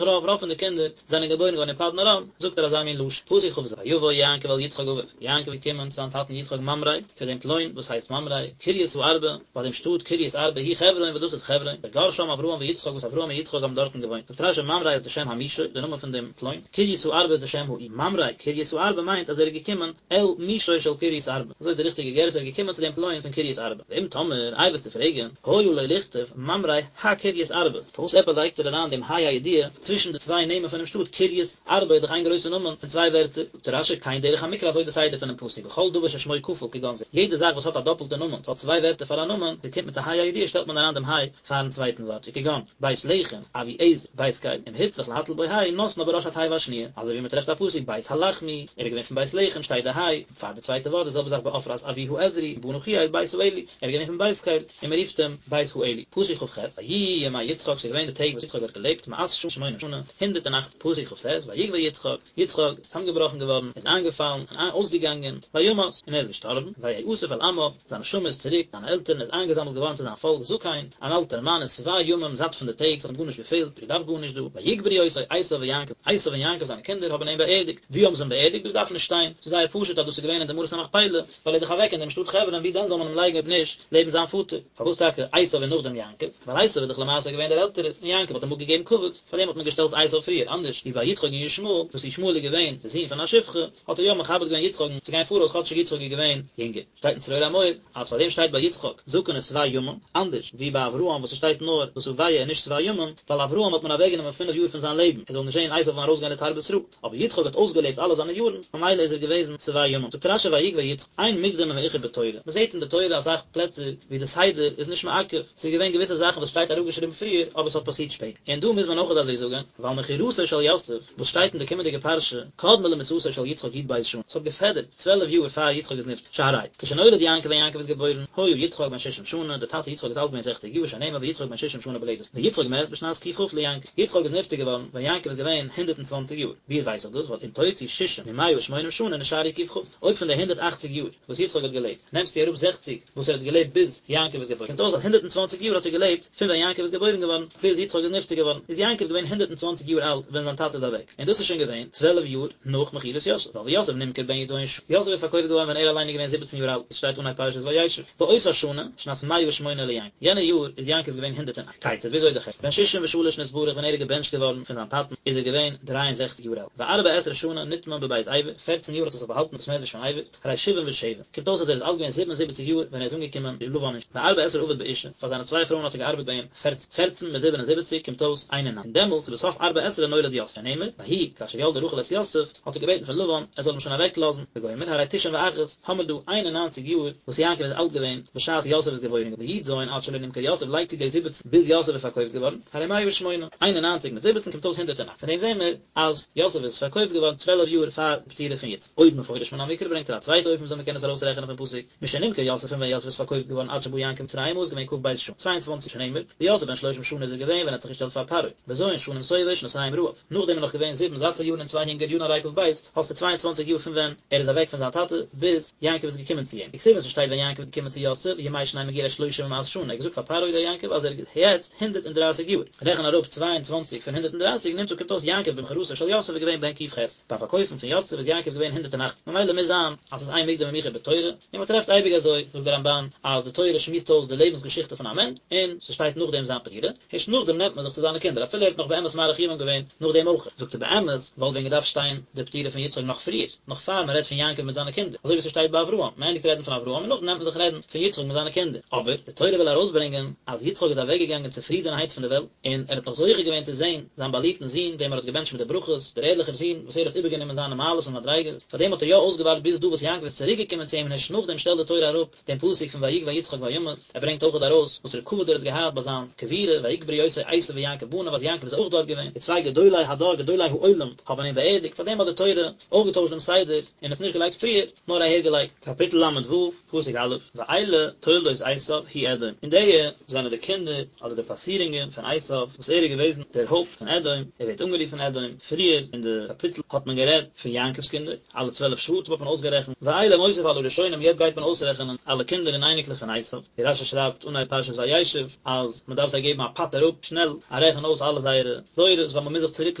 רוב, רוב פון די קינדער זענען געבוירן געווארן אין פדן ארם, זאגט ער אזא מין לשון, פסוק כ"ז, ויבא יעקב אל יצחק אביו, יעקב איז געקומען צו זיין טאטן יצחק ממרא, צו דעם פלוין וואס הייסט ממרא, קרית הארבע, ביי דעם שטאט קרית ארבע היא חברון וואס דאס איז חברון, אשר גר שם אברהם ויצחק וואס אברהם און יצחק האבן דארטן געוואוינט. זאגט רש"י ממרא איז די שם המישור, די נאמען פון דעם פלוין, קרית הארבע איז די שם העיר, ממרא קרית הארבע מיינט אז ער איז געקומען אל מישור של קרית ארבע, אזוי איז די ריכטיגע גירסא ער איז געקומען צו דעם פלוין פון קרית ארבע. ואם תאמר, איי וועסטו פרעגן, היה לו לכתוב ממרא הקרית ארבע, פארוואס עפעס לייגט ער אריין דעם ה' הידיעה צווישן די צוויי נעמען פונעם שטאט קרית ארבע איז דאך איין גרויסע נאמען פון צוויי ווערטער, זאגט רש"י כן דרך המקרא אזוי די סדר פונעם פסוק בכל דבר ששמו כפול כגון זה, יעדע זאך וואס האט א דאפלטע נאמען, ס'האט צוויי ווערטער פאר א נאמען, ס'קומט מיט א ה' הידיעה שטעלט מען אריין דעם ה' פארן צווייטן ווארט, וכגון, בית לחם, אבי עזר, בית קל, אם הוצרך להטיל בו ה' נותנה בראש התיבה השניה, אזוי ווי מ'טרעפט א פסוק בית הלחמי, ער איז געווען פון בית לחם שטייט די ה' פאר די צווייטע ווארט, די זעלבע זאך בעפרת אבי העזרי, בנה חיאל בית האלי, ער איז געווען פון בית קל, און מען רופט אים בית האלי. פסוק כ"ח, ויהיו ימי יצחק, ס'איז געווען די טעג וואס יצחק האט געלעבט, מאת שנה ושמונים שנה, 180, פסוק כ"ט, ויגוע יצחק, יצחק איז צוזאמגעבראכן געווארן, איז איינגעפאלן, און אויסגעגאנגען, וימת, און ער איז געשטארבן, ויאסף אל עמיו, זיין נשמה איז צוריק, זיינע עלטערן, איז איינגעזאמלט געווארן צו זיין פאלק, זקן, אן אלטער מאן, ושבע ימים, זאט פון די טעג, ס'האט אים גארנישט געפעלט, געדארפט גארנישט דא, ויקברו אותו עשו ויעקב, עשו און יעקב זיינע קינדער האבן אים באערדיגט, וואו האבן זיי אים באערדיגט, דאס דארף נישט שטיין, ס'איז זייער פשוט אז דאס איז געווען אין די מערת המכפלה, ווייל ער איז דאך אוועק אין דעם שטאט חברון, וואו דען זאל מען אים לייגן אויב נישט לעבן זיין פאטער? פארוואס טאקע עשו און נאכדעם יעקב? ווייל עשו איז דאך למעשה געווען דער עלטערער, און יעקב האט אים אפגעגעבן. כבוד, פארדעם האט מען געשטעלט עשיו פריער, אנדערש ווי ביי יצחק און ישמעאל, וואס ישמעאל איז געווען די זון פון א שפחה, האט ער יא מכבד געווען יצחק'ן צו גיין פאראויס כאטשיג יצחק איז געווען יונגער. שטייט אין צרור המור אז פאר דעם שטייט ביי יצחק זקן ושבע ימים, אנדערש ווי ביי אברהם וואס עס שטייט נאר ושבע און נישט שבע ימים, ווייל אברהם האט מען אוועקגענומען פינף יאר פון זיין לעבן ער זאל נישט זען עשיו ארויסגיין לתרבות רעה, אבער יצחק האט אויסגעלעבט אלע זיינע יארן, ממילא איז ער געוועזן שבע ימים. זאגט רשי ויגוע יצחק, אין מוקדם ומאוחר בתורה, מען זעט אין די תורה אסאך פלעצער ווי די סדר איז נישט מעכב, ס'איז געווען געוויסע זאכן וואס שטייט אראפגעשריבן פריער אבער ס'האט פאסירט שפעטער, און דא מוז מען אויכעט אזוי זאגן, ווייל מכירתו של יוסף וואס שטייט אין די קומענדיגע פרשה, קדמה למיתתו של יצחק י"ב שנה, ס'האט געפעדערט צוועלף יאר פאר יצחק איז נפטר, שהרי כשנולד יעקב ווען יעקב איז געבוירן, היה יצחק בן ששים שנה, דער טאטע יצחק איז אלט געווען זעכציג יאר, שנאמר ויצחק בן ששים שנה בלדת, ויצחק מת בשנת ק"כ ליעקב, יצחק איז נפטר געווארן ווען יעקב איז געווען הונדערט און צוואנציג יאר, ווי ווייס איך דאס, ווייל אם תוציא ששים ממאה ושמונים שנה נשארו ק"כ, אויב פון די הונדערט אכציג יאר וואס יצחק האט געלעבט, נעמסטו אראפ זעכציג וואס ער האט געלעבט ביז יעקב איז געבוירן, קומט אויס אז הונדערט און צוואנציג יאר האט ער געלעבט פון ווען יעקב איז געבוירן געווארן ביז יצחק איז נפטר געווארן, איז יעקב געווען הונדערט און צוואנציג יאר אלט ווען זיין טאטע איז אוועק, און דאס איז שוין געווען צוועלף יאר נאך מכירת יוסף, ווייל ויוסף נמכר בן י"ז שנה, יוסף איז פארקויפט געווארן ווען ער אליין איז געווען זיבעצן יאר אלט, עס שטייט אנהייב פרשת וישב, ואותה שנה, שנת מאה ושמונה ליעקב, יענע יאר איז יעקב געווען הונדערט און אכט. כיצד וויאזוי די חשבון, בן ששים ושלש נתברך ווען ער איז געבענטשט געווארן פון זיין טאטן איז ער געווען דריי און זעכציג יאר אלט, וארבע עשרה שנה נטמן בבית עבר, פערצן יאר האט ער זיך באהאלטן אין בית מדרש פון עבר, הרי שבעים ושבע, קומט אויס אז ער איז אלט געווען 77 יאר ווען ער איז אנגעקומען צו לבן אין וארבע עשרה עבד באשה, פאר זיינע צוויי פרויען האט ער געארבעט ביי אים פערצן, פערצן מיט 77 קומט אויס 91, און דעמאלטס ובסוף ארבע עשרה נולד יוסף, שנאמר, ויהי כאשר ילדה רחל את יוסף, האט ער געבעטן פון לבן ער זאל אים שוין אוועק לאזן, וגומר, הרי תשעים ואחת, האמיר דא 91 יאר וואס יעקב איז אלט געווען בשעת יוסף איז געבוירן געווארן, וי"ז עד שלא נמכר יוסף לייגט צו די זיבעצן ביז יוסף איז פארקויפט געווארן, הרי 108, 91 מיט זיבעצן קומט אויס 108, פון דעם זעהן מיר אז יוסף איז פארקויפט געווארן צוועלף יאר פאר די פטירה פון יצחק. עוד מפורש מן המקרא ברענגט ער א צווייטע אופן וויאזוי מ'קען עס ארויסרעכענען פון פסוק, משנמכר יוסף פון ווען יוסף איז פארקויפט געווארן עד שבא יעקב מצרימה איז געווען כ"ב שנה, 22 שנאמר, ויוסף בן שלשים שנה איז ער געווען ווען ער האט זיך געשטעלט פאר פרעה, בז' שנים שובע ושנתים רעב, נאכדעם איז נאך געווען זיבן זאטע יארן און צוויי הונגער יארן הרי כ"ב, האסטו 22 יאר פון ווען ער איז אוועק פון זיין טאטע ביז יעקב איז געקומען צו אים. וכתיב און ס'שטייט ווען יעקב איז געקומען צו יוסף, ימי שני מגורי שלשים ומאת שנה, ער האט געזאגט פאר פרעה דער יעקב אז ער איז יעצט הונדערט און דרייסיג יאר. רעכן אראפ 22 פון 130 נמצא קומט אויס יעקב במכירתו של יוסף איז געווען בן ק"ח, ביים פארקויפן פון יוסף איז יעקב געווען 108, ממילא מוז זיין אז ס'איז אין מוקדם ומאוחר בתורה, און מען טרעפט אייביג אזוי, זאגט דער רמב"ן, אז די תורה שמועסט אויס די לעבנס געשיכטע פון א מענטש, און ס'שטייט נאכדעם זיין פטירה, הערשט נאכדעם נעמט מען זיך צו זיינע קינדער, אפילו ער האט נאך באמת מאריך ימים געווען נאכדעם אויך. זאגט ער באמת וואלט ווען געדארפט שטיין די פטירה פון יצחק נאך פריער, נאך פאר מען רעדט פון יעקב מיט זיינע קינדער, אזוי ווי ס'שטייט ביי אברהם, מען ענדיגט רעדן פון אברהם און נאכדעם נעמט מען זיך רעדן פון יצחק מיט זיינע קינדער, אבער די תורה וויל ארויסברענגען אז יצחק איז אוועקגעגאנגען צופרידענהייט פון די וועלט, און ער האט נאך זוכה געווען צו זען זיין באליבטן זון וועם ער האט געבענטשט מיט די ברכות, דער ערליכער זון וואס ער האט איבערגענומען זיינע מעלות און מדריגות, פארדעם האט ער יא אויסגעווארט ביז דא וואס יעקב איז צוריקגעקומען צו אים און הערשט נאכדעם שטעלט די תורה אראפ דעם פסוק פון ויגוע יצחק וימת, ער ברענגט אויכעט ארויס וואסערע כבוד ער האט געהאט ביי זיין קבורה, ויקברו אותו עשו ויעקב בניו אז יעקב איז אויך דארט געווען, די צוויי גדולי הדור גדולי העולם האבן אים באערדיגט, פארדעם האט די תורה אויך געטוישט דעם סדר און עס נישט געלייגט פריער, נאר אהער געלייגט. קאפיטל ל"ו, פסוק א', ואלה תולדות עשו הוא אדום, און די זענען די קינדער, אדער די פאסירונגען, פון עשו, וואס ער איז געוועזן דער הויפט פון אדום, ער ווערט אנגערופן אדום, פריער אין די קאפיטל האט מען גערעדט פון יעקב'ס קינדער, אלע צוועלף שבטים האט מען אויסגערעכנט, ואלה מוסיף על הראשונים יעצט גייט מען אויסרעכענען אלע קינדער און אייניקלעך פון עשו, ווי רשי שרייבט אנהייב פרשת וישב אז מען דארף זיי געבן א פאטער אפ שנעל א רעכן אויס אלע זייערע דורות ווייל מען מוז זיך צוריק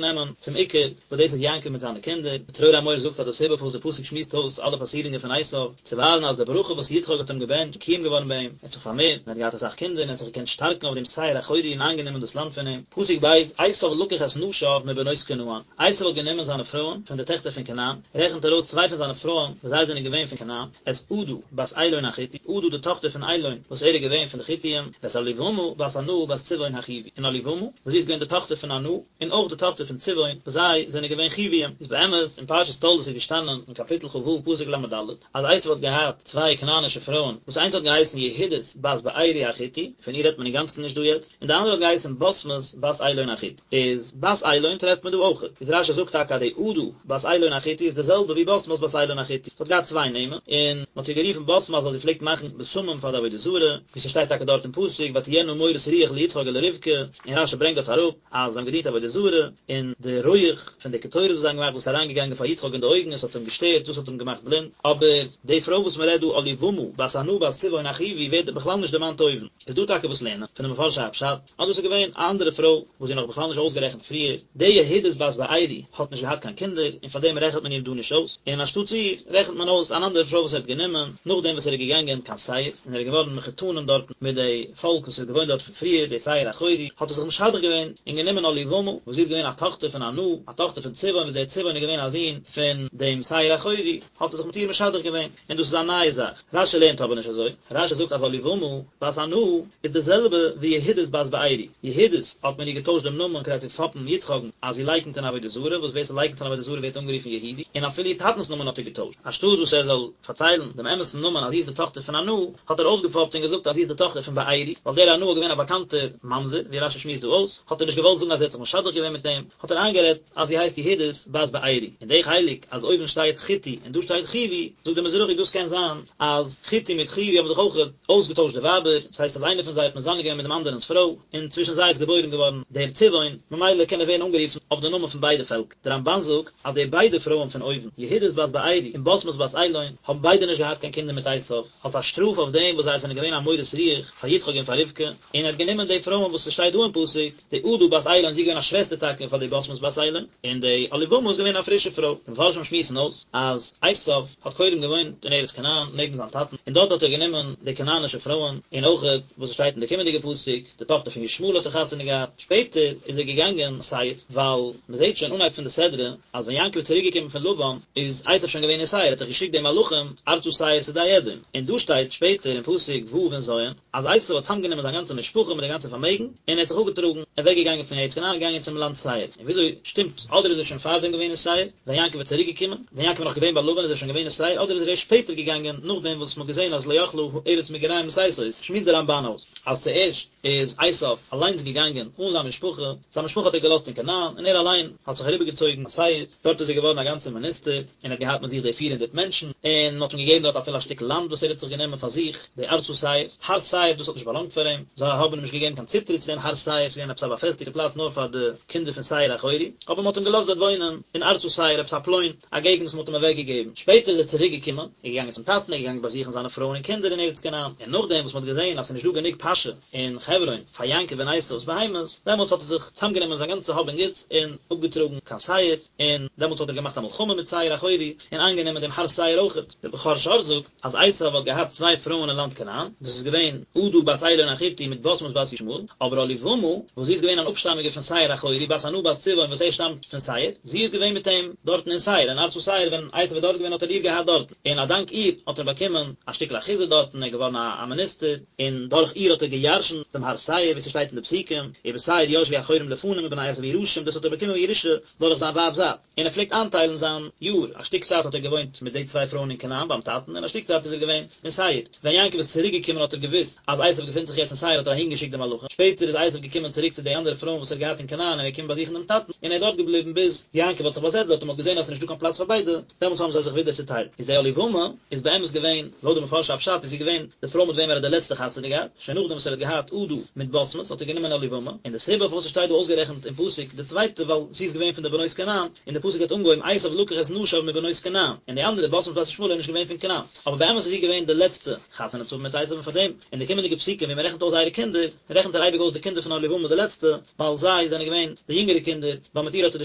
נעמען צום עיקר וואס דאס איז יעקב מיט זיינע קינדער, צרור המור זאגט אז די סיבה פארוואס די פסוק שמועסט אויס אלע פאסירונגען פון עשו, צו ווייזן אז די ברכה וואס יצחק האט אים געבענטשט איז מקוים געווארן ביי אים, ער האט זיך פארמערט און ער האט געהאט אסאך קינדער און ער האט זיך געקענט שטארקן אויף דעם שעיר החורי און איינגענומען דאס לאנד פון אים. פסוק ב', עשו לקח את נשיו מבנות כנען, עשו האט גענומען זיינע פרויען פון די טעכטער פון כנען, רעכנט ער אויס צוויי פון זיינע פרויען וואס זיי זענען געווען פון כנען, את עדה בת אילון החתי, עדה די טאכטער פון אילון וואס ער איז געווען פון די חתים, ואת אהליבמה בת ענה בת צבעון החוי, און אהליבמה וואס זי איז געווען די טאכטער פון ענה, און אויך די טאכטער פון צבעון, וואס זיי זענען געווען חויים. איז באמת, אין פרשת תולדות איז געשטאנען אין קאפיטל כ"ו פסוק ל"ד, אז עשו האט געהאט צוויי כנענישע פרויען, וואס איינס האט געהייסן יהודית בת בארי החתי, פון איר רעדט מען אינגאנצן נישט דא יעצט, און די אנדערע האט געהייסן בשמת בת אילון החתי. איז בת אילון טרעפט מען דא אויכעט. איז רשי זאגט טאקע אז די עדה בת אילון החתי איז די זעלבע ווי בשמת בת אילון החתי. זי האט געהאט צוויי נעמען, און מען האט איר גערופן בשמת ווייל זי פלעגט מאכן בשמים פאר די עבודה זרה, ווי ס'שטייט טאקע דארט אין פסוק ותהיינה מורת רוח ליצחק ולרבקה, און רשי ברענגט דארט אראפ אז זיי האבן געדינט עבודה זרה, און די רויעך פון די קטורת וואס זיי האבן געמאכט דאס איז אריינגעגאנגען פאר יצחק אין די אויגן און עס האט אים געשטערט, דאס האט אים געמאכט בלינד. אבער די פרוי וואס מען רעדט דא אהליבמה בת ענה בת צבעון החוי ווערט בכלל נישט דערמאנט אויבן. איז דא טאקע וואס לערנען פון די מפרשי הפשט אז דאס איז געווען א אנדערע פרוי וואס זי איז נאך בכלל נישט אויסגערעכנט פריער, די יהודית בת בארי האט נישט געהאט קיין קינדער און פאר דעם רעכנט מען איר דא נישט אויס, און אנשטאטס איר רעכנט מען אויס אן אנדערע פרוי וואס ער האט גענומען נאכדעם וואס ער איז געגאנגען קיין שעיר און ער איז געווארן מחותנים דארטן מיט די פאלק וואס איז געוואוינט דארט פון פריער, די שעיר החורי, האט ער זיך משדך געווען. געווען און גענומען אהליבמה, וואס זי איז געווען א טאכטער פון ענה, א טאכטער פון צבעון, וואס דער צבעון איז געווען א זון פון דעם שעיר החורי, האט ער זיך מיט איר משדך געווען, און דאס איז א נייע זאך. רשי לערנט אבער נישט אזוי, רשי זאגט אז אהליבמה בת ענה איז די זעלבע ווי יהודית בת בארי, יהודית האט מען איר געטוישט דעם נאמען כדי צו פאפן יצחק'ן אז זי לייקנט אין עבודה זרה, וואס ווער ס'לייקנט אין עבודה זרה ווערט אנגערופן יהודי, און אפילו איר טאטנ'ס נאמען האט ער געטוישט, אנשטאט וואס ער זאל פארציילן דעם אמת'ן נאמען אז זי איז די טאכטער פון ענה, האט ער אויסגעפאפט און געזאגט אז זי איז די טאכטער פון בארי, ווייל דער ענה איז געווען א באקאנטער ממזר, ווי רשי שמועסט דא אויס, האט ער נישט געוואלט זאגן אז ער האט זיך משדך געווען מיט אים, האט ער איינגערעדט אז זי הייסט יהודית בת בארי, און די חלק אז אויבן שטייט חתי און דא שטייט חוי, זאגט דער מזרחי דאס קען זיין אז חתי מיט חוי האבן זיך אויך אויסגעטוישט די ווייבער, דאס הייסט אז איינער פון זיי האט מזנה געווען מיט דעם אנדערענס פרוי, און צווישן זיי איז געבוירן געווארן דער צבעון, ממילא קען ער ווערן אנגערופן אויף די נאמען פון ביידע פעלקער. דער רמבן זאגט אז די ביידע פרויען פון אויבן, יהודית בת בארי און בשמת בת אילון, האבן ביידע נישט געהאט קיין קינדער מיט עשיו, אלס א שטראף אויף דעם וואס זיי זענען געווען א מורת רוח פאר יצחק און פאר רבקה, און ער האט גענומען די פרויען וואס ס'שטייט דא אין פסוק, די עדה בת אילון זי איז געווען א שוועסטער טאקע פאר די בשמת בת אילון, און די אהליבמה איז געווען א פרישע פרוי. די מפרשים שמועסן אויס אז עשיו האט קודם געוואוינט אין ארץ כנען נעבן זיין טאטן, און דארט האט ער גענומען די כנענישע פרויען, און אויכעט וואס עס שטייט אין די קומענדיגע פסוק, די טאכטער פון ישמעאל האט ער חתונה געהאט, שפעטער איז ער געגאנגען שעיר, ווייל מען זעט שוין אנהייב פון די סדרה אז ווען יעקב איז צוריק געקומען פון לבן איז עשיו שוין געווען אין שעיר, האט ער געשיקט די מלאכים ארצה שעיר שדה אדום, און דא שטייט שפעטער אין פסוק ו' און ז' אז עשיו האט צוזאמגענומען זיין גאנצע משפחה מיט די גאנצע פארמעגן, און ער האט זיך אפגעטראגן, אוועק געגאנגען פון ארץ כנען און געגאנגען צום לאנד שעיר, און וויאזוי שטימט, אדער איז ער שוין פארדעם געווען אין שעיר, ווען יעקב איז צוריק געקומען, ווען יעקב איז נאך געווען ביי לבן איז ער שוין געווען אין שעיר, אדער איז ער ערשט שפעטער געגאנגען נאכדעם וואס מען האט געזען אז לא יכלה ארץ מגוריהם לשאת אותו, שמועסט דער רמבן אויס אז צוערשט איז עשיו אליינס געגאנגען אן זיין משפחה, זיין משפחה האט ער געלאזט אין כנען, און ער אליין האט זיך אריבערגעצויגן קיין שעיר, דארט איז ער געווארן א גאנצער מיניסטער, און האט געהאט מיט זיך די 400 מענטשן, און מען האט אים געגעבן דארט אפילו א שטיקל לאנד וואס ער האט זיך גענומען פאר זיך, די ארצה שעיר, הר שעיר, דאס האט נישט באלאנגט פאר אים, זיי האבן אים נישט געגעבן קיין צוטריט צו דעם הר שעיר, ס'איז געווען עפעס א באפעסטיגטע פלאץ נאר פאר די קינדער פון שעיר החורי, אבער מען האט אים געלאזט דארט וואוינען אין ארצה שעיר, עפעס א פלוין, א געגנט וואס מען האט אים אוועק געגעבן. שפעטער איז ער צוריק געקומען, איז געגאנגען צום טאטן, איז געגאנגען באזוכן זיינע פרויען און קינדער אין ארץ כנען, און נאכדעם וואס מען האט געזען אז ס'איז נישט דא גענוג פאשע אין חברון פאר יעקב און עשיו'ס בהמות, דעמאלטס האט ער זיך צוזאמגענומען זיין גאנצע האב און גוטס און אפגעטראגן קיין שעיר, און דעמאלטס האט ער געמאכט א מלחמה מיט שעיר החורי, און איינגענומען דעם הר שעיר אויכעט. דער בכור שור זאגט, אז עשיו האט געהאט צוויי פרויען אין לאנד כנען, דאס איז געווען עדה בת אילון החתי מיט בשמת בת ישמעאל, אבער אהליבמה, וואס זי איז געווען אן אפשטאמיגע פון שעיר החורי, בת ענה בת צבעון וואס ער שטאמט פון שעיר, זי איז געווען מיט אים דארטן אין שעיר, אין ארצה שעיר, ווען עשיו איז דארט געווען האט ער איר געהאט דארטן, און א דאנק איר האט ער באקומען א שטיקל אחוזה דארטן, ער איז געווארן א מיניסטער, און דורך איר האט ער געירשנט דעם הר שעיר, ווי ס'שטייט אין די פסוקים, ובשעיר ישבו החורים לפנים ובני עשיו יירשום, דאס האט ער באקומען בירושה דורך זיין ווייב'ס זייט. און ער פלעגט איינטיילן זיין יאר, א שטיק צייט האט ער געוואוינט מיט די צוויי פרויען אין כנען ביים טאטן, און א שטיק צייט איז ער געווען אין שעיר. ווען יעקב איז צוריק געקומען האט ער געוואוסט אז עשיו געפינט זיך יעצט אין שעיר האט ער אהין געשיקט די מלאכים, שפעטער איז עשיו געקומען צוריק צו די אנדערע פרויען וואס ער האט געהאט אין כנען און ער איז געקומען באזוכן דעם טאטן, און ער איז דארט געבליבן ביז יעקב האט זיך באזעצט דארט און מען האט געזען אז עס איז נישטא קיין פלאץ פאר ביידע, דעמאלטס האבן זיי זיך ווידער צוטיילט. איז די אהליבמה איז באמת געווען, לויט די מפרשי הפשט איז זי געווען די פרוי מיט וועם ער האט די לעצטע חתונה געהאט, שוין נאכדעם וואס ער האט געהאט עדה מיט בשמת האט ער גענומען אהליבמה, און די סיבה פארוואס עס שטייט דא אויסגערעכנט אין פסוק די צווייטע ווייל זי איז געווען פון די בנות כנען, און די פסוק האט אנגעהויבן עשיו לקח את נשיו מבנות כנען, און די אנדערע בשמת בת ישמעאל איז נישט געווען פון כנען, אבער באמת איז זי געווען די לעצטע חתונה צו האבן מיט עשיו און פארדעם אין די קומענדיגע פסוקים ווי מען רעכנט אויס זייערע קינדער, רעכנט ער אייביג אויס די קינדער פון אהליבמה די לעצטע, ווייל זיי זענען געווען די יונגערע קינדער, ווייל מיט איר האט ער די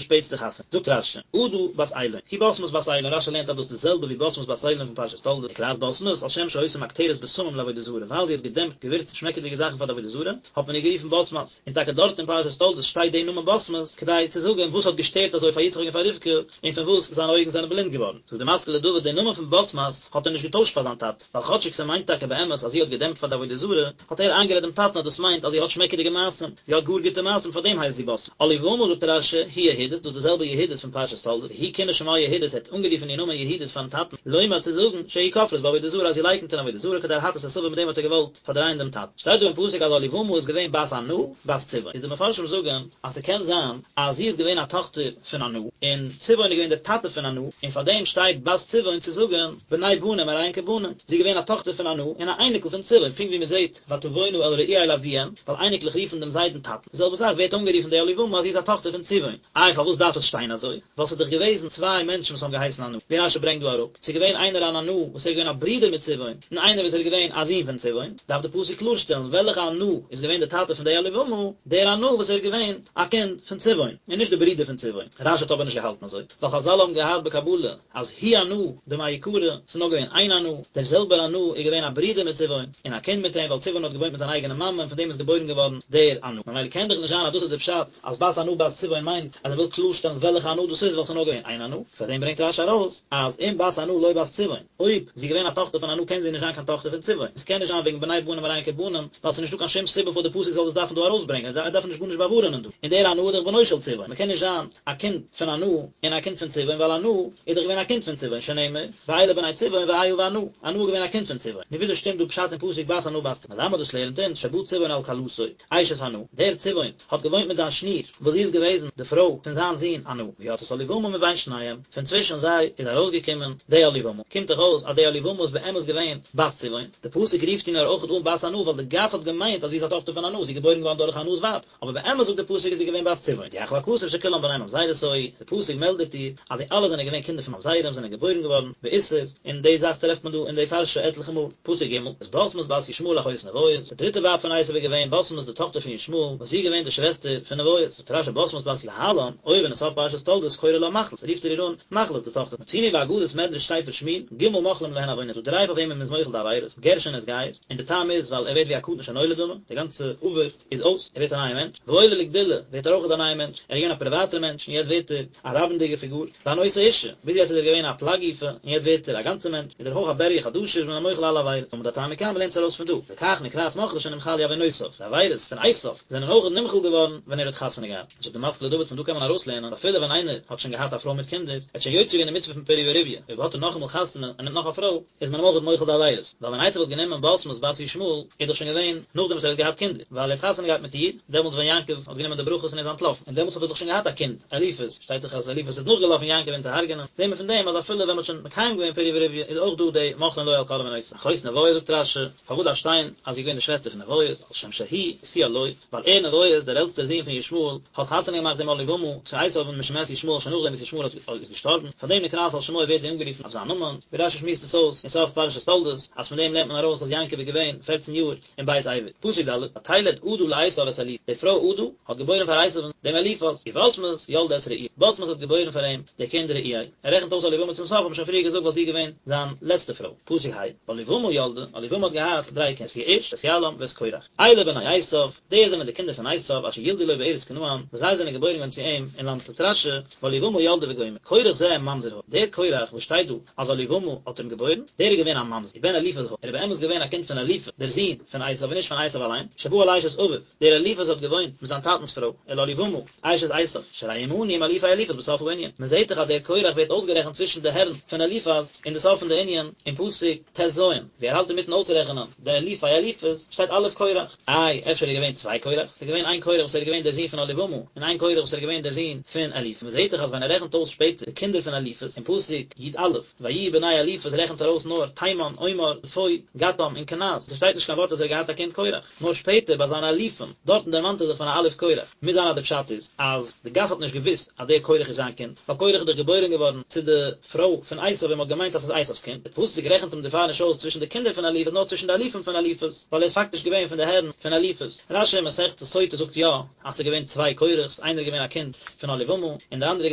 שפעטסטע חתונה. זאגט רש"י, עדה בת אילון, היא בשמת בת אילון, רש"י לערנט אז דאס איז די זעלבע ווי בשמת בת אילון פון פרשת תולדות, נקראת בשמת, על שם שהיתה מקטרת בשמים לעבודה זרה, ווייל זי האט געדעמפט געווירצן שמעקעדיגע זאכן פאר די עבודה זרה, האט מען איר גערופן בשמת, און טאקע דארט אין פרשת תולדות שטייט די נאמען בשמת, כדי צו זאגן וואס האט געשטערט אזוי פאר יצחק און פאר רבקה, און פון וואס זיינע אויגן זענען בלינד געווארן. זאגט די משכיל לדוד, די נאמען פון בשמת האט ער נישט געטוישט פאר זיין טאטע, ווייל כאטשיג ס'מיינט טאקע באמת אז זי האט געדעמפט פאר די עבודה זרה, האט ער איינגערעדט דעם טאטן אז דאס מיינט אז זי האט שמעקעדיגע מעשים, זי האט גאר גוטע מעשים פאר דעם הייסט זי בשמת. אהליבמה זאגט רש"י, היא יהודית, דאס איז די זעלבע יהודית פון פרשת תולדות, הוא כינה שמה יהודית, ער האט אנגערופן איר נאמען יהודית פארן טאטן, לומר צו זאגן, שהיא כופרת בעבודה זרה אז זי לייקנט אין עבודה זרה כדי להטעות את אביו מיט דעם האט ער געוואלט פארדרייען דעם טאטן. שטייט דא אין פסוק אז אהליבמה איז געווען בת ענה, בת צבעון, איז די מפרשים זאגן אז ס'קען זיין אז זי איז געווען א טאכטער פון ענה, און צבעון איז געווען דער טאטע פון ענה, און פאר דעם שטייט בת צבעון צו זאגן בני בנים הרי הן כבנים, זי איז געווען א טאכטער פון ענה און א אייניקל פון צבעון, פונקט ווי מען זעט ותבאנה אל רעואל אביהן, ווייל אייניקלעך רופן דעם זיידן טאטן, די זעלבע זאך ווערט אנגערופן די אהליבמה אז זי איז א טאכטער פון צבעון, איי פארוואס דארף עס שטיין אזוי? ווייל ס'איז דאך געוועזן צוויי מענטשן וואס האבן געהייסן ענה, ווי רש"י ברענגט דא אראפ, ס'איז געווען איינער אן ענה וואס ער איז געווען א ברודער מיט צבעון, און איינער וואס ער איז געווען א זון פון צבעון, דארף די פסוק קלארשטעלן וועלכע ענה איז געווען די טאטע פון די אהליבמה, דער ענה וואס ער איז געווען א קינד פון צבעון, און נישט די ברודער פון צבעון. רש"י האט אבער נישט געהאלטן. געהאלטן אזוי? ווייל חזל האבן געהאט בקבלה אז הוא ענה דמעיקרא, ס'איז נאר געווען איין ענה, דער זעלבער ענה איז געווען א ברודער מיט צבעון, און א קינד מיט אים, ווייל צבעון האט געוואוינט מיט זיין אייגענע מאמע און פון דעם איז געבוירן געווארן דער ענה. ממילא קען דאך נישט זיין אז דאס איז דער פשט אז בת ענה בת צבעון מיינט אז ער וויל קלארשטעלן וועלכע ענה דאס איז ווייל ס'איז נאר געווען איין ענה. פאר דעם ברענגט רשי ארויס אז אם בת ענה לא בת צבעון, אויב זי איז געווען א טאכטער פון ענה קען זי נישט זיין קיין טאכטער פון צבעון, עס קען נישט זיין וועגן בני בנים הרי הן כבנים, ווייל ס'איז נישטא קיין שום סיבה פארוואס די פסוק זאל דאס דארפן דא ארויסברענגען, ער דארף נישט גארנישט באווארענען דא, און דער ענה איז דאך בנו של צבעון, מ'קען נישט זיין א קינד פון ענה און א קינד פון צבעון ווייל ענה איז דאך געווען א קינד פון צבעון שנאמר ואלה בני צבעון ואיה וענה, ענה איז געווען א קינד פון צבעון, נו וויאזוי שטימט דא פשט אין פסוק בת ענה בת צבעון? מלמד דאס לערנט אונז שבא צבעון על כלתו, אשת ענה, דער צבעון האט געוואוינט מיט זיין שניר וואס זי איז געוועזן די פרוי פון זיין זון ענה, ויצאת אהליבמה מבין שניהם, פון צווישן זיי איז ארויסגעקומען די אהליבמה, קומט דאך אויס אז די אהליבמה איז באמת געווען בת צבעון, די פסוק רופט איר נאר אויכעט אן בת ענה ווייל די גאס האט געמיינט אז זי איז א טאכטער פון ענה, זי איז געבוירן געווארן דורך ענה'ס ווייב, אבער באמת זאגט די פסוק איז זי געווען בת צבעון, הודיעך הכתוב שכולם בני ממזרות היו, די פסוק מעלדעט דיר אז די אלע זענען געווען קינדער פון ממזרים זענען געבוירן געווארן באיסור, און די זאך טרעפט מען דא אין די פרשה עטליכע מאל, פסוק ג', את בשמת בת ישמעאל אחות נביות, די דריטע ווייב פון עשו איז געווען בשמת די טאכטער פון ישמעאל, וואס זי איז געווען די שוועסטער פון נביות, זאגט רשי בשמת בת להלן, אויבן אין סוף פרשת תולדות קורא לה מחלת, רופט ער איר אן מחלת די טאכטער, מצינו באגדת מדרש ספר שמואל, ג' מוחלים להן עוונות, ס'דא דריי פאר וועמען מ'איז מוחל די עבירות, גר שנתגייר, און די טעם איז ווייל ער ווערט ווי א קטן שנולד דמי, די גאנצע עבר איז אויס, ער ווערט א נייער מענטש, והעולה לגדולה ווערט ער אויך א נייער מענטש, ער איז געווען א פריוואטער מענטש און יעצט ווערט ער א רבים'דיגער פיגור, והנושא אישה, ביז יעצט איז ער געווען א פלג גופא און יעצט ווערט ער א גאנצער מענטש, איז ער אויך א בריה חדשה איז מען אים מוחל אלע עבירות, לומד אתה מכאן מ'לערנט עס ארויס פון דא, לכך נקראת מחלת שנמחלו עוונותיו, די עבירות פון עשיו זענען אויך נמחל געווארן ווען ער האט חתונה געהאט. זאגט די משכיל לדוד פון דא קען מען ארויסלערנען אפילו ווען איינער האט שוין געהאט א פרוי מיט קינדער, ער האט שוין יוצא געווען די מצוה פון פריה ורביה, אויב האט ער נאכאמאל חתונה און נעמט נאך א פרוי, איז מען אים אויך מוחל די עבירות, ווייל ווען עשו האט גענומען בשמת בת ישמעאל, איז דאך שוין געווען נאכדעם וואס ער האט געהאט קינדער, ווייל ער האט חתונה געהאט מיט איר, דעמאלטס ווען יעקב האט גענומען די ברכות און איז אנטלאפן, און דעמאלטס האט ער דאך שוין געהאט א קינד, אליפז, שטייט דאך אז אליפז איז נאכגעלאפן יעקב אים צו הרג'נען, זעהט מען פון דעם אז אפילו ווען מען האט שוין מקיים געווען פריה ורביה איז אויך דא די מוחלין לו על כל עוונותיו. אחות נביות זאגט רשי, פארוואס דארף שטיין אז זי איז געווען די שוועסטער פון נביות, על שם שהוא השיאה לו, ווייל ער נביות, דער עלטסטער זון פון ישמעאל, האט חתונה געמאכט דעם אהליבמה צו עשיו משמת ישמעאל שוין נאכדעם וואס ישמעאל איז געשטארבן, פאר דעם נקראת על שמו ווערט זי אנגערופן אויף זיין נאמען, ווי רשי שמועסט עס אויס אין סוף פרשת תולדות, אז פון דעם לערנט מען ארויס אז יעקב איז געווען פערצן יאר אין בית עבר. פסוק ד', ותלד עדה לעשו את אליפז, די פרוי עדה האט געבוירן פאר עשיו'ן דעם אליפז, ובשמת ילדה את רעואל, בשמת האט געבוירן פאר אים די קינד רעואל, ער רעכנט אויס אהליבמה צום סוף, האט מען שוין פריער געזאגט ווייל זי איז געווען זיין לעצטע פרוי. פסוק ה', ואהליבמה ילדה, אהליבמה האט געהאט דריי קינדער, את יעוש, את יעלם, ואת קורח. אלה בני עשיו, די זענען די קינדער פון עשיו, אשר ילדו לו בארץ כנען, וואס זיי זענען געבוירן געווארן צו אים אין לאנד זאגט רשי, ואהליבמה ילדה וגומר, קורח זה ממזר היה, דער קורח וואס שטייט דא אז אהליבמה האט אים געבוירן, דער איז געווען א ממזר, ובן אליפז היה, ער איז באמת געווען א קינד פון אליפז, דער זון פון עשיו און נישט פון עשיו אליין, שבא על אשת אביו, דער אליפז האט געוואוינט מיט זיין טאטנ'ס פרוי, אל אהליבמה, אשת עשיו, שהרי הוא מנוי עם אלופי אליפז בסוף הענין. מען זעט דאך אז דער קורח ווערט אויסגערעכנט צווישן די הערן פון אליפז אין די סוף פון די ענין אין פסוק ט"ז, ווי ער האלט אינמיטן אויסרעכענען די אלופי אליפז, שטייט אלוף קורח. איי, אפשר איז געווען צוויי קורח? ס'איז געווען איין קורח וואס ער איז געווען דער זון פון אהליבמה, און איין קורח וואס ער איז געווען דער זון פון אליפז. מען זעט דאך אז ווען ער רעכנט אויס שפעטער די קינדער פון אליפז אין פסוק י"א, ויהיו בני אליפז רעכנט ער אויס נאר תימן, אומר, צפו, געתם און קנז, ס'שטייט נישט קיין ווארט אז ער האט געהאט א קינד קורח. נאר שפעטער ביי זיינע אלופים, דארטן דערמאנט ער זיך פון א אלוף קורח, מוז זיין אז די פשט איז אז די גאס האט נישט געוואוסט אז דער קורח איז זיין קינד, ווייל קורח איז דאך געבוירען געווארן צו די פרוי פון עשיו און מען האט געמיינט אז ס'איז עשיו'ס קינד, די פסוק רעכנט אים דערפאר נישט אויס צווישן די קינדער פון אליפז נאר צווישן די אלופים פון אליפז, ווייל ער איז פאקטיש געווען פון די הערן פון אליפז. רשי אין מסכת סוטה זאגט יא אז ס'איז געווען צוויי קורח'ס, איינער איז געווען א קינד פון אהליבמה און דער אנדערער איז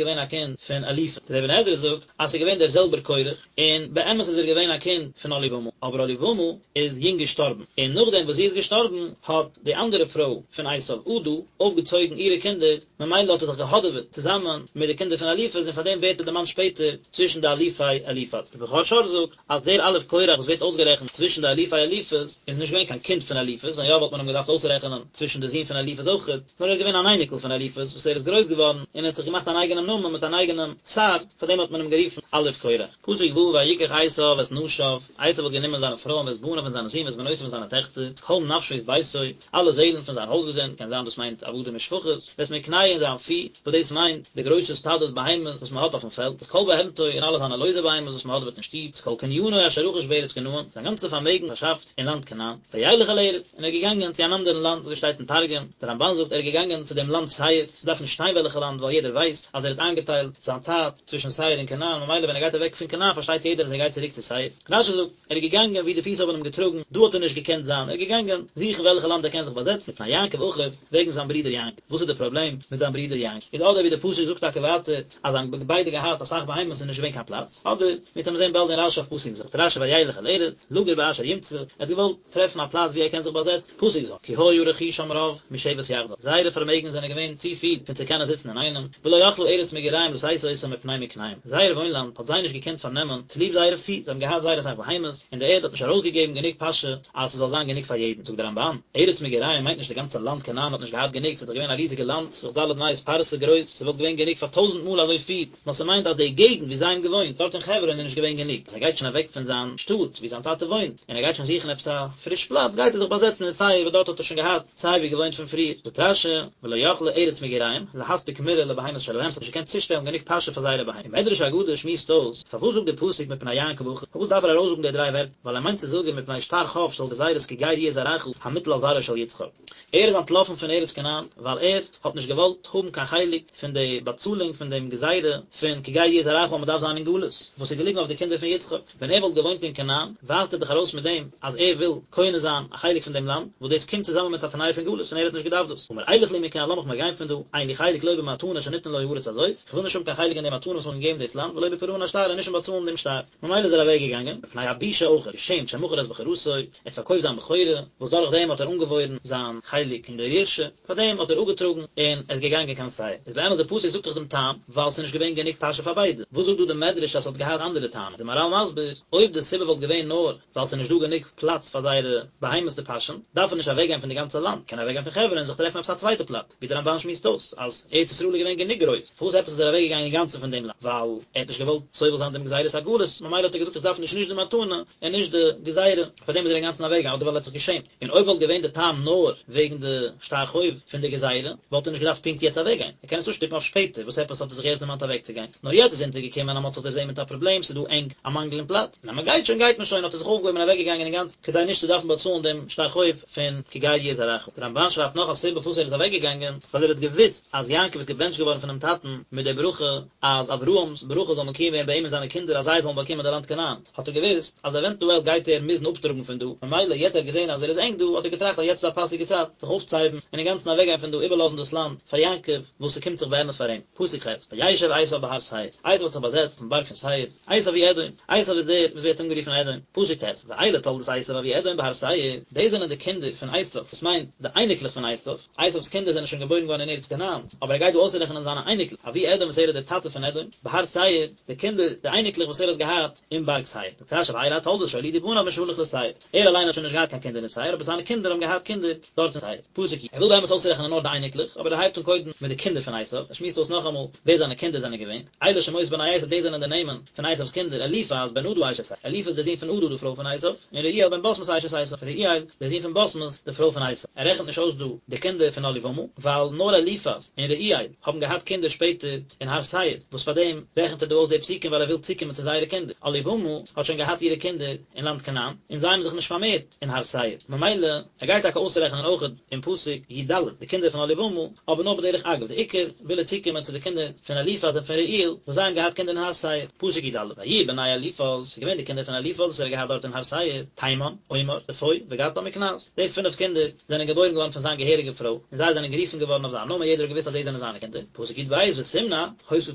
געווען א קינד פון אליפז. דער אבן עזרא זאגט אז ס'איז געווען דער זעלבער קורח, און באמת איז ער געווען א קינד פון אהליבמה, אבער אהליבמה איז יונג געשטארבן, און נאכדעם וואס זי איז געשטארבן האט די אנדערע פרוי פון עשיו עדה אויפגעצויגן אירע קינדער, ממילא האט ער זיך געהאדעוועט צוזאמען מיט די קינדער פון אליפז און פארדעם ווערט ער דערמאנט שפעטער צווישן די אלופי אליפז. דער בכור שור זאגט אז דער אלוף קורח וואס ווערט אויסגערעכנט צווישן די אלופי אליפז איז נישט געווען קיין קינד פון אליפז, ווען יא וואלט מען אים געדארפט אויסרעכענען צווישן די זין פון אליפז אויכעט, נאר ער איז געווען אן אייניקל פון אליפז וואס ער איז גרויס געווארן און ער האט זיך געמאכט אן אייגענעם נאמען מיט אן אייגענעם שר, פארדעם האט מען אים גערופן אלוף קורח. פסוק ו' ויקח עשיו את נשיו, עשיו האט גענומען זיינע פרויען ואת בניו און זיינע זין ואת בנותיו און זיינע טעכטער, את כל נפשות ביתו, אלע זעלן פון זיין הויזגעזינד, קען זיין דאס מיינט עבדים ושפחות, ואת מקנהו און זיין פי, וואס דאס מיינט די גרויסע סטאדעס בהמות וואס מען האט אויפן פעלד, את כל בהמתו און אלע זיינע לויזע בהמות וואס מען האדעוועט אין שטוב, את כל קנינו אשר רכש בארץ כנען, זיין גאנצע פארמעגן פארשאפט אין לאנד כנען, וילך אל ארץ, און ער איז געגאנגען צו אן אנדערן לאנד, אזוי שטייט אין תרגום, דער רמבן זאגט ער איז געגאנגען צו דעם לאנד שעיר, ס'דארף נישט שטיין וועלכע לאנד ווייל יעדער ווייסט אז ער האט איינגעטיילט זיין צייט צווישן שעיר און כנען, ממילא ווען ער גייט אוועק פון כנען פארשטייט יעדער אז ער גייט צוריק צו שעיר. רשי זאגט, ער איז געגאנגען וואו די פיס האבן אים געטראגן, דא האט ער נישט געקענט זיין, ער איז געגאנגען זוכן וועלכע לאנד ער קען זיך באזעצן, מפני יעקב אחיו, וועגן זיין ברודער יעקב. וואס איז די פראבלעם מיט זיין ברודער יעקב? איז אדער ווי די פסוק זאגט טאקע. טאקע ווייטער אז זיי האבן ביידע געהאט אסאך בהמות און נישט געווען קיין פלאץ, אדער מיר וועלן זען באלד אין רשי אויף פסוק ז', זאגט רשי וילך אל ארץ, לגור באשר ימצא, ער האט געוואלט טרעפן א פלאץ ווי ער קען זיך באזעצן, פסוק ז', כי היה רכושם רב משבת יחדיו, זייערע פארמעגן זענען געווען צו פיל פון צו קענען זיצן אינאיינעם, ולא יכלה ארץ מגוריהם לשאת אותם מפני מקניהם, זייער וואוינלאנד האט זיי נישט געקענט פארנעמען צוליב זייערע פי, זיי האבן געהאט זייער אסאך בהמות, און די ערד האט נישט ארויסגעגעבן גענוג פאשע אז ס'זאל זיין גענוג פאר יעדן, זאגט דער רמב"ן, ארץ מגוריהם מיינט נישט די גאנצע לאנד כנען האט נישט געהאט גענוג, ס'איז דאך געווען א ריזיגע לאנד, ס'איז דאך ד' מאות פרסה גרויס, ס'וואלט געווען גענוג פאר טויזנט מאל אזוי פיל, נאר ס'מיינט אז די געגנט ווי זיי האבן געוואוינט דארט אין חברון איז נישט געווען גענוג, אז ער גייט שוין אוועק פון זיין שטאט ווי זיין טאטע וואוינט, און ער גייט שוין זוכן עפעס א פריש פלאץ, גייט ער זיך באזעצן אין שעיר וואס דארט האט ער שוין געהאט סיי ווי געוואוינט פון פריער. זאגט רש"י, ולא יכלה ארץ מגוריהם, להספיק מרעה לבהמות שלהם, ס'האט נישט געקענט צושטעלן גענוג פאשע פאר זייערע בהמות. און מדרש אגדה שמועסט אויס, פארוואס זאגט דער פסוק מפני יעקב אחיו, פארוואס דארף ער ארויסזאגן די דריי ווערטער, ווייל ער מיינט צו זאגן מפני שטר חוב של גזירת כי גר יהיה זרעך המוטל על זרעו של יצחק. ער איז אנטלאפן פון ארץ כנען ווייל ער האט נישט געוואלט האבן קיין חלק פון די באצאלונג פון דעם גזירה פון כי גר יהיה זרעך אז מען דארף זיין אין גלות, וואס איז געליגן אויף די קינדער פון יצחק. ווען ער וואלט געוואוינט אין כנען, ווייזט ער דאך ארויס מיט דעם אז ער וויל קונה זיין א חלק פון דעם לאנד, וואס דאס קומט צוזאמען מיט א תנאי פון גלות, און ער האט נישט געדארפט דאס. אמר אלך לי מכאן, לאמיך מיר גיין פון דא, אין לי חלק לא במתנה שניתנה לו הארץ הזאת, איך וויל נישט האבן קיין חלק אין די מתנה וואס מען האט געגעבן דאס לאנד, ולא בפרעון השטר, און נישט אין באצאלן דעם שטר. ממילא איז ער אוועק געגאנגען, מפני הבושה אויך, געשעמט שמכר את בכורתו, ער האט פארקויפט זיין בכורה, וואס דורך דעם האט ער אנגעוואוירן זיין חלק אין דער ירושה. פאר דעם האט ער אפגעטראגן און ער איז געגאנגען קיין שעיר. איז באמת די פסוק זאגט דאך דעם טעם, ווייל ס'איז נישט געווען גענוג פאשע פאר ביידע. וואס זאגט דא די מדרש אז ס'האט געהאט אנדערע טעמים? איז די מהר"ל מסביר, אויב די סיבה וואלט געווען נאר ווייל ס'איז נישט דא גענוג פלאץ פאר זייערע בהמות צו פאשען, דארף ער נישט אוועקגיין פון די גאנצע לאנד, קען ער אוועקגיין פון חברון און זיך טרעפן עפעס א צווייטע פלאץ, ווי די רמב"ן שמועסט אויס אז ארץ ישראל איז געווען גענוג גרויס, פארוואס עפעס איז ער אוועקגעגאנגען אינגאנצן פון דעם לאנד? ווייל ער האט נישט געוואלט סובל זיין דעם גזירת הגלות, ממילא האט ער געזאגט איך דארף נישט נישט די מתנה און נישט די גזירה, פארדעם איז ער אינגאנצן אוועקגעגאנגען, אדער ווייל ער האט זיך געשעמט. און אויב וואלט געווען די טעם נאר וועגן די שטר חוב פון די גזירה, וואלט ער נישט געדארפט פונקט יעצט אוועקגיין, ער קען עס אפשטופן אויף שפעטער, וואס עפעס האט ער זיך יעצט דערמאנט אוועקצוגיין? נאר יעצט איז אונטערגעקומען אז מען האט זיך דערזען מיט א פראבלעם, ס'איז דא ענג, א מאנגל אין פלאץ, און אז מען גייט שוין גייט מען שוין, האט ער זיך אויפגעהויבן און אוועקגעגאנגען אינגאנצן, כדי נישט צו דארפן באצאלן דעם שטר חוב פון כי גר יהיה זרעך. דער רמב"ן שרייבט נאך א סיבה פארוואס ער איז אוועקגעגאנגען, ווייל ער האט געוואוסט אז יעקב איז געבענטשט געווארן פונעם טאטן מיט די ברכה אז אברהם'ס ברכה זאל מקוים ווערן ביי אים און זיינע קינדער אז זיי זאלן באקומען די לאנד כנען. האט ער געוואוסט אז עווענטועל גייט ער מוזן אפטראגן פון דא, ממילא יעצט ער האט געזען אז ער איז ענג דא, האט ער געטראכט אז יעצט איז א פאסיגע צייט זיך אויפצוהייבן און אינגאנצן אוועקגיין פון דא, איבערלאזן דאס לאנד פאר יעקב, וואס ס'קומט זיך באמת פאר אים. פסוק ח', וישב עשו בהר שעיר, עשו האט זיך באזעצט אויפן בארג פון שעיר, עשו הוא אדום, עשו איז דער וואס ווערט אנגערופן אדום. פסוק ט', ואלה תולדות עשו אבי אדום בהר שעיר, דאס זענען די קינדער פון עשו, וואס מיינט די אייניקלעך פון עשו, עשו'ס קינדער זענען שוין געבוירן געווארן אין ארץ כנען, אבער ער גייט דא אויסרעכענען זיינע אייניקלעך, אבי אדום וואס ער איז דער טאטע פון אדום, בהר שעיר, די קינדער, די אייניקלעך וואס ער האט געהאט אין בארג שעיר. זאגט רש"י ואלה התולדות שהולידו בניו משהלך לשעיר. ער אליין האט שוין נישט געהאט קיין קינדער אין שעיר, אבער זיינע קינדער האבן געהאט קינדער דארט אין שעיר. פסוק י. ער וויל באמת אויסרעכענען נאר די אייניקלעך, אבער ער הייבט אן קודם מיט די קינדער פון עשיו, ער שמועסט אויס נאכאמאל ווער זיינע קינדער זענען געווען. אלה שמות בני עשיו דאס זענען די נעמען פון עשיו'ס קינדער, אליפז בן עדה אשת אליפז דער זון פון עדה די פרוי פון עשיו, און רעואל בן בשמת אשת עשיו, רעואל דער זון פון בשמת די פרוי פון עשיו. ער רעכנט נישט אויס דא די קינדער פון אהליבמה, ווייל נאר אליפז און רעואל האבן געהאט קינדער שפעטער אין הר שעיר, וואס פאר דעם רעכנט ער דא אויס די פסוקים ווייל ער וויל צוקומען צו זייערע קינדער. אהליבמה האט שוין געהאט אירע קינדער אין לאנד כנען, און זיי האבן זיך נישט פארמערט אין הר שעיר, ממילא ער גייט טאקע אויסרעכענען אויך אין פסוק י"ד די קינדער פון אהליבמה, אבער נאר בדרך אגב, די עיקר וויל ער צוקומען צו די קינדער פון אליפז און פון רעואל, וואס זיי האבן געהאט קינדער אין הר שעיר, פסוק י"א, ויהיו בני אליפז, ס'איז געווען די קינדער פון אליפז וואס ער האט געהאט דארט אין הר שעיר, תימן, אומר, צפו, וגעתם וקנז, די פינף קינדער זענען געבוירן געווארן פון זיין געהעריגע פרוי, און זיי זענען גערופן געווארן אויף זיין נאמען, יעדער האט געוואוסט אז די זענען זיינע קינדער, פסוק י"ב, ותמנע, היתה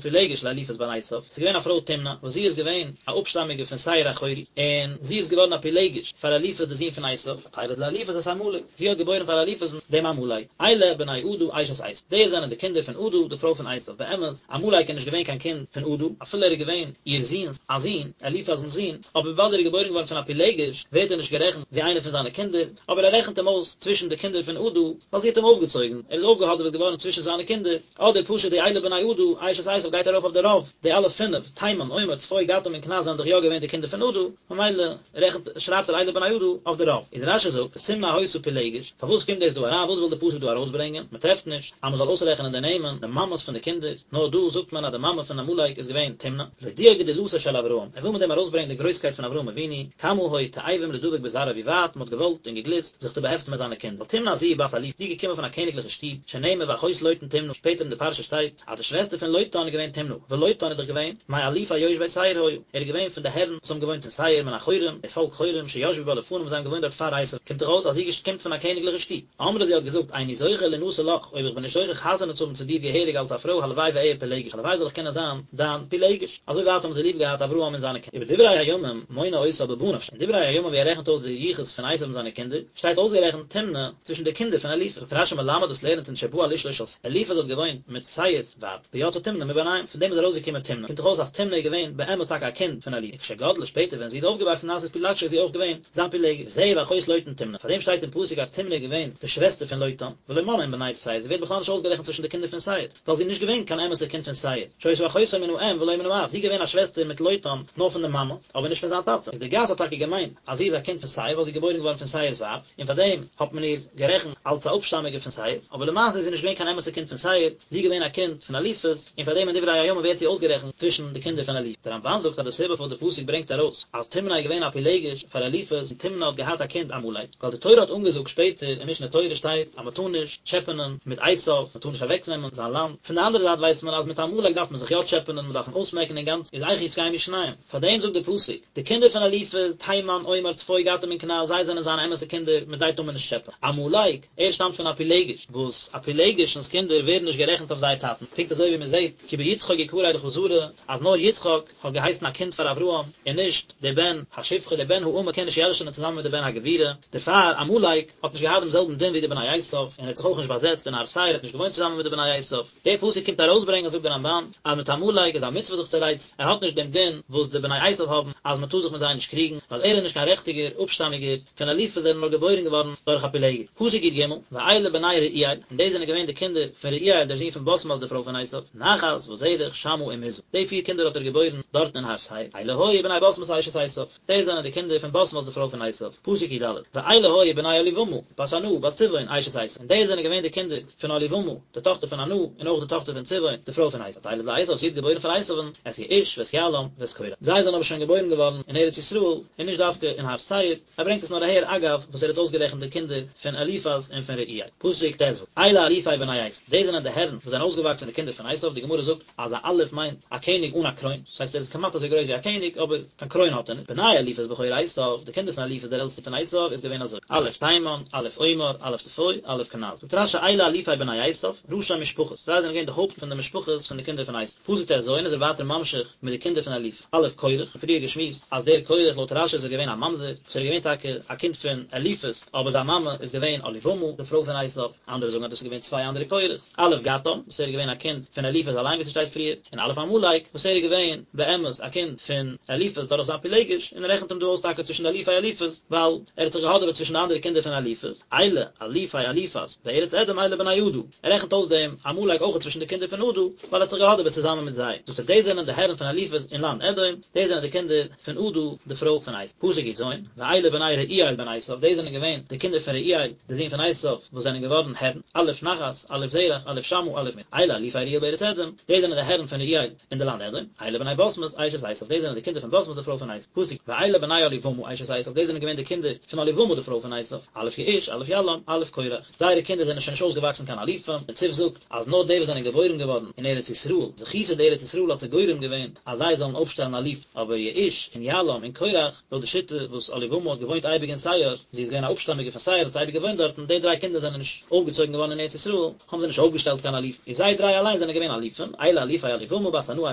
פילגש לאליפז בן עשיו, ס'איז געווען א פרוי תמנע, וואס זי איז געווען א אפשטאמיגע פון שעיר החורי, און זי איז געווארן א פילגש פאר אליפז די זון פון עשיו, ותלד לאליפז את עמלק, זי האט געבוירן פאר אליפזן דעם עמלק, אלה בני עדה אשת עשיו, די זענען די קינדער פון עדה די פרוי פון עשיו, באמת, עמלק איז נישט געווען קיין קינד פון עדה, אפילו ער איז געווען איר זון'ס א זון, אליפז'נס זון, אבער וויבאלד ער איז געבוירן געווארן פון א פילגש, ווערט ער נישט גערעכנט ווי איינער פון זיינע קינדער, אבער ער רעכנט אים אויס צווישן די קינדער פון עדה, ווייל זי האט אים אויפגעצויגן, ער איז אויפגעהאדעוועט געווארן צווישן זיינע קינדער. אדער פשוט די אלה בני עדה, אשת עשיו גייט ארויף אויף די רוב, די אלע פינף, תימן, אומר, צפו, געתם און קנז זענען דאך יא געווען די קינדער פון עדה, ממילא רעכנט, שרייבט ער אלה בני עדה אויף די רוב. איז רש"י זאגט, ותמנע היתה פילגש, פארוואס קומט דאס דא אריין, וואס וויל די פסוק דא ארויסברענגען, מען טרעפט נישט אז מען זאל אויסרעכענען די נעמען, די מאמעס פון די קינדער, נאר דא זאגט מען אז די מאמע פון עמלק איז געווען תמנע, להודיע גדולתו של אברהם, ער וויל מיט דעם ארויסברענגען די גרויסקייט פון אברהם אבינו, כמה היו תאבים לדבק בזרעו ווי ווייט מען האט געוואלט און געגליסט זיך צו באהעפטן מיט זיינע קינדער, ווייל תמנע זו בת אלופים, זי איז געקומען פון א קעניגליכע שטוב, שנאמר ואחות לוטן תמנע, שפעטער אין די פרשה שטייט אז די שוועסטער פון לוטן איז געווען תמנע, ולוטן איז דאך געווען מאלופי יושבי שעיר היה, ער איז געווען פון די הערן וואס האבן געוואוינט אין שעיר מן החורים, די פאלק חורים שישבו בה לפניו וואס זיי האבן געוואוינט דארט פאר עשו, קומט דאך אויס אז זי קומט פון א קעניגליכע שטוב. אמרה זי האט געזאגט איני זוכה לינשא לך, אויב איך בין נישט זוכה חתונה צו האבן צו דיר געהעריג אלס א פרוי הלוואי. הלוואי ואהיה פילגש, הלוואי זאל איך קענען זיין דיין פילגש. אזוי ווייט האבן זיי ליב געהאט אברהם און זיינע קינדער. ובדברי הימים מונה אותה בבניו, אין דברי הימים ווי ער רעכנט אויס די יחוס פון עשיו און זיינע קינדער, שטייט אויסגערעכנט תמנע צווישן די קינדער פון אליפז. זאגט רשי מלמד דאס לערנט אונז שבא על אשתו של שעיר, אליפז האט געוואוינט מיט שעיר'ס ווייב, ויצאה תמנע מביניהם, פון דעם איז ארויסגעקומען תמנע, קומט דאך אויס אז תמנע איז געווען באמת טאקע א קינד פון אליפז, וכשגדלה שפעטער ווען זי איז אויפגעוואקסן נעשית פילגשו איז זי אויך געווען זיין פילגש, וזהו ואחות לוטן תמנע, פאר דעם שטייט אין פסוק אז תמנע איז געווען די שוועסטער פון לוטן, ולא מנאן עם בני שעיר, זי ווערט בכלל נישט אויסגערעכנט צווישן די קינדער פון שעיר, ווייל זי איז נישט געווען קיין אמת'ע קינד פון שעיר, שהיתה אחותו מן האם ולא מן האב, זי איז געווען א שוועסטער מיט לוטן נאר פון די מאמע, אבער נישט פון זיין טאטע, איז די גאס האט טאקע געמיינט אז זי איז א קינד פון שעיר ווייל זי איז געבוירן געווארן פון שעיר'ס ווייב, און פאר דעם האט מען איר גערעכנט אלס א אפשטאמיגע פון שעיר, אבער למעשה איז זי נישט געווען קיין אמת'ע קינד פון שעיר, זי איז געווען א קינד פון אליפז, און פאר דעם אין דברי הימים ווערט זי אויסגערעכנט צווישן די קינדער פון אליפז. דער רמבן זאגט אז די סיבה פארוואס די פסוק ברענגט ארויס אז תמנע איז געווען א פילגש פאר אליפז און תמנע האט געהאט א קינד עמלק, ווייל די תורה האט אנגעזאגט שפעטער אין משנה תורה שטייט אז מען טאר נישט טשעפענען מיט עשיו, מען טאר נישט אוועקנעמען זיין לאנד, פון די אנדערע זייט ווייסט מען אז מיט עמלק דארף מען זיך יא טשעפענען, מען דארף אים אויסמעקן אינגאנצן, איז איך יתקיימו שניהם? פאר דעם זאגט די פסוק, די קינדער פון אליפז, תימן, אומר, צפו, געתם און קנז, זיי זענען זיינע אמת'ע קינדער, מיט זיי טאר מען נישט טשעפען. עמלק, ער שטאמט פון א פילגש, וואס א פילגש'נס קינדער ווערן נישט גערעכנט אויף זייער טאטן, פונקט אזוי ווי מען זעט כי ביצחק יקרא לך זרע, אז נאר יצחק האט געהייסן א קינד פאר אברהם, און נישט דער בן השפחה, דער בן האמה קען נישט ירש'נען צוזאמען מיט דער בן הגבירה, דערפאר עמלק האט נישט געהאט דעם זעלבן דין ווי די בני עשיו, און ער האט זיך אויך נישט באזעצט אין הר שעיר, ער האט נישט געוואוינט צוזאמען מיט די בני עשיו. דער פסוק קומט ארויסברענגען זאגט דער רמבן, אז מיט עמלק איז א מצוה זיך צו רייצן, ער האט נישט דעם דין וואס די בני עשיו האבן אז מען טאר זיך מיט זיי נישט קריגן, ווייל ער איז נישט קיין רעכטיגער אפשטאמיגער פון אליפז ער איז נאר געבוירן געווארן דורך א פילגש. פסוק י ג, ואלה בני רעואל, און דאס זענען געווען די קינדער פון רעואל דער זון פון בשמת די פרוי פון עשיו, נחת וזרח שמה ומזא, די פיר קינדער האט ער געבוירן דארטן אין הר שעיר, אלה היו בני בשמת אשת עשיו. דאס זענען די קינדער פון בשמת די פרוי פון עשיו, פסוק י ד, ואלה היו בני אהליבמה, בת ענה, בת צבעון, אשת עשיו, און דאס זענען געווען די קינדער פון אהליבמה, די טאכטער פון ענה, און אויך די טאכטער פון צבעון, די פרוי פון עשיו, ותלד לעשיו, זי האט געבוירן פאר עשיו'ן, את יעוש, ואת יעלם, ואת קורח. זיי זענען אבער שוין געבוירן געווארן אין ארץ ישראל, און נישט דווקא אין הר שעיר, ער ברענגט עס נאר אהער אגב וואס ער האט אויסגערעכנט די קינדער פון אליפז און פון רעואל. פסוק ט ו, אלה אלופי בני עשיו, דאס זענען די הערן וואס זענען אויסגעוואקסען די קינדער פון עשיו, די גמרא זאגט, אז א אלוף מיינט א קעניג אן א קרוין, דאס הייסט ער איז כמעט אזוי גרויס ווי א קעניג אבער קיין קרוין האט ער נישט, בני אליפז בכור עשיו, די קינדער פון אליפז דער עלטסטער פון עשיו איז געווען אזוי, אלוף תימן, אלוף אומר, אלוף צפו, אלוף קנז. זאגט רש י אלה אלופי בני עשיו, ראשי משפחות, זיי זענען געווען די הויפט פון די משפחות פון די קינדער פון עשיו. פסוק ט ז איז ער ווייטער ממשיך מיט די קינדער פון אליפז, אלוף קורח, פריער געשמועסט אז דער קורח לויט רש י איז ער געווען א ממזר, וואס ער איז געווען טאקע א קינד פון אליפז, אבער זיין מאמע איז געווען אהליבמה, די פרוי פון עשיו, אנדערע זאגן אז דאס איז געווען צוויי אנדערע קורח'ס. אלוף געתם, וואס ער איז געווען א קינד פון אליפז אליין ווי ס'שטייט פריער, און אלוף עמלק, וואס ער איז געווען באמת א קינד פון אליפז דורך זיין פילגש, און ער רעכנט אים דא אויס טאקע צווישן די אלופי אליפז, ווייל ער האט זיך געהאדעוועט צווישן די אנדערע קינדער פון אליפז, אלה אלופי אליפז, בארץ אדום אלה בני עדה, ער רעכנט אויס דעם עמלק אויך צווישן די קינדער פון עדה, ווייל ער האט זיך געהאדעוועט צוזאמען מיט זיי. זאגט ער דאס זענען די הערן פון אליפז אין לאנד אדום, דאס זענען די קינדער פון עדה די פרוי פון עשו. פסוק י ז, ואלה בני רעואל בן עשו, דאס זענען געווען די קינדער פון רעואל די זון פון עשו, וואס זענען געווארן הערן, אלוף נחת, אלוף זרח, אלוף שמה, אלוף מזה, אלה אלופי רעואל בארץ אדום, דאס זענען די הערן פון רעואל אין די לאנד אדום, אלה בני בשמת אשת עשו, דאס זענען די קינדער פון בשמת די פרוי פון עשו. פסוק, ואלה בני אהליבמה אשת עשו, דאס זענען געווען די קינדער פון אהליבמה די פרוי פון עשו, אלוף יעוש, אלוף יעלם, אלוף קורח. זייערע קינדער זענען שוין נישט אויסגעוואקסן קיין אלופים, דער ציף זאגט, אז נאר די וואס זענען געבוירן געווארן אין ארץ ישראל, זכותא דארץ ישראל האט זיי גורם געווען אז זיי זאלן אויפשטעלן אלופים, אבער יעוש און יעלם און קורח, לויט די שיטה וואס אהליבמה האט געוואוינט אייביג אין שעיר, זי איז געווען א אפשטאמיגע פון שעיר האט אייביג געוואוינט דארטן, די דריי קינדער זענען נישט אויפגעצויגן געווארן אין ארץ ישראל, האבן זיי נישט אויפגעשטעלט קיין אלופים, און זיי דריי אליין זענען געווען אלופים, אלה אלופי אהליבמה בת ענה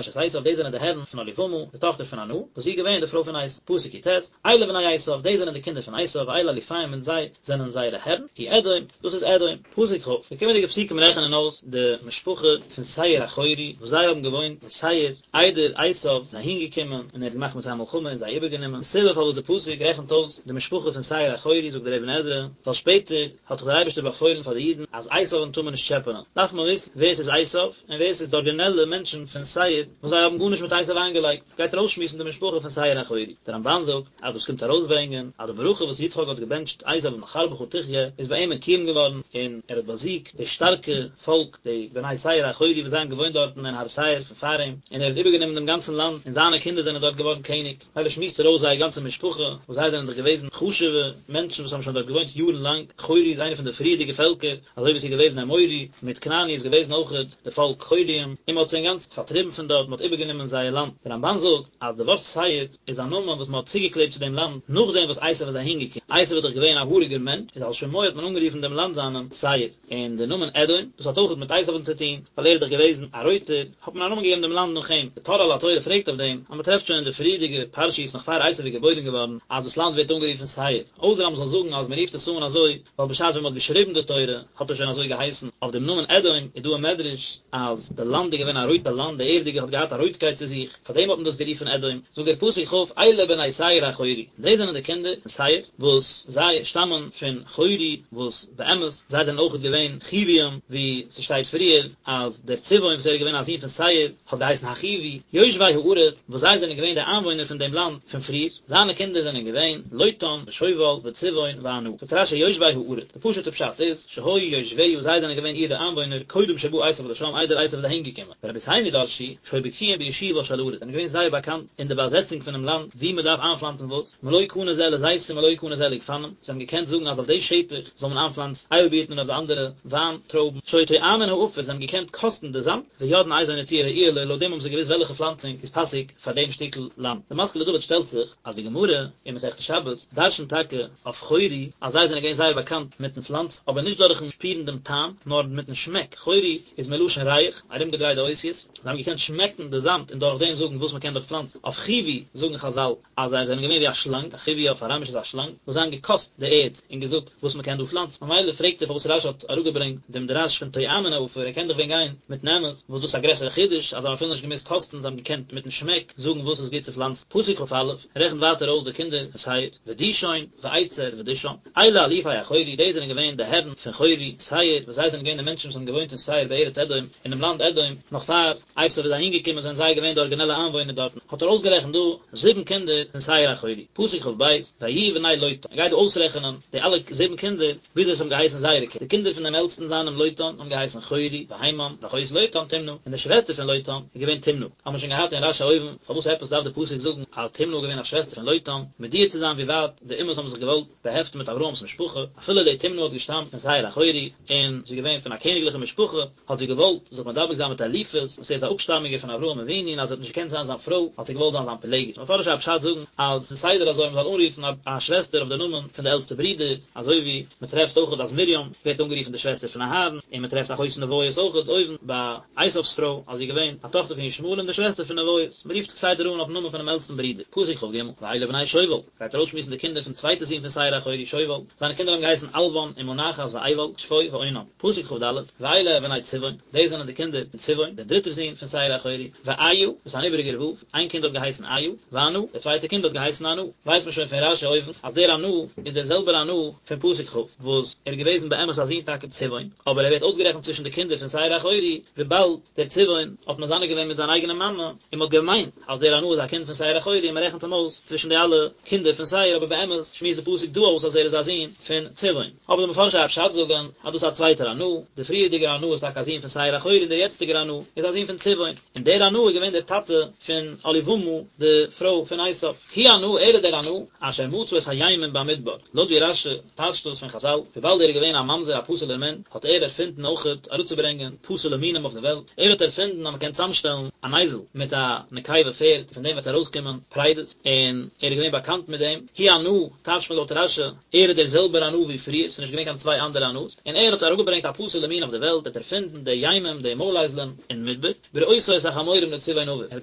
אשת עשיו, דאס זענען די הערן פון אהליבמה, די טאכטער פון ענה, וואס זי איז געווען די פרוי פון עשיו, פסוק י ט, אלה בני עשיו, דאס זענען די קינדער פון עשיו, ואלה אלופיהם און זיי זענען זייערע הערן, הוא אדום, דאס איז אדום. פסוק כ, די קומענדיגע פסוקים רעכענען אויס די משפחה פון שעיר החורי וואס זיי האבן געוואוינט אין שעיר איידער עשיו איז אהין געקומען און ער האט געמאכט מיט זיי מלחמה און זיי איבערגענומען. די סיבה פארוואס די פסוק רעכנט אויס די משפחה פון שעיר החורי זאגט דער אבן עזרא, ווייל שפעטער האט דאך דער אייבערשטער באפוילן פאר די אידן אז עשיו'ן טאר מען נישט טשעפענען, דארף מען וויסן ווער ס'איז עשיו און ווער ס'איז די ארגינעלע מענטשן פון שעיר וואס זיי האבן גארנישט מיט עשיו איינגעלייגט. גייט ער אויסשמועסן די משפחה פון שעיר החורי. דער רמבן זאגט אז דאס קומט ארויסברענגען אז די ברכה וואס יצחק האט געבענטשט עשיו מחרבך תחיה איז ביי אים מקוים געווארן און ער האט באזיגט די שטארקע פאלק די בני שעיר החורי וואס זיי האבן געוואוינט דארטן אין הר שעיר פון פאר אים און ער האט איבערגענומען דעם גאנצן לאנד און זיינע קינדער זענען דארט געווארן קעניג. מילא שמועסט ער אויס זייער גאנצע משפחה וואס זיי זענען דאך געוועזן חשובע מענטשן וואס האבן שוין דארט געוואוינט יארן לאנג, חורי איז איינע פון די פריערדיגע פעלקער אזוי ווי עס איז געוועזן אמורי מיט כנעני איז געוועזן אויכעט די פאלק חוריים, און מען האט זיי אינגאנצן פארטריבן פון דארט, מען האט איבערגענומען זייער לאנד. דער רמבן זאגט אז די ווארט שעיר איז א נאמען וואס מען האט צוגעקלעבט צו דעם לאנד נאכדעם וואס עשיו איז אהינגעקומען. עשו איז דאך געווען א האריגער מענטש, איז על שמו האט מען אנגערופן דעם לאנד זיינעם שעיר. און דער נאמען אדום, דאס האט אויכעט מיט עשו'ן צו טון, ווייל ער איז דאך געוועזן א רויטער, האט מען א נאמען געגעבן דעם לאנד נאך אים. דער טור על התורה פרעגט אויף דעם, אז מען טרעפט שוין אין די פריערדיגע פרשיות נאך פאר עשו איז געבוירן געווארן, אז דאס לאנד ווערט אנגערופן שעיר. אויסער אז מען זאל זאגן אז מען רופט עס אן אזוי, ווייל בשעת ווען מען האט געשריבן די תורה, האט עס שוין אזוי געהייסן. אויף דעם נאמען אדום איז דא א מדרש, אז די לאנד איז געווען א רויטע לאנד, די ערדיגע האט געהאט א רויטקייט צו זיך, פאר דעם האט מען דאס גערופן אדום. זאגט דער פסוק כ', אלה בני שעיר החורי, דאס זענען די קינדער פון שעיר, וואס זיי שטאמען פון חורי, וואס באמת, זיי זענען אויכעט געווען חיוויים, ווי ס'שטייט פריער אז דער צבעון וואס ער איז געווען א זון פון שעיר, האט געהייסן החיווי, יושבי הארץ, וואס זיי זענען געווען די איינוואוינער פון דעם לאנד פון פריער, זיינע קינדער זענען געווען, לוטן, ושובל, וצבעון, וענה. זאגט רש"י יושבי הארץ, די פשוט'ע פשט איז, שהיו יושביה, זיי זענען געווען אירע איינוואוינער, קודם שבא עשיו לשם, איידער עשיו איז אהין געקומען. ורבותינו דרשו, שהיו בקיאים בישובה של ארץ, זענען געווען זייער באקאנט אין די באזעצונג פונעם לאנד, וואו מען דארף איינפלאנצן וואס, מלא קנה זה לזיתים מלא קנה זה לגפנים, זיי האבן געקענט זאגן אז אויף די שטח זאל מען איינפלאנצן איילבירטן און אויף די אנדערע וויין טרויבן, שהיו טועמין העפר, זיי האבן געקענט קאסטן די זאמד, ויודעין איזו נטיעה ראויה לו, לויט דעם האבן זיי געוואוסט וועלכע פלאנצונג איז פאסיג פאר דעם שטיקל לאנד. די משכיל לדוד שטעלט זיך אז די גמרא אין מסכת שבת דרשנ'ט טאקע אויף חורי אז זיי זענען געווען זייער באקאנט מיטן פלאנצן, אבער נישט דורכן שפירן דעם טעם, נאר מיטן שמעק, חורי איז מלשון ריח, ארומגעדרייט די אותיות, זיי האבן געקענט שמעקן די זאמד און דורך דעם זאגן וואס מען קען דארט פלאנצן. אויף חיווי זאגן חז"ל אז זיי זענען געווען ווי א שלאנג, א חיווי אויף אראמיש איז א שלאנג, וואס זיי האבן געקאסט די ערד און געזאגט וואס מען קען דא פלאנצן. ממילא פרעגט ער פארוואס רש"י האט אראפגעברענגט דעם דרש פון טועמין העפר, ער קען דאך ווען גיין מיטן אמת, וואס דאס איז א גרעסערע חידוש אז זיי האבן אפילו נישט געמוזט קאסטן, זיי האבן געקענט מיטן שמעק זאגן וואס איז גוט צו פלאנצן. פסוק כ"א רעכנט ווייטער אויס די קינדער פון שעיר, ודישון, ואצר, ודישן. אלה אלופי החורי, דאס זענען געווען די הערן פון חורי, שעיר, וואס זיי זענען געווען די מענטשן וואס האבן געוואוינט אין שעיר בארץ אדום, אינעם לאנד אדום, נאך פאר עשו איז אהין געקומען זענען זיי געווען די ארגינעלע איינוואוינער דארטן, האט ער אויסגערעכנט דא זיבן קינדער פון שעיר החורי, פסוק כ"ב, ויהיו בני לוטן, ער גייט דא אויסרעכענען די אלע זיבן קינדער, וויאזוי עס האבן געהייסן זייערע קינדער, די קינדער פון דעם עלטסטן זיינעם לוטן האבן געהייסן חורי, והימם, ואחות לוטן תמנע, און די שוועסטער פון לוטן איז געווען תמנע, האבן מיר שוין געהאט אין רש"י אויבן, פארוואס עפעס דארף די פסוק זאגן אז תמנע איז געווען א שוועסטער פון לוטן, מודיע צו זיין ווי ווייט די אומות האבן זיך געוואלט באהעפטן מיט אברהם'ס משפחה, אפילו די תמנע האט געשטאמט פון שעיר החורי, און זי איז געווען פון א קעניגליכע משפחה, האט זי געוואלט זיך מדבק זיין מיט אליפז, וואס ער איז א אפשטאמיגער פון אברהם אבינו און אז זי האט נישט געקענט זיין זיין פרוי, האט זי געוואלט זיין זיין פילגש. מפרשי הפשט זאגן אז ס'איז סדר אזוי מ'זאל אנרופן א שוועסטער אויף די נאמען פון די עלטסטע ברודער, אזוי ווי מ'טרעפט אויכעט אז מרים ווערט אנגערופן די שוועסטער פון אהרן, און מ'טרעפט אחות נביות אויכעט אויבן ביי עשיו'ס פרוי אז זי איז געווען א טאכטער פון ישמעאל און די שוועסטער פון נביות, מ'רופט כסדר אן אויפן נאמען פונעם עלטסטן ברודער. פסוק כ"ג, ואלה בני שובל. גייט ער אויסשמועסן די קינדער פון צווייטע זון פון שעיר החורי שובל, זיינע קינדער האבן געהייסן אלוון ומנחת ועיבל, שפו ואונם. פסוק כ"ד, ואלה בני צבעון, דאס זענען די קינדער פון צבעון, דער דריטער זון פון שעיר החורי, ואיה, דאס איז אן איבעריגער ו', איין קינד האט געהייסן איה, וענה, דער צווייטער קינד האט געהייסן ענה. ווייסט מען שוין פון רש"י אויבן, אז דער ענה איז דער זעלבער ענה פון פסוק כ', וואס ער איז געוועזן באמת א זון טאקע צבעון, אבער ער ווערט אויסגערעכנט צווישן די קינדער פון שעיר החורי, וויבאלד דער צבעון האט מזנה געווען מיט זיין אייגענע מאמע, און מען האט געמיינט אז דער ענה איז א קינד פון שעיר החורי און מען רעכנט אים אויס צווישן די אלע קינדער פון שעיר, אבער באמת שמועסט די פסוק דא אויס אז ער איז א זון פון צבעון. אבער די מפרשי הפשט זאגן אז דאס איז א צווייטער ענה, דער פריערדיגער ענה איז טאקע א זון פון שעיר החורי און דער יעצטיגער ענה איז א זון פון צבעון, און דער ענה איז געווען דער טאטע פון אהליבמה די פרוי פון עשיו. הוא ענה, ער איז דער ענה, אשר מצא את הימים במדבר, לויט ווי רש"י טייטשט דאס פון חז"ל, וויבאלד ער איז געווען א ממזר א פסול'ער מין, האט ער ערפינדן אויכעט אראפצוברענגען פסול'ע מינים אויף די וועלט, ער האט ערפינדן אז מען קען צאמשטעלן אן אייזל מיט א נקבה פערד, פון דעם וועט ארויסקומען פרדות, און ער איז געווען באקאנט מיט דעם, הוא ענה, טייטשט מען לויט רש"י, ער איז דער זעלבער ענה ווי פריער, ס'איז נישט געווען קיין צוויי אנדערע ענה'ס, און ער האט אראפגעברענגט א פסול'ע מין אויף די וועלט, ער האט ערפינדן די ימים, די מויל-אייזלען, אין מדבר. בראותו את החמורים לצבעון אביו, ער האט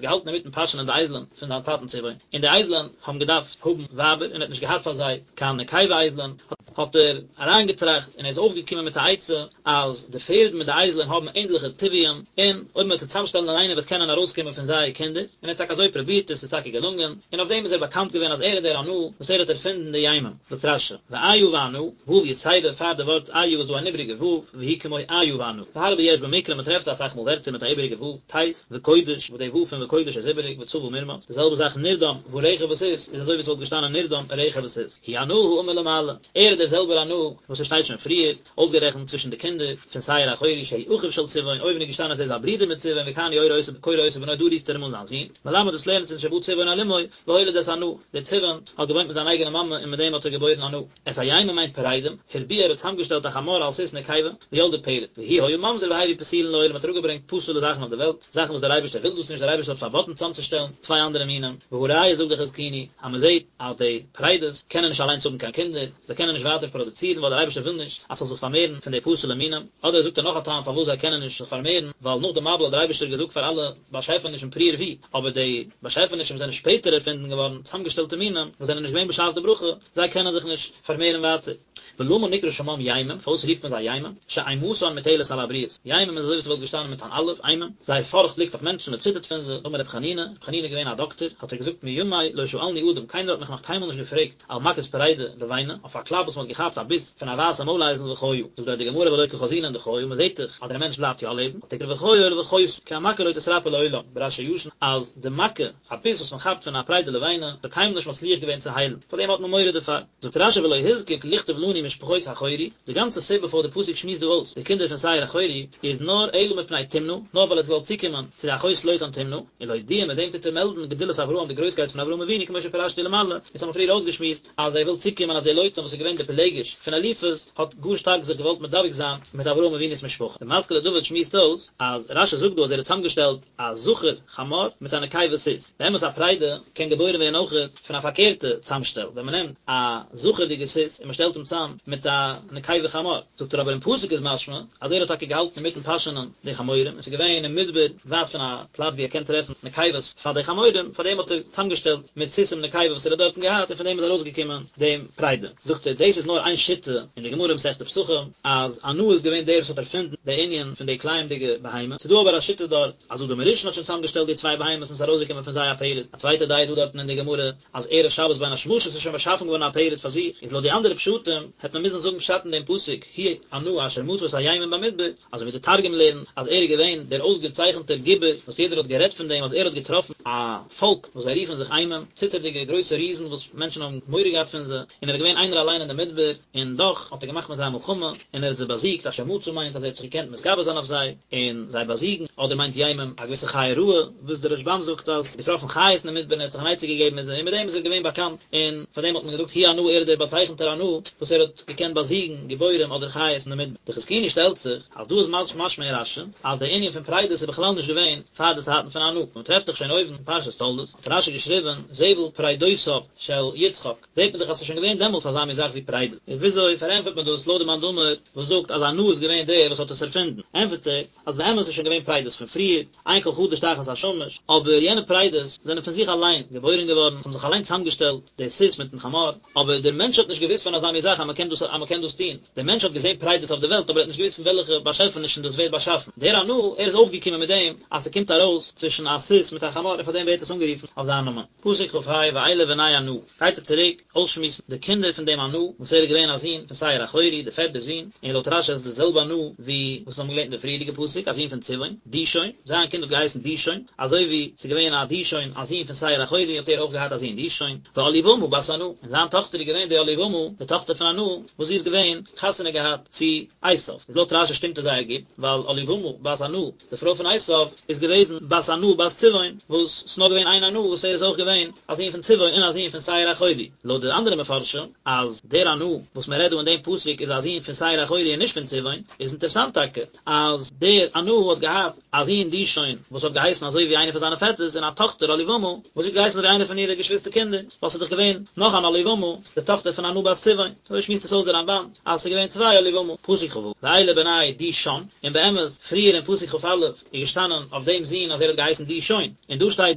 געהאלטן אינמיטן פאשענען די אייזלען פון זיין טאטן צבעון, און די אייזלען האבן געדארפט האבן ווייבער, און ער האט נישט געהאט פאר זיי קיין נקבה אייזלען, האט ער אריינגעטראכט און ער איז אויפגעקומען מיט א עצה, אז די פערד מיט די אייזלען האבן ענדליכע טבעיים, און אויב מען וועט זיי צוזאמשטעלן אינאיינעם וועט קענען ארויסקומען פון זיי קינדער, און ער האט טאקע אזוי פרובירט און ס'איז טאקע געלונגען, און אויף דעם איז ער באקאנט געווען אז ער איז דער ענה וואס ער האט ערפינדן די ימים. זאגט רש"י, ואיה וענה, ו' יתירה, פאר די ווארט איה איז דא אן איבריגע ו', והיא כמו איה וענה. והרבה יש במקרא מען טרעפט אסאך מאל ווערטער מיט א איבריגע ו', טית, וקודש, וואס די ו' פון וקודש איז איבריג, וצבא מרמס. די זעלבע זאך נרדם, ורכב וסוס, איז אזוי ווי עס וואלט געשטאנען נרדם, רכב וסוס. הוא ענה האמור למעלה. ער איז דער. דער זעלבער ענה וואס עס שטייט שוין פריער אויסגערעכנט צווישן די קינדער פון שעיר החורי שהוא אחיו של צבעון, אויבן איז געשטאנען אז ער איז א ברודער מיט צבעון וכאן הוא קורא אותו בנו דא רופט ער אים אן זיין זון, מלמד דאס לערנט אונז שבא צבעון על אמו והוליד את ענה, דער צבעון האט געוואוינט מיט זיין אייגענע מאמע און מיט דעם האט ער געבוירן ענה. את הימים מיינט פרדים, הרביע ער האט צוזאמגעשטעלט א חמור על סוס נקבה, וילדה פרד, והוא היה ממזר והביא פסולין לעולם האט אראפגעברענגט פסול'ע זאכן אויף די וועלט, זאכן וואס דער אייבערשטער וויל דאס נישט, דער אייבערשטער האט פארבאטן צוזאמצושטעלן צוויי אנדערע מינים, והא ראיה זאגט דער חזקוני אז מען זעט אז די פרדות קענען נישט אליינס האבן קיין קינדער, זיי קענען נישט ווייטער פראדוצירן ווייל דער אייבערשטער וויל נישט אז ס'זאל זיך פארמערן פון די פסול'ע מינים, אדער זאגט ער נאך א טעם פארוואס זיי קענען נישט זיך פארמערן, ווייל נאך די מבול האט דער אייבערשטער געזאגט פאר אלע באשעפענישן פרו ורבו, אבער די באשעפענישן וואס זענען שפעטער ערפינדן געווארן, צוזאמגעשטעלטע מינים, וואס זענען נישט געווען בשעת די ברכה, זיי קענען זיך נישט פארמערן ווייטער. ולמה נקרא שמם ימים, פארוואס רופט מען זיי ימים? שאימתן מוטלת על הבריות, ימים איז אזוי ווי ס'וואלט געשטאנען מיט אן אלף, אימים, זייער פארכט ליגט אויף מענטשן, מען ציטערט פון זיי, אמר רבי חנינא, רבי חנינא איז געווען א דאקטער, האט ער געזאגט מימי לא שאלני אדם, קיינער האט מיך נאך קיינמאל נישט געפרעגט, על מכת פרידה לבנה, אויף א קלאפ וואס מען האט געכאפט א ביס פון א ווייסע מוילאייזל וחיה, זאגט דארט די גמרא והלא קא חזינן דחיה, מען זעט דאך אז דער מענטש בלייבט יא לעבן, אל תקרי וחיה אלא וחיתה, כי המכה לא תתרפא לעולם, ברש"י הישן, אז די מכה, א ביס וואס מען כאפט פון א פרידה לבנה, האט קיינמאל נישט מצליח געווען צו היילן, פאר דעם האט מען מורא דערפאר. זאגט רש"י ולא הוזקק לכתוב לנו משפחות החורי, די גאנצע סיבה פארוואס די פסוק שמועסט דא אויס די קינדער פון שעיר החורי איז נאר אלא מפני תמנע, נאר ווייל ער האט געוואלט צוקומען צו די אחות לוטן תמנע, ולהודיע מיט דעם טוט ער מעלדן גדולת אברהם די גרויסקייט פון אברהם אבינו כמו שפירשתי למעלה, אונז האבן פריער אויסגעשמועסט אז ער וויל צוקומען אז דער לוטן וואס איז געווען די פילגש פון אליפז האט גאר שטארק זיך געוואלט מדבק זיין מיט אברהם אבינו'ס משפחה. די משכיל לדוד שמועסט אויס אז רש"י זאגט דא אז ער האט צוזאמגעשטעלט א זכר חמור מיט א נקבה סוס. באמת א פרידה קען געבוירן ווערן אויכעט פון א פארקערטע צאמשטעל, ווען מען נעמט א זכר'דיגע סוס און מען שטעלט אים צאם מיט א נקבה חמור. זאגט ער אבער אין פסוק איז משמע אז ער האט טאקע געהאלטן אינמיטן פאשענען די חמורים און ס'איז געווען אין מדבר ווייט פון א פלאץ ווי ער קען טרעפן נקבות פאר די חמורים, פאר דעם האט ער צאמגעשטעלט מיט סוסים נקבה וואס ער האט דארטן געהאט און פון דעם איז ארויסגעקומען דעם פרידה. זאגט ער דאס איז נאר איין שיטה אין די גמרא מסכת פסחים אז ענה איז געווען דער וואס האט ערפינדן די ענין פון די כלאים'דיגע בהמה, ס'איז דא אבער א שיטה דארט אז אדם הראשון האט שוין צוזאמגעשטעלט די צוויי בהמות און ס'איז ארויסגעקומען פון זיי א פרד, א צווייטע דעה איז דא דארטן אין די גמרא אז ערב שבת בין השמשות איז שוין באשאפן געווארן א פרד פאר זיך, איז לויט די אנדערע פשטים העט מען מוזן זאגן פשט אין דעם פסוק הוא ענה אשר מצא את הימים במדבר, אזוי ווי די תרגום לערנט אז ער איז געווען דער אויסגעצייכנטער גיבור וואס יעדער האט גערעדט פון דעם אז ער האט געטראפן א פאלק וואס זיי רופן זיך אימים, ציטערדיגע גרויסע ריזן וואס מענטשן האבן מורא געהאט פון זיי, און ער איז געווען איינער אליין אין די מדבר, און דאך האט ער געמאכט מיט זיי א מלחמה, און ער האט זיי באזיגט, אשר מצא מיינט אז ער האט זיך געקענט מתגבר זיין אויף זיי, און זיי באזיגן, אדער מיינט ימים א געוויסע חיה רעה, וואס דער רשב"ם זאגט אז געטראפן חיות אין די מדבר און ער האט זיך אן עצה געגעבן מיט זיי, און מיט דעם איז ער געווען באקאנט, און פאר דעם האט מען געזאגט הוא ענה ער איז דער באצייכנטער ענה, וואס ער האט געקענט באזיגן גיבורים אדער חיות אין די מדבר. די חזקוני שטעלט זיך, אז דא איז משמע אין רש"י, אז דער ענין פון פרדות איז בכלל נישט געווען פאר די צייטן פון ענה, מען טרעפט דאך שוין אויבן אין פרשת תולדות, האט רש"י געשריבן זבל פרדותיו של יצחק, זעט מען דאך אז ס'איז שוין געווען דעמאלטס אזא מין זאך ווי פרדות. און וויאזוי פארענטפערט מען דאס לויט די מאן דאמר וואס זאגט אז ענה איז געווען דער וואס האט עס ערפינדן? ענטפערט ער אז באמת איז שוין געווען פרדות פון פריער, אין כל חדש תחת השמש, אבער יענע פרדות זענען פון זיך אליין געבוירן געווארן, האבן זיך אליין צוזאמגעשטעלט, דער סוס מיטן חמור, אבער דער מענטש האט נישט געוואוסט פון אזא מין זאך אז מ'קען דאס אז מ'קען דאס טון, דער מענטש האט געזען פרדות אויף די וועלט אבער ער האט נישט געוואוסט פון וועלכע באשעפענישן דאס ווערט באשאפן, דער ענה, ער איז אויפגעקומען מיט דעם אז ס'קומט ארויס צווישן א סוס מיט א חמור און פאר דעם ווערט עס אנגערופן אויף זיין נאמען. פסוק כ"ה ואלה בני ענה, גייט ער צוריק אויסשמועסן די קינדער פון דעם ענה, וואס ער איז געווען א זון פון שעיר החורי, דער פערטער זון, און לויט רש"י איז עס די זעלבע ענה ווי וואס מיר האבן געלערנט אין די פריערדיגע פסוק, א זון פון צבעון, דישון, זיין קינד האט געהייסן דישון, אזוי ווי ס'איז געווען א דישון א זון פון שעיר החורי האט ער אויך געהאט א זון דישון, ואהליבמה בת ענה, און זיין טאכטער איז געווען די אהליבמה, די טאכטער פון ענה, וואס זי איז געווען חתונה געהאט צו עשיו, איז לויט רש"י שטימט עס זייער גוט, ווייל אהליבמה בת ענה, די פרוי פון עשיו איז געוועזן בת ענה בת צבעון, וואס ס'נאר געווען איין ענה וואס ער איז אויך געווען א זון פון צבעון און א זון פון שעיר החורי. לויט די אנדערע מפרשים אז דער ענה וואס מען רעדט דא אין דעם פסוק איז א זון פון שעיר החורי און נישט פון צבעון, איז אינטערסאנט טאקע אז דער ענה האט געהאט א זון דישון וואס האט געהייסן אזוי ווי איינער פון זיינע פעטערס און א טאכטער אהליבמה וואס האט געהייסן אזוי ווי איינער פון אירע געשוויסטער קינדער, ווייל ס'איז דאך געווען נאך אן אהליבמה די טאכטער פון ענה בת צבעון. אזוי שמועסט עס אויס דער רמב"ן אז ס'איז געווען צוויי אהליבמה, פסוק כ"ו, ואלה בני דישן, און באמת, פריער אין פסוק כ"א איז געשטאנען אויף דעם זון אז ער האט געהייסן דישון, און דא שטייט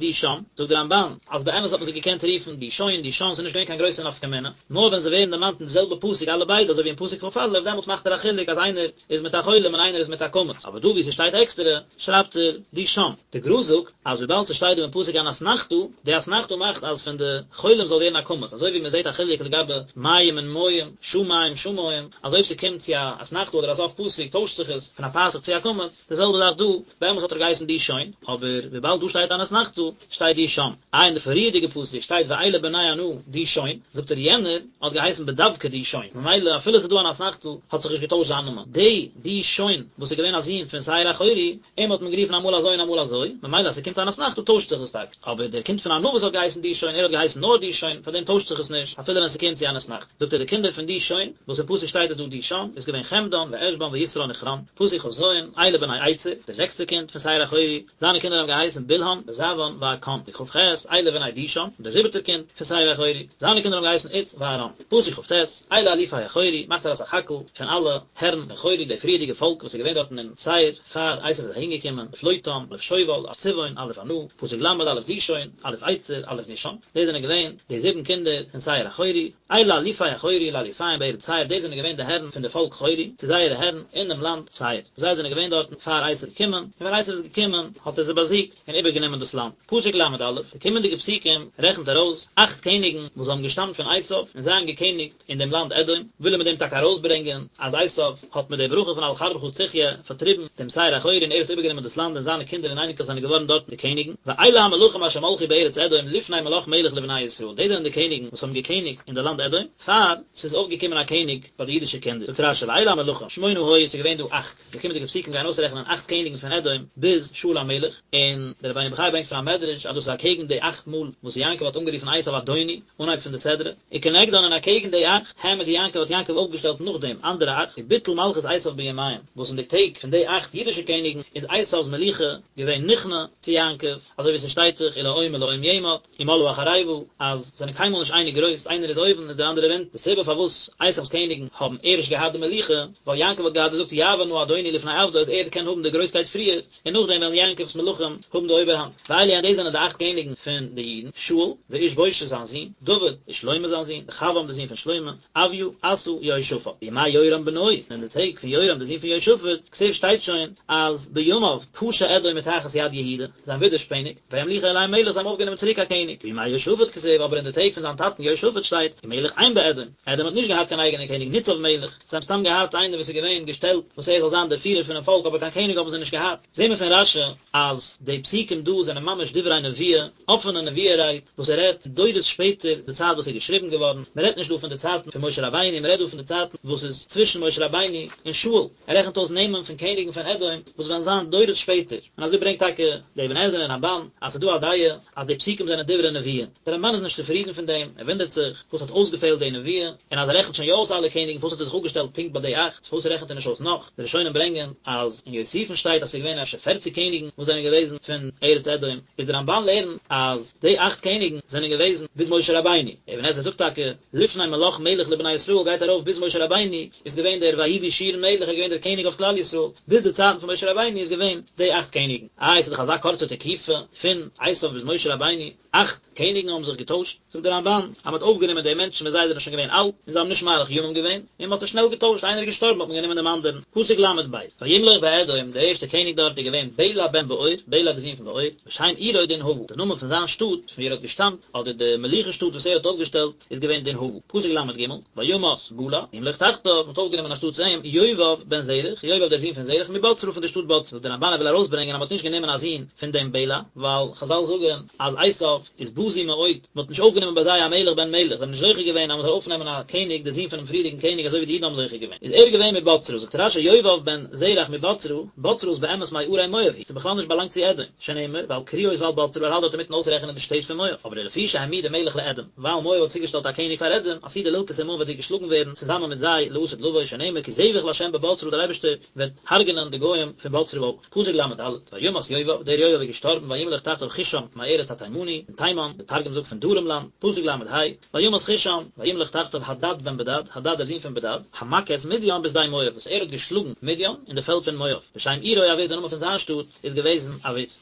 דישן, זאגט דער רמב"ן אז באמת האט מען זיי געקענט רופן דישון, דישן, ס'איז נישט געווען קיין גרויסע נפקא מינה, נאר ווען זיי ווערן דערמאנט אין די זעלבע פסוק אלע ביידע אזוי ווי אין פסוק כ"א, דעמאלטס מאכט ער א חילוק אז איינער איז מיט א חולם און איינער איז מיט א קמץ, אבער דא וואו ס'שטייט עקסטערע, שרייבט ער דישן. די גר"א זאגט אז וויבאלד ס'שטייט דא אין פסוק אן אתנחתא, די אתנחתא מאכט אז פון די חולם זאל ווערן א קמץ, אזוי ווי מ'זעט א חילוק לגבי מים און מים, שמים שמים, אז אויב ס'קומט צו א אתנחתא אדער א סוף פסוק טוישט זיך עס פון א פתח צו א קמץ, די זעלבע זאך דא, באמת האט ער געהייסן דישון, אבער וויבאלד דא שטייט אן אתנחתא, שטייט דישן. איי אין די פריערדיגע פסוק שטייט ואלה בני ענה דישון, זאגט ער יענער האט געהייסן בדווקא דישון, ממילא אפילו ס'איז דא אן אתנחתא האט זיך נישט געטוישט זיין נאמען. די דישון וואס איז געווען א זון פון שעיר החורי, אים האט מען גערופן אמאל אזוי און אמאל אזוי, ממילא אז ס'קומט אן אתנחתא טוישט זיך עס טאקע, אבער דער קינד פון ענה וואס האט געהייסן דישון, ער האט געהייסן נאר דישון, פארדעם טוישט זיך עס נישט אפילו ווען ס'קומט צו אן אתנחתא. זאגט ער די קינדער פון דישון, וואס אין פסוק שטייט עס דא דישן, איז געווען חמדן ועשבן ויתרן וכרן, פסוק כ"ז, אלה בני אצר, דער זעקסטער קינד פון שעיר החורי, זיינע קינדער האבן געהייסן בלהן וזעוון ועקן, פסוק כ"ח, אלה בני דישן, דער זיבעטער קינד פון שעיר החורי, זיינע קינדער האבן געהייסן עוץ וארן, פסוק כ"ט, אלה אלופי החורי, מאכט ער א סך הכל פון אלע הערן פון חורי, די פריערדיגע פאלק וואס איז געווען דארטן אין שעיר, פאר עשו איז אהין געקומען, אלוף לוטן, אלוף שובל, אלוף צבעון, אלוף ענה, פסוק ל', אלוף דישון, אלוף אצר, אלוף דישן, דאס זענען געווען די זיבן קינדער פון שעיר החורי, אלה אלופי החורי לאלופיהם בארץ שעיר, דאס זענען געווען די הערן פון די פאלק חורי, צו זייערע הערן אין דעם לאנד שעיר, זיי זענען געווען דארטן פאר עשו איז געקומען, און ווען עשו איז געקומען האט ער זיי באזיגט און איבערגענומען דאס לאנד. פסוק ל"א, די קומענדיגע פסוקים רעכנט ארויס אכט קעניגן וואס האבן געשטאמט פון עשו און זיי האבן געקעניגט אין דעם לאנד אדום, וויל ער מיט דעם טאקע ארויסברענגען אז עשו האט מיט די ברכה פון על חרבך תחיה פארטריבן דעם שעיר החורי און ער האט איבערגענומען דאס לאנד און זיינע קינדער און אייניקלעך זענען געווארן דארטן די קעניגן, ואלה המלכים אשר מלכו בארץ אדום לפני מלך מלך לבני ישראל, דאס זענען די קעניגן וואס האבן געקעניגט אין די לאנד אדום, פאר ס'איז אויפגעקומען א קעניג ביי די אידישע קינדער, זאגט רש"י ואלה המלכים, שמונה היו, ס'איז געווען דא אכט, די קומענדיגע פסוקים גייען אויסרעכענען אכט קעניגן פון אדום ביז שאול המלך, און דער רבינו בחיי ברענגט פון א מדרש אז דאס איז אקעגן די אכט מאל וואס יעקב האט אנגערופן עשו אדוני, אנהייב פון די סדרה, וכנגדן און אקעגן די אכט, העמיד יעקב האט יעקב אויפגעשטעלט נאכדעם אנדערע אכט, וביטל מלכות עשו בימיהם, וואס אין די טעג פון די אכט אידישע קעניגן איז עשו'ס מלוכה געווען נכנע צו יעקב, אזוי ווי ס'שטייט דאך ולאום מלאום יאמץ, ומלאה החרבה, אז זיי זענען קיינמאל נישט אייניג גרויס, איינער איז אויבן איז דער אנדערער אונטן, די סיבה פארוואס עשו'ס קעניגן האבן ערשט געהאט די מלוכה, ווייל יעקב האט געהאט געזאגט יעבור נא אדוני לפני עבדו אז ער קען האבן די גרויסקייט פריער, און נאכדעם וועלן יעקב'ס מלכים האבן די אויבערהאנט. ואלו הן דאס זענען די אכט קעניגן פון די אידן, שאול, ואיש בושת זיין זון, דוד, ושלמה זיין זון, רחבעם דער זון פון שלמה, אביה, אסא, יהושפט. בימי יורם בנו, און אין די טעג פון יורם דער זון פון יהושפט, כתיב שטייט שוין אז בימיו פשע אדום מתחת יד יהודה, זיי האבן ווידערשפעניגט, וימליכו עליהם מלך, זיי האבן אויפגענומען צוריק א קעניג. בימי יהושפט כתיב, אבער אין די טעג פון זיין טאטן יהושפט שטייט, ומלך אין באדום, אדום האט נישט געהאט קיין אייגענע קעניג, ניצב מלך. זיי האבן סתם געהאט איינער וואס איז געווען געשטעלט וואס ער זאל זיין דער פירער פונעם פאלק אבער קיין קעניג האבן זיי נישט געהאט. זעהן מיר פון רש"י אז די פסוקים דא זענען ממש דברי נבואה, אפענע נבואה רייד, וואס ער רעדט דורות שפעטער די צייט וואס איז געשריבן געווארן, מען רעדט נישט דא פון די צייטן פון משה רבינו, מען רעדט דא פון די צייטן וואס איז צווישן משה רבינו און שאול, ער רעכנט אויס נעמען פון קעניגן פון אדום וואס וועלן זיין דורות שפעטער, און אזוי ברענגט טאקע דער אבן עזרא און רמב"ן אז ס'איז דא א דעה אז די פסוקים זענען דברי נבואה. דער רמב"ן איז נישט צופרידן פון דעם, ער וואונדערט זיך וואס האט אויסגעפעלט די נבואה, און אז ער רעכנט שוין יא אויס אלע קעניגן פארוואס האט ער זיך אפגעשטעלט פונקט ביי די אכט, פארוואס רעכנט ער נישט אויס נאך? די ראשונים ברענגען אז אין יוסיפון שטייט אז ס'איז געווען אפשר פערציג קעניגן וואס זענען געוועזן פון ארץ אדום, איז דער רמב"ן לערנט אז די אכט קעניגן זענען געוועזן ביז משה רבינו, אבן עזרא זאגט טאקע לפני מלך מלך לבני ישראל גייט ארויף ביז משה רבינו איז געווען דער ויהי בישורון מלך ער איז געווען דער קעניג אויף כלל ישראל, ביז די צייטן פון משה רבינו איז געווען די אכט קעניגן. איי ס'איז דאך אזא קורצע תקופה פון עשיו ביז משה רבינו, אכט קעניגן האבן זיך געטוישט, זאגט דער רמב"ן אז מ'האט אויפגענומען די מענטשן ווען זיי זענען שוין געווען אלט און זיי האבן נישט מאריך ימים געווען, און מ'האט זיי שנעל געטוישט, איינער איז געשטארבן האט מען גענומען דעם אנדערן. פסוק ל"ב, וימלוך באדום, דער ערשטער קעניג דארט איז געווען בלע בן בעור, בלע דער זון פון בעור, ושם עירו דנהבה, דער נאמען פון זיין שטאט פון וואו ער האט געשטאמט, אדער די מלוכה שטאט וואס ער האט אויפגעשטעלט, איז געווען דנהבה. פסוק ל"ג, וימת בלע, וימלוך תחתיו, מ'האט אויפגענומען אנשטאטס אים, יובב בן זרח, יובב דער זון פון זרח, מבצרה פון דער שטאט בצרה. דער רמב"ן וויל ארויסברענגען אז מ'האט נישט גענומען א זון פון דעם בלע, ווייל חזל זאגן אז עשיו איז בזוי מאוד, מ'האט נישט אויפגענומען ביי זיי א מלך בן מלך, זיי האבן נישט זוכה געווען אז מ'זאל אויפנעמען א קעניג דער זון פונעם פריערדיגן קעניג אזוי ווי די אידן האבן זוכה געווען. איז ער געווען מבצרה, זאגט רש"י יובב בן זרח מבצרה, בצרה איז באמת מערי מואב היא, ס'איז בכלל נישט באלאנגט צו אדום. שנאמר, ועל קריות ועל בצרה ער האלט דארט אינמיטן אויסרעכענען די שטעט פון מואב, אבער לפי שהעמידה מלך לאדום, ווייל מואב האט צוגעשטעלט א קעניג פאר אדום, עתידה ללקות עמהם וועט זי געשלאגן ווערן צוזאמען מיט זיי לעתיד לבוא, שנאמר כי זבח לה' בבצרה דער אייבערשטער וועט הרג'נען די גוים פון בצרה אויך. פסוק ל"ד, וימת יובב, דער יובב איז געשטארבן וימלוך תחתיו חושם מארץ התימני, פון תימן, דער תרגום זאגט פון דרום לאנד, פסוק ל"ה, וימת חושם, וימלוך תחתיו הדד בן בדד, הדד דער זון פון בדד, המכה את מדין בשדה מואב, וואס ער האט געשלאגן מדין אין די פעלד פון מואב, ושם עירו עוית, דער נאמען פון זיין שטאט, איז געוועזן עוית.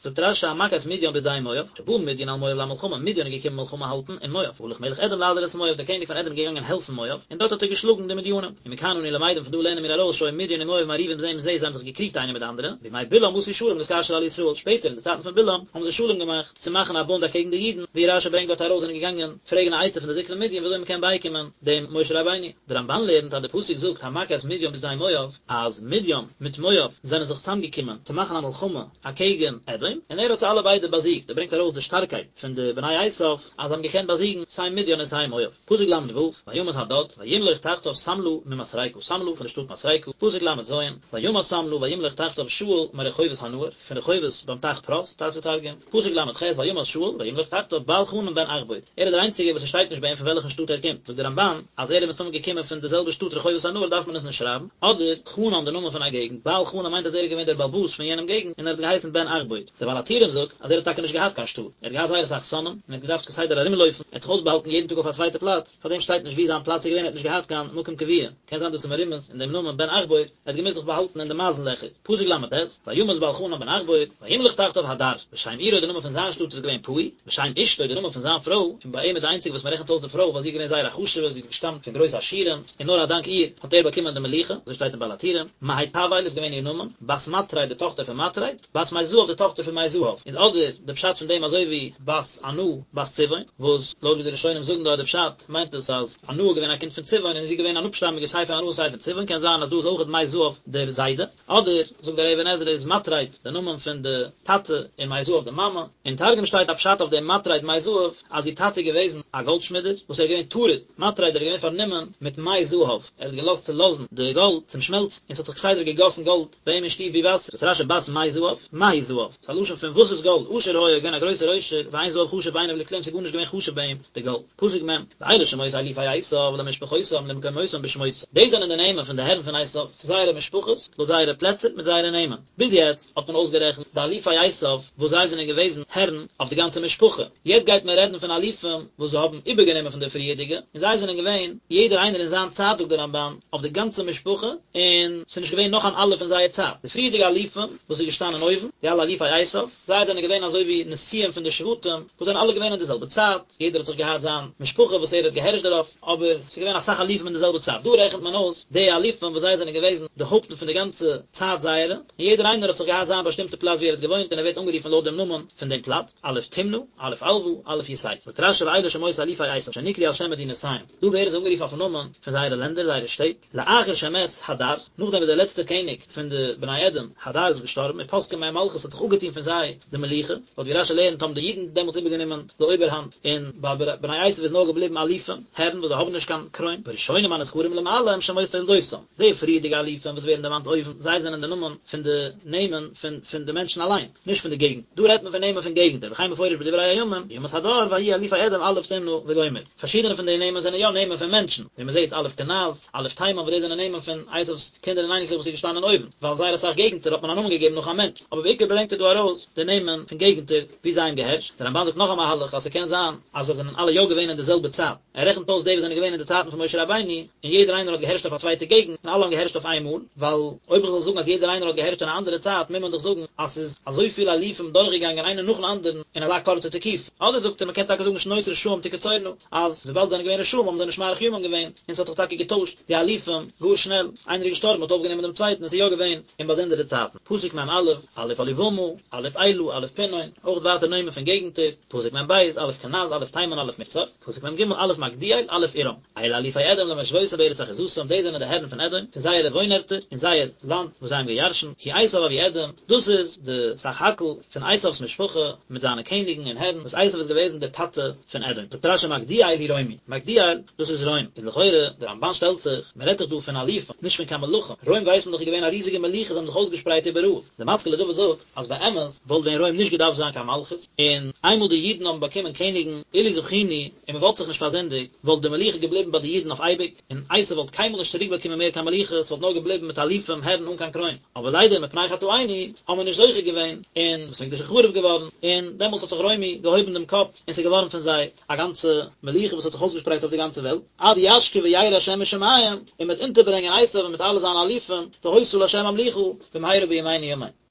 זאגט רש"י המכה את מדין בשדה מואב, שבא מדין על מואב למלחמה, מדין איז געקומען מלחמה האלטן אין מואב, והלך מלך אדום לעזור את מואב, דער קעניג פון אדום איז געגאנגען העלפן מואב, און דארט האט ער געשלאגן די מדינים. ומכאן אנו למדים פון דא לערנען מיר ארויס שהיו מדין ומואב מריבים זה עם זה, זיי האבן זיך געקריגט איינער מיט די אנדערע, בימי בלעם עשו שלום להתקשר על ישראל, שפעטער אין די צייטן פון בלעם האבן זיי שלום געמאכט צו מאכן א בונד אקעגן די אידן. אידן, ווי רשי ברענגט דארט ארויס, זענען געגאנגען פרעגן א עצה פון די זקני מדין וויאזוי מען קען בייקומען דעם משה רבינו. דער רמבן לערנט אז די פסוק זאגט המכה את מדים בשדה מואב, אז מדים מיט מואב זענען זיך צוזאמגעקומען צו מאכן א מלחמה אקעגן אדום, און ער האט זיי אלע ביידע באזיגט, ער ברענגט ארויס די שטארקייט פון די בני עשיו אז זיי האבן געקענט באזיגן סיי מדיין און סיי מואב. פסוק ל ו, וימת הדד, וימלוך תחתיו שמלה ממשרקה, שמלה פון די שטאט מסרקה, פסוק ל ז, וימת שמלה וימלוך תחתיו שאול מרחובות הנהר, פון רחובות ביים טייך פרת, טייטשט דער תרגום, פסוק ל ח, וימת שאול וימלוך תחתיו בעל חנן בן עכבור, ער איז דער איינציגער וואס עס שטייט נישט ביי אים פון וועלכן שטאט ער קומט, זאגט דער רמבן אז ער איז מסתמא געקומען פון די זעלבע שטאט רחובות הנהר דארף מען עס נישט שרייבן, אדער חנן די נאמען פון א געגנט, בעל חנן מיינט אז ער איז געווען דער בעל הבית פון יענעם געגנט און ער האט געהייסן בן עכבור. דער בעל הטורים זאגט אז ער האט טאקע נישט געהאט קיין שטאט, ער האט געהאט זייער אסאך שונאים און ער האט געדארפט כסדר ארומלויפן, ער האט זיך אויסבאהאלטן יעדן טאג אויף א צווייטע פלאץ, פארדעם שטייט נישט וואו זיין פלאץ איז געווען, ער האט נישט געהאט קיין מקום קבוע, קען זיין דאס איז מרומז אין דעם נאמען בן עכבור, ער האט געמוזט זיך באהאלטן אין די מייזן לעכער, פסוק ל ט, וימת בעל חנן בן עכבור, וימלוך תחתיו הדר, ושם עירו די נאמען פון זיין שטאט איז געווען פעו, ושם אשתו די נאמען פון זיין פרוי, און ביי אים איז די איינציגע וואס מען רעכנט אויס די פרוי ווייל זי איז געווען זייער א חשוב'ע, זי האט געשטאמט פון גרויסע עשירים, און נאר א דאנק איר האט ער באקומען די מלוכה, אזוי שטייט אין בעל הטורים, מהיטבאל איז געווען איר נאמען, בת מטרד די טאכטער פון מטרד, בת מי זהב די טאכטער פון מי זהב, איז אדער די פשט פון דעם אזוי ווי בת ענה בת צבעון, וואס לויט ווי די ראשונים זאגן דארט די פשט, מיינט עס אז ענה איז געווען א קינד פון צבעון און זי איז געווען אן אפשטאמיגע סיי פון ענה און סיי פון צבעון, קען זיין אז דא איז אויכעט מי זהב דער זיידע, אדער זאגט דער אבן עזרא איז מטרד די נאמען פון די טאטע און מי זהב די מאמע, אין תרגום שטייט א פשט אויף דעם מטרד מי זהב אז איר טאטע איז געוועזן א גאלדשמידער וואס ער איז געווען טרוד, מטרד ער איז געווען פארנומען מיט מי זהב, ער האט געלאזט צולאזן די גאלד צום שמעלצן און ס'האט זיך כסדר געגאסן גאלד ביי אים אין שטוב ווי וואסער, זאגט רשי בת מי זהב, מהו זהב? ס'איז א לשון פון וואס איז גאלד, עשיר היה, געווען א גרויסער עושר, ואין זהב חשוב בעיניו לכלום, ס'איז גארנישט געווען חשוב ביי אים די גאלד. פסוק מ', ואלה שמות אלופי עשיו למשפחותם למקומותם בשמותם, דאס זענען די נעמען פון די הערן פון עשיו, צו זייערע משפחות, לויט זייערע פלעצער, מיט זייערע נעמען. ביז יעצט האט מען אויסגערעכנט די אלופי עשיו וואס זיי זענען געוועזן הערן אויף די גאנצע משפחה, יעצט גייט מען רעדן פון אלופים וואס זיי האבן איבערגענומען פון די פריערדיגע, און זיי זענען געווען יעדער איינער אין זיין צייט זאגט דער רמבן, אויף די גאנצע משפחה, און ס'איז נישט געווען נאך אן אלוף אין זייער צייט. די פריערדיגע אלופים וואס איז געשטאנען אויבן, די אלע אלופי עשיו, זיי זענען געווען אזוי ווי נשיאים פון די שבטים, וואס זענען אלע געווען אין די זעלבע צייט, יעדער האט זיך געהאט זיין משפחה וואס ער האט געהערשט דערויף, אבער ס'איז געווען אסאך אלופים אין די זעלבע צייט. דא רעכנט מען אויס די אלופים וואס זיי זענען געוועזן די הויפטן פון די גאנצע צייט זייערע, און יעדער איינער האט זיך געהאט זיין באשטימטע פלאץ וואו ער האט געוואוינט און ער ווערט אנגערופן לויט דעם נאמען פון דעם פלאץ, אלוף תמנע, אלוף עלוה, אלוף יתת. זאגט רשי ואלה שמות אלופי עשיו שנקראו על שם מדינותיהם, דא ווערן זיי אנגערופן אויפן נאמען פון זייערע לענדער, זייערע שטעט. לאחר שמת הדר, נאכדעם וואס דער לעצטער קעניג פון די בני אדום, הדר, איז געשטארבן, ופסקה מהם מלכות האט זיך אפגעטון פון זיי די מלוכה, לויט ווי רשי לערנט האבן די אידן דעמאלטס איבערגענומען די אויבערהאנט, און ביי בני עשו איז נאר געבליבן אלופים, הערן וואס זיי האבן נישט קיין קרוין, והראשונים הנזכרים למעלה הם שמות תולדותם, די פריערדיגע אלופים וואס ווערן דערמאנט אויבן, זיי זענען די נאמען פון די נעמען פון פון די מענטשן אליין, נישט פון די געגנט, דא רעדט מען פון נעמען פון געגנטער, וכן מפורש בדברי הימים, וימת הדר ויהיו אלופי אדום אלוף תמנע וגומר. פארשידענע פון די נעמען זענען יא נעמען פון מענטשן, ווי מען זעט אלוף קנז, אלוף תימן וואס דאס זענען נעמען פון עשיו'ס קינדער און אייניקלעך וואס איז געשטאנען אויבן, ווייל זייער אסאך געגנטער האט מען א נאמען געגעבן נאך א מענטש, אבער בעיקר ברענגט ער דא ארויס די נעמען פון געגנטער וואו זיי האבן געהערשט, דער רמבן זאגט נאך א מהלך אז ס'קען זיין אז זיי זענען אלע יא געווען אין די זעלבע צייט, ער רעכנט אויס די וואס זענען געווען אין די צייטן פון משה רבינו, און יעדער איינער האט געהערשט אויף א צווייטע געגנט, און אלע האבן געהערשט אויף איין מאל, ווייל אויב איך זאל זאגן אז יעדער איינער האט געהערשט אין א אנדערע צייט מוז מען דאך זאגן אז ס'איז אזויפיל אלופים דורכגעגאנגען איינער נאכן אנדערן אין אזא קורצע תקופה. אדער זאגט ער מ'קען טאקע זאגן שנות רשעים תקצורנה, אז וויבאלד זיי זענען געווען רשעים האבן זיי נישט מאריך ימים געווען, און ס'האט זיך טאקע געטוישט די אלופים גאר שנעל, איינער איז געשטארבן מ'האט אויפגענומען דעם צווייטן און ס'איז יא געווען אין באזונדערע צייטן. פסוק מ א, אלוף אהליבמה, אלוף אלה, אלוף פינון, אויך ווייטער נעמען פון געגנטער, פסוק מ ב, אלוף קנז, אלוף תימן, אלוף מבצר, פסוק מ ג, אלוף מגדיאל, אלוף עירם. אלה אלופי אדום למושבותם בארץ אחוזתם, דאס זענען די הערן פון אדום, צו זייערע וואוינערטער, אין זייער לאנד וואס זיי האבן געירשנט, הוא עשו אבי אדום, דאס איז די סך הכל פון עשו'ס משפחה, מיט זיינע קעניגן און הערן, וואס עשו איז געוועזן דער טאטע פון אדום. זאגט רשי מגדיאל הוא רומי, מגדיאל, דאס איז רוים, איז לכאורה, דער רמבן שטעלט זיך, מען רעדט דאך דא פון אלופים, נישט פון קיין מלכים, רוים ווייסט מען דאך איז געווען א ריזיגע מלוכה, זיי האבן זיך אויסגעשפרייט איבעראל. דער משכיל לדוד זאגט, אז באמת וואלט ווען רוים נישט געדארפט זיין קיין מלכות, און איינמאל די אידן האבן באקומען קעניגן, אילו זכינו, און מען וואלט זיך נישט פארזינדיגט, וואלט די מלוכה געבליבן ביי די אידן אויף אייביג, און עשו וואלט קיינמאל נישט צוריק באקומען מער קיין מלוכה, ס'וואלט נאר געבליבן מיט אלופים הערן אן קיין קרוין. אבער ליידער מפני חטאינו האבן מיר נישט זוכה געווען, און בית המקדש איז חרוב געווארן, און דעמאלטס האט זיך רומי געהויבן דעם קאפ, און ס'איז געווארן פון זיי א גאנצע מלוכה וואס האט זיך אויסגעשפרייט אויף די גאנצע וועלט, עד ישקיף וירא השם משמים, און מ'וועט אונטערברענגען עשו מיט אלע זיינע אלופים, והיתה לה' המלוכה, במהרה בימינו אמן.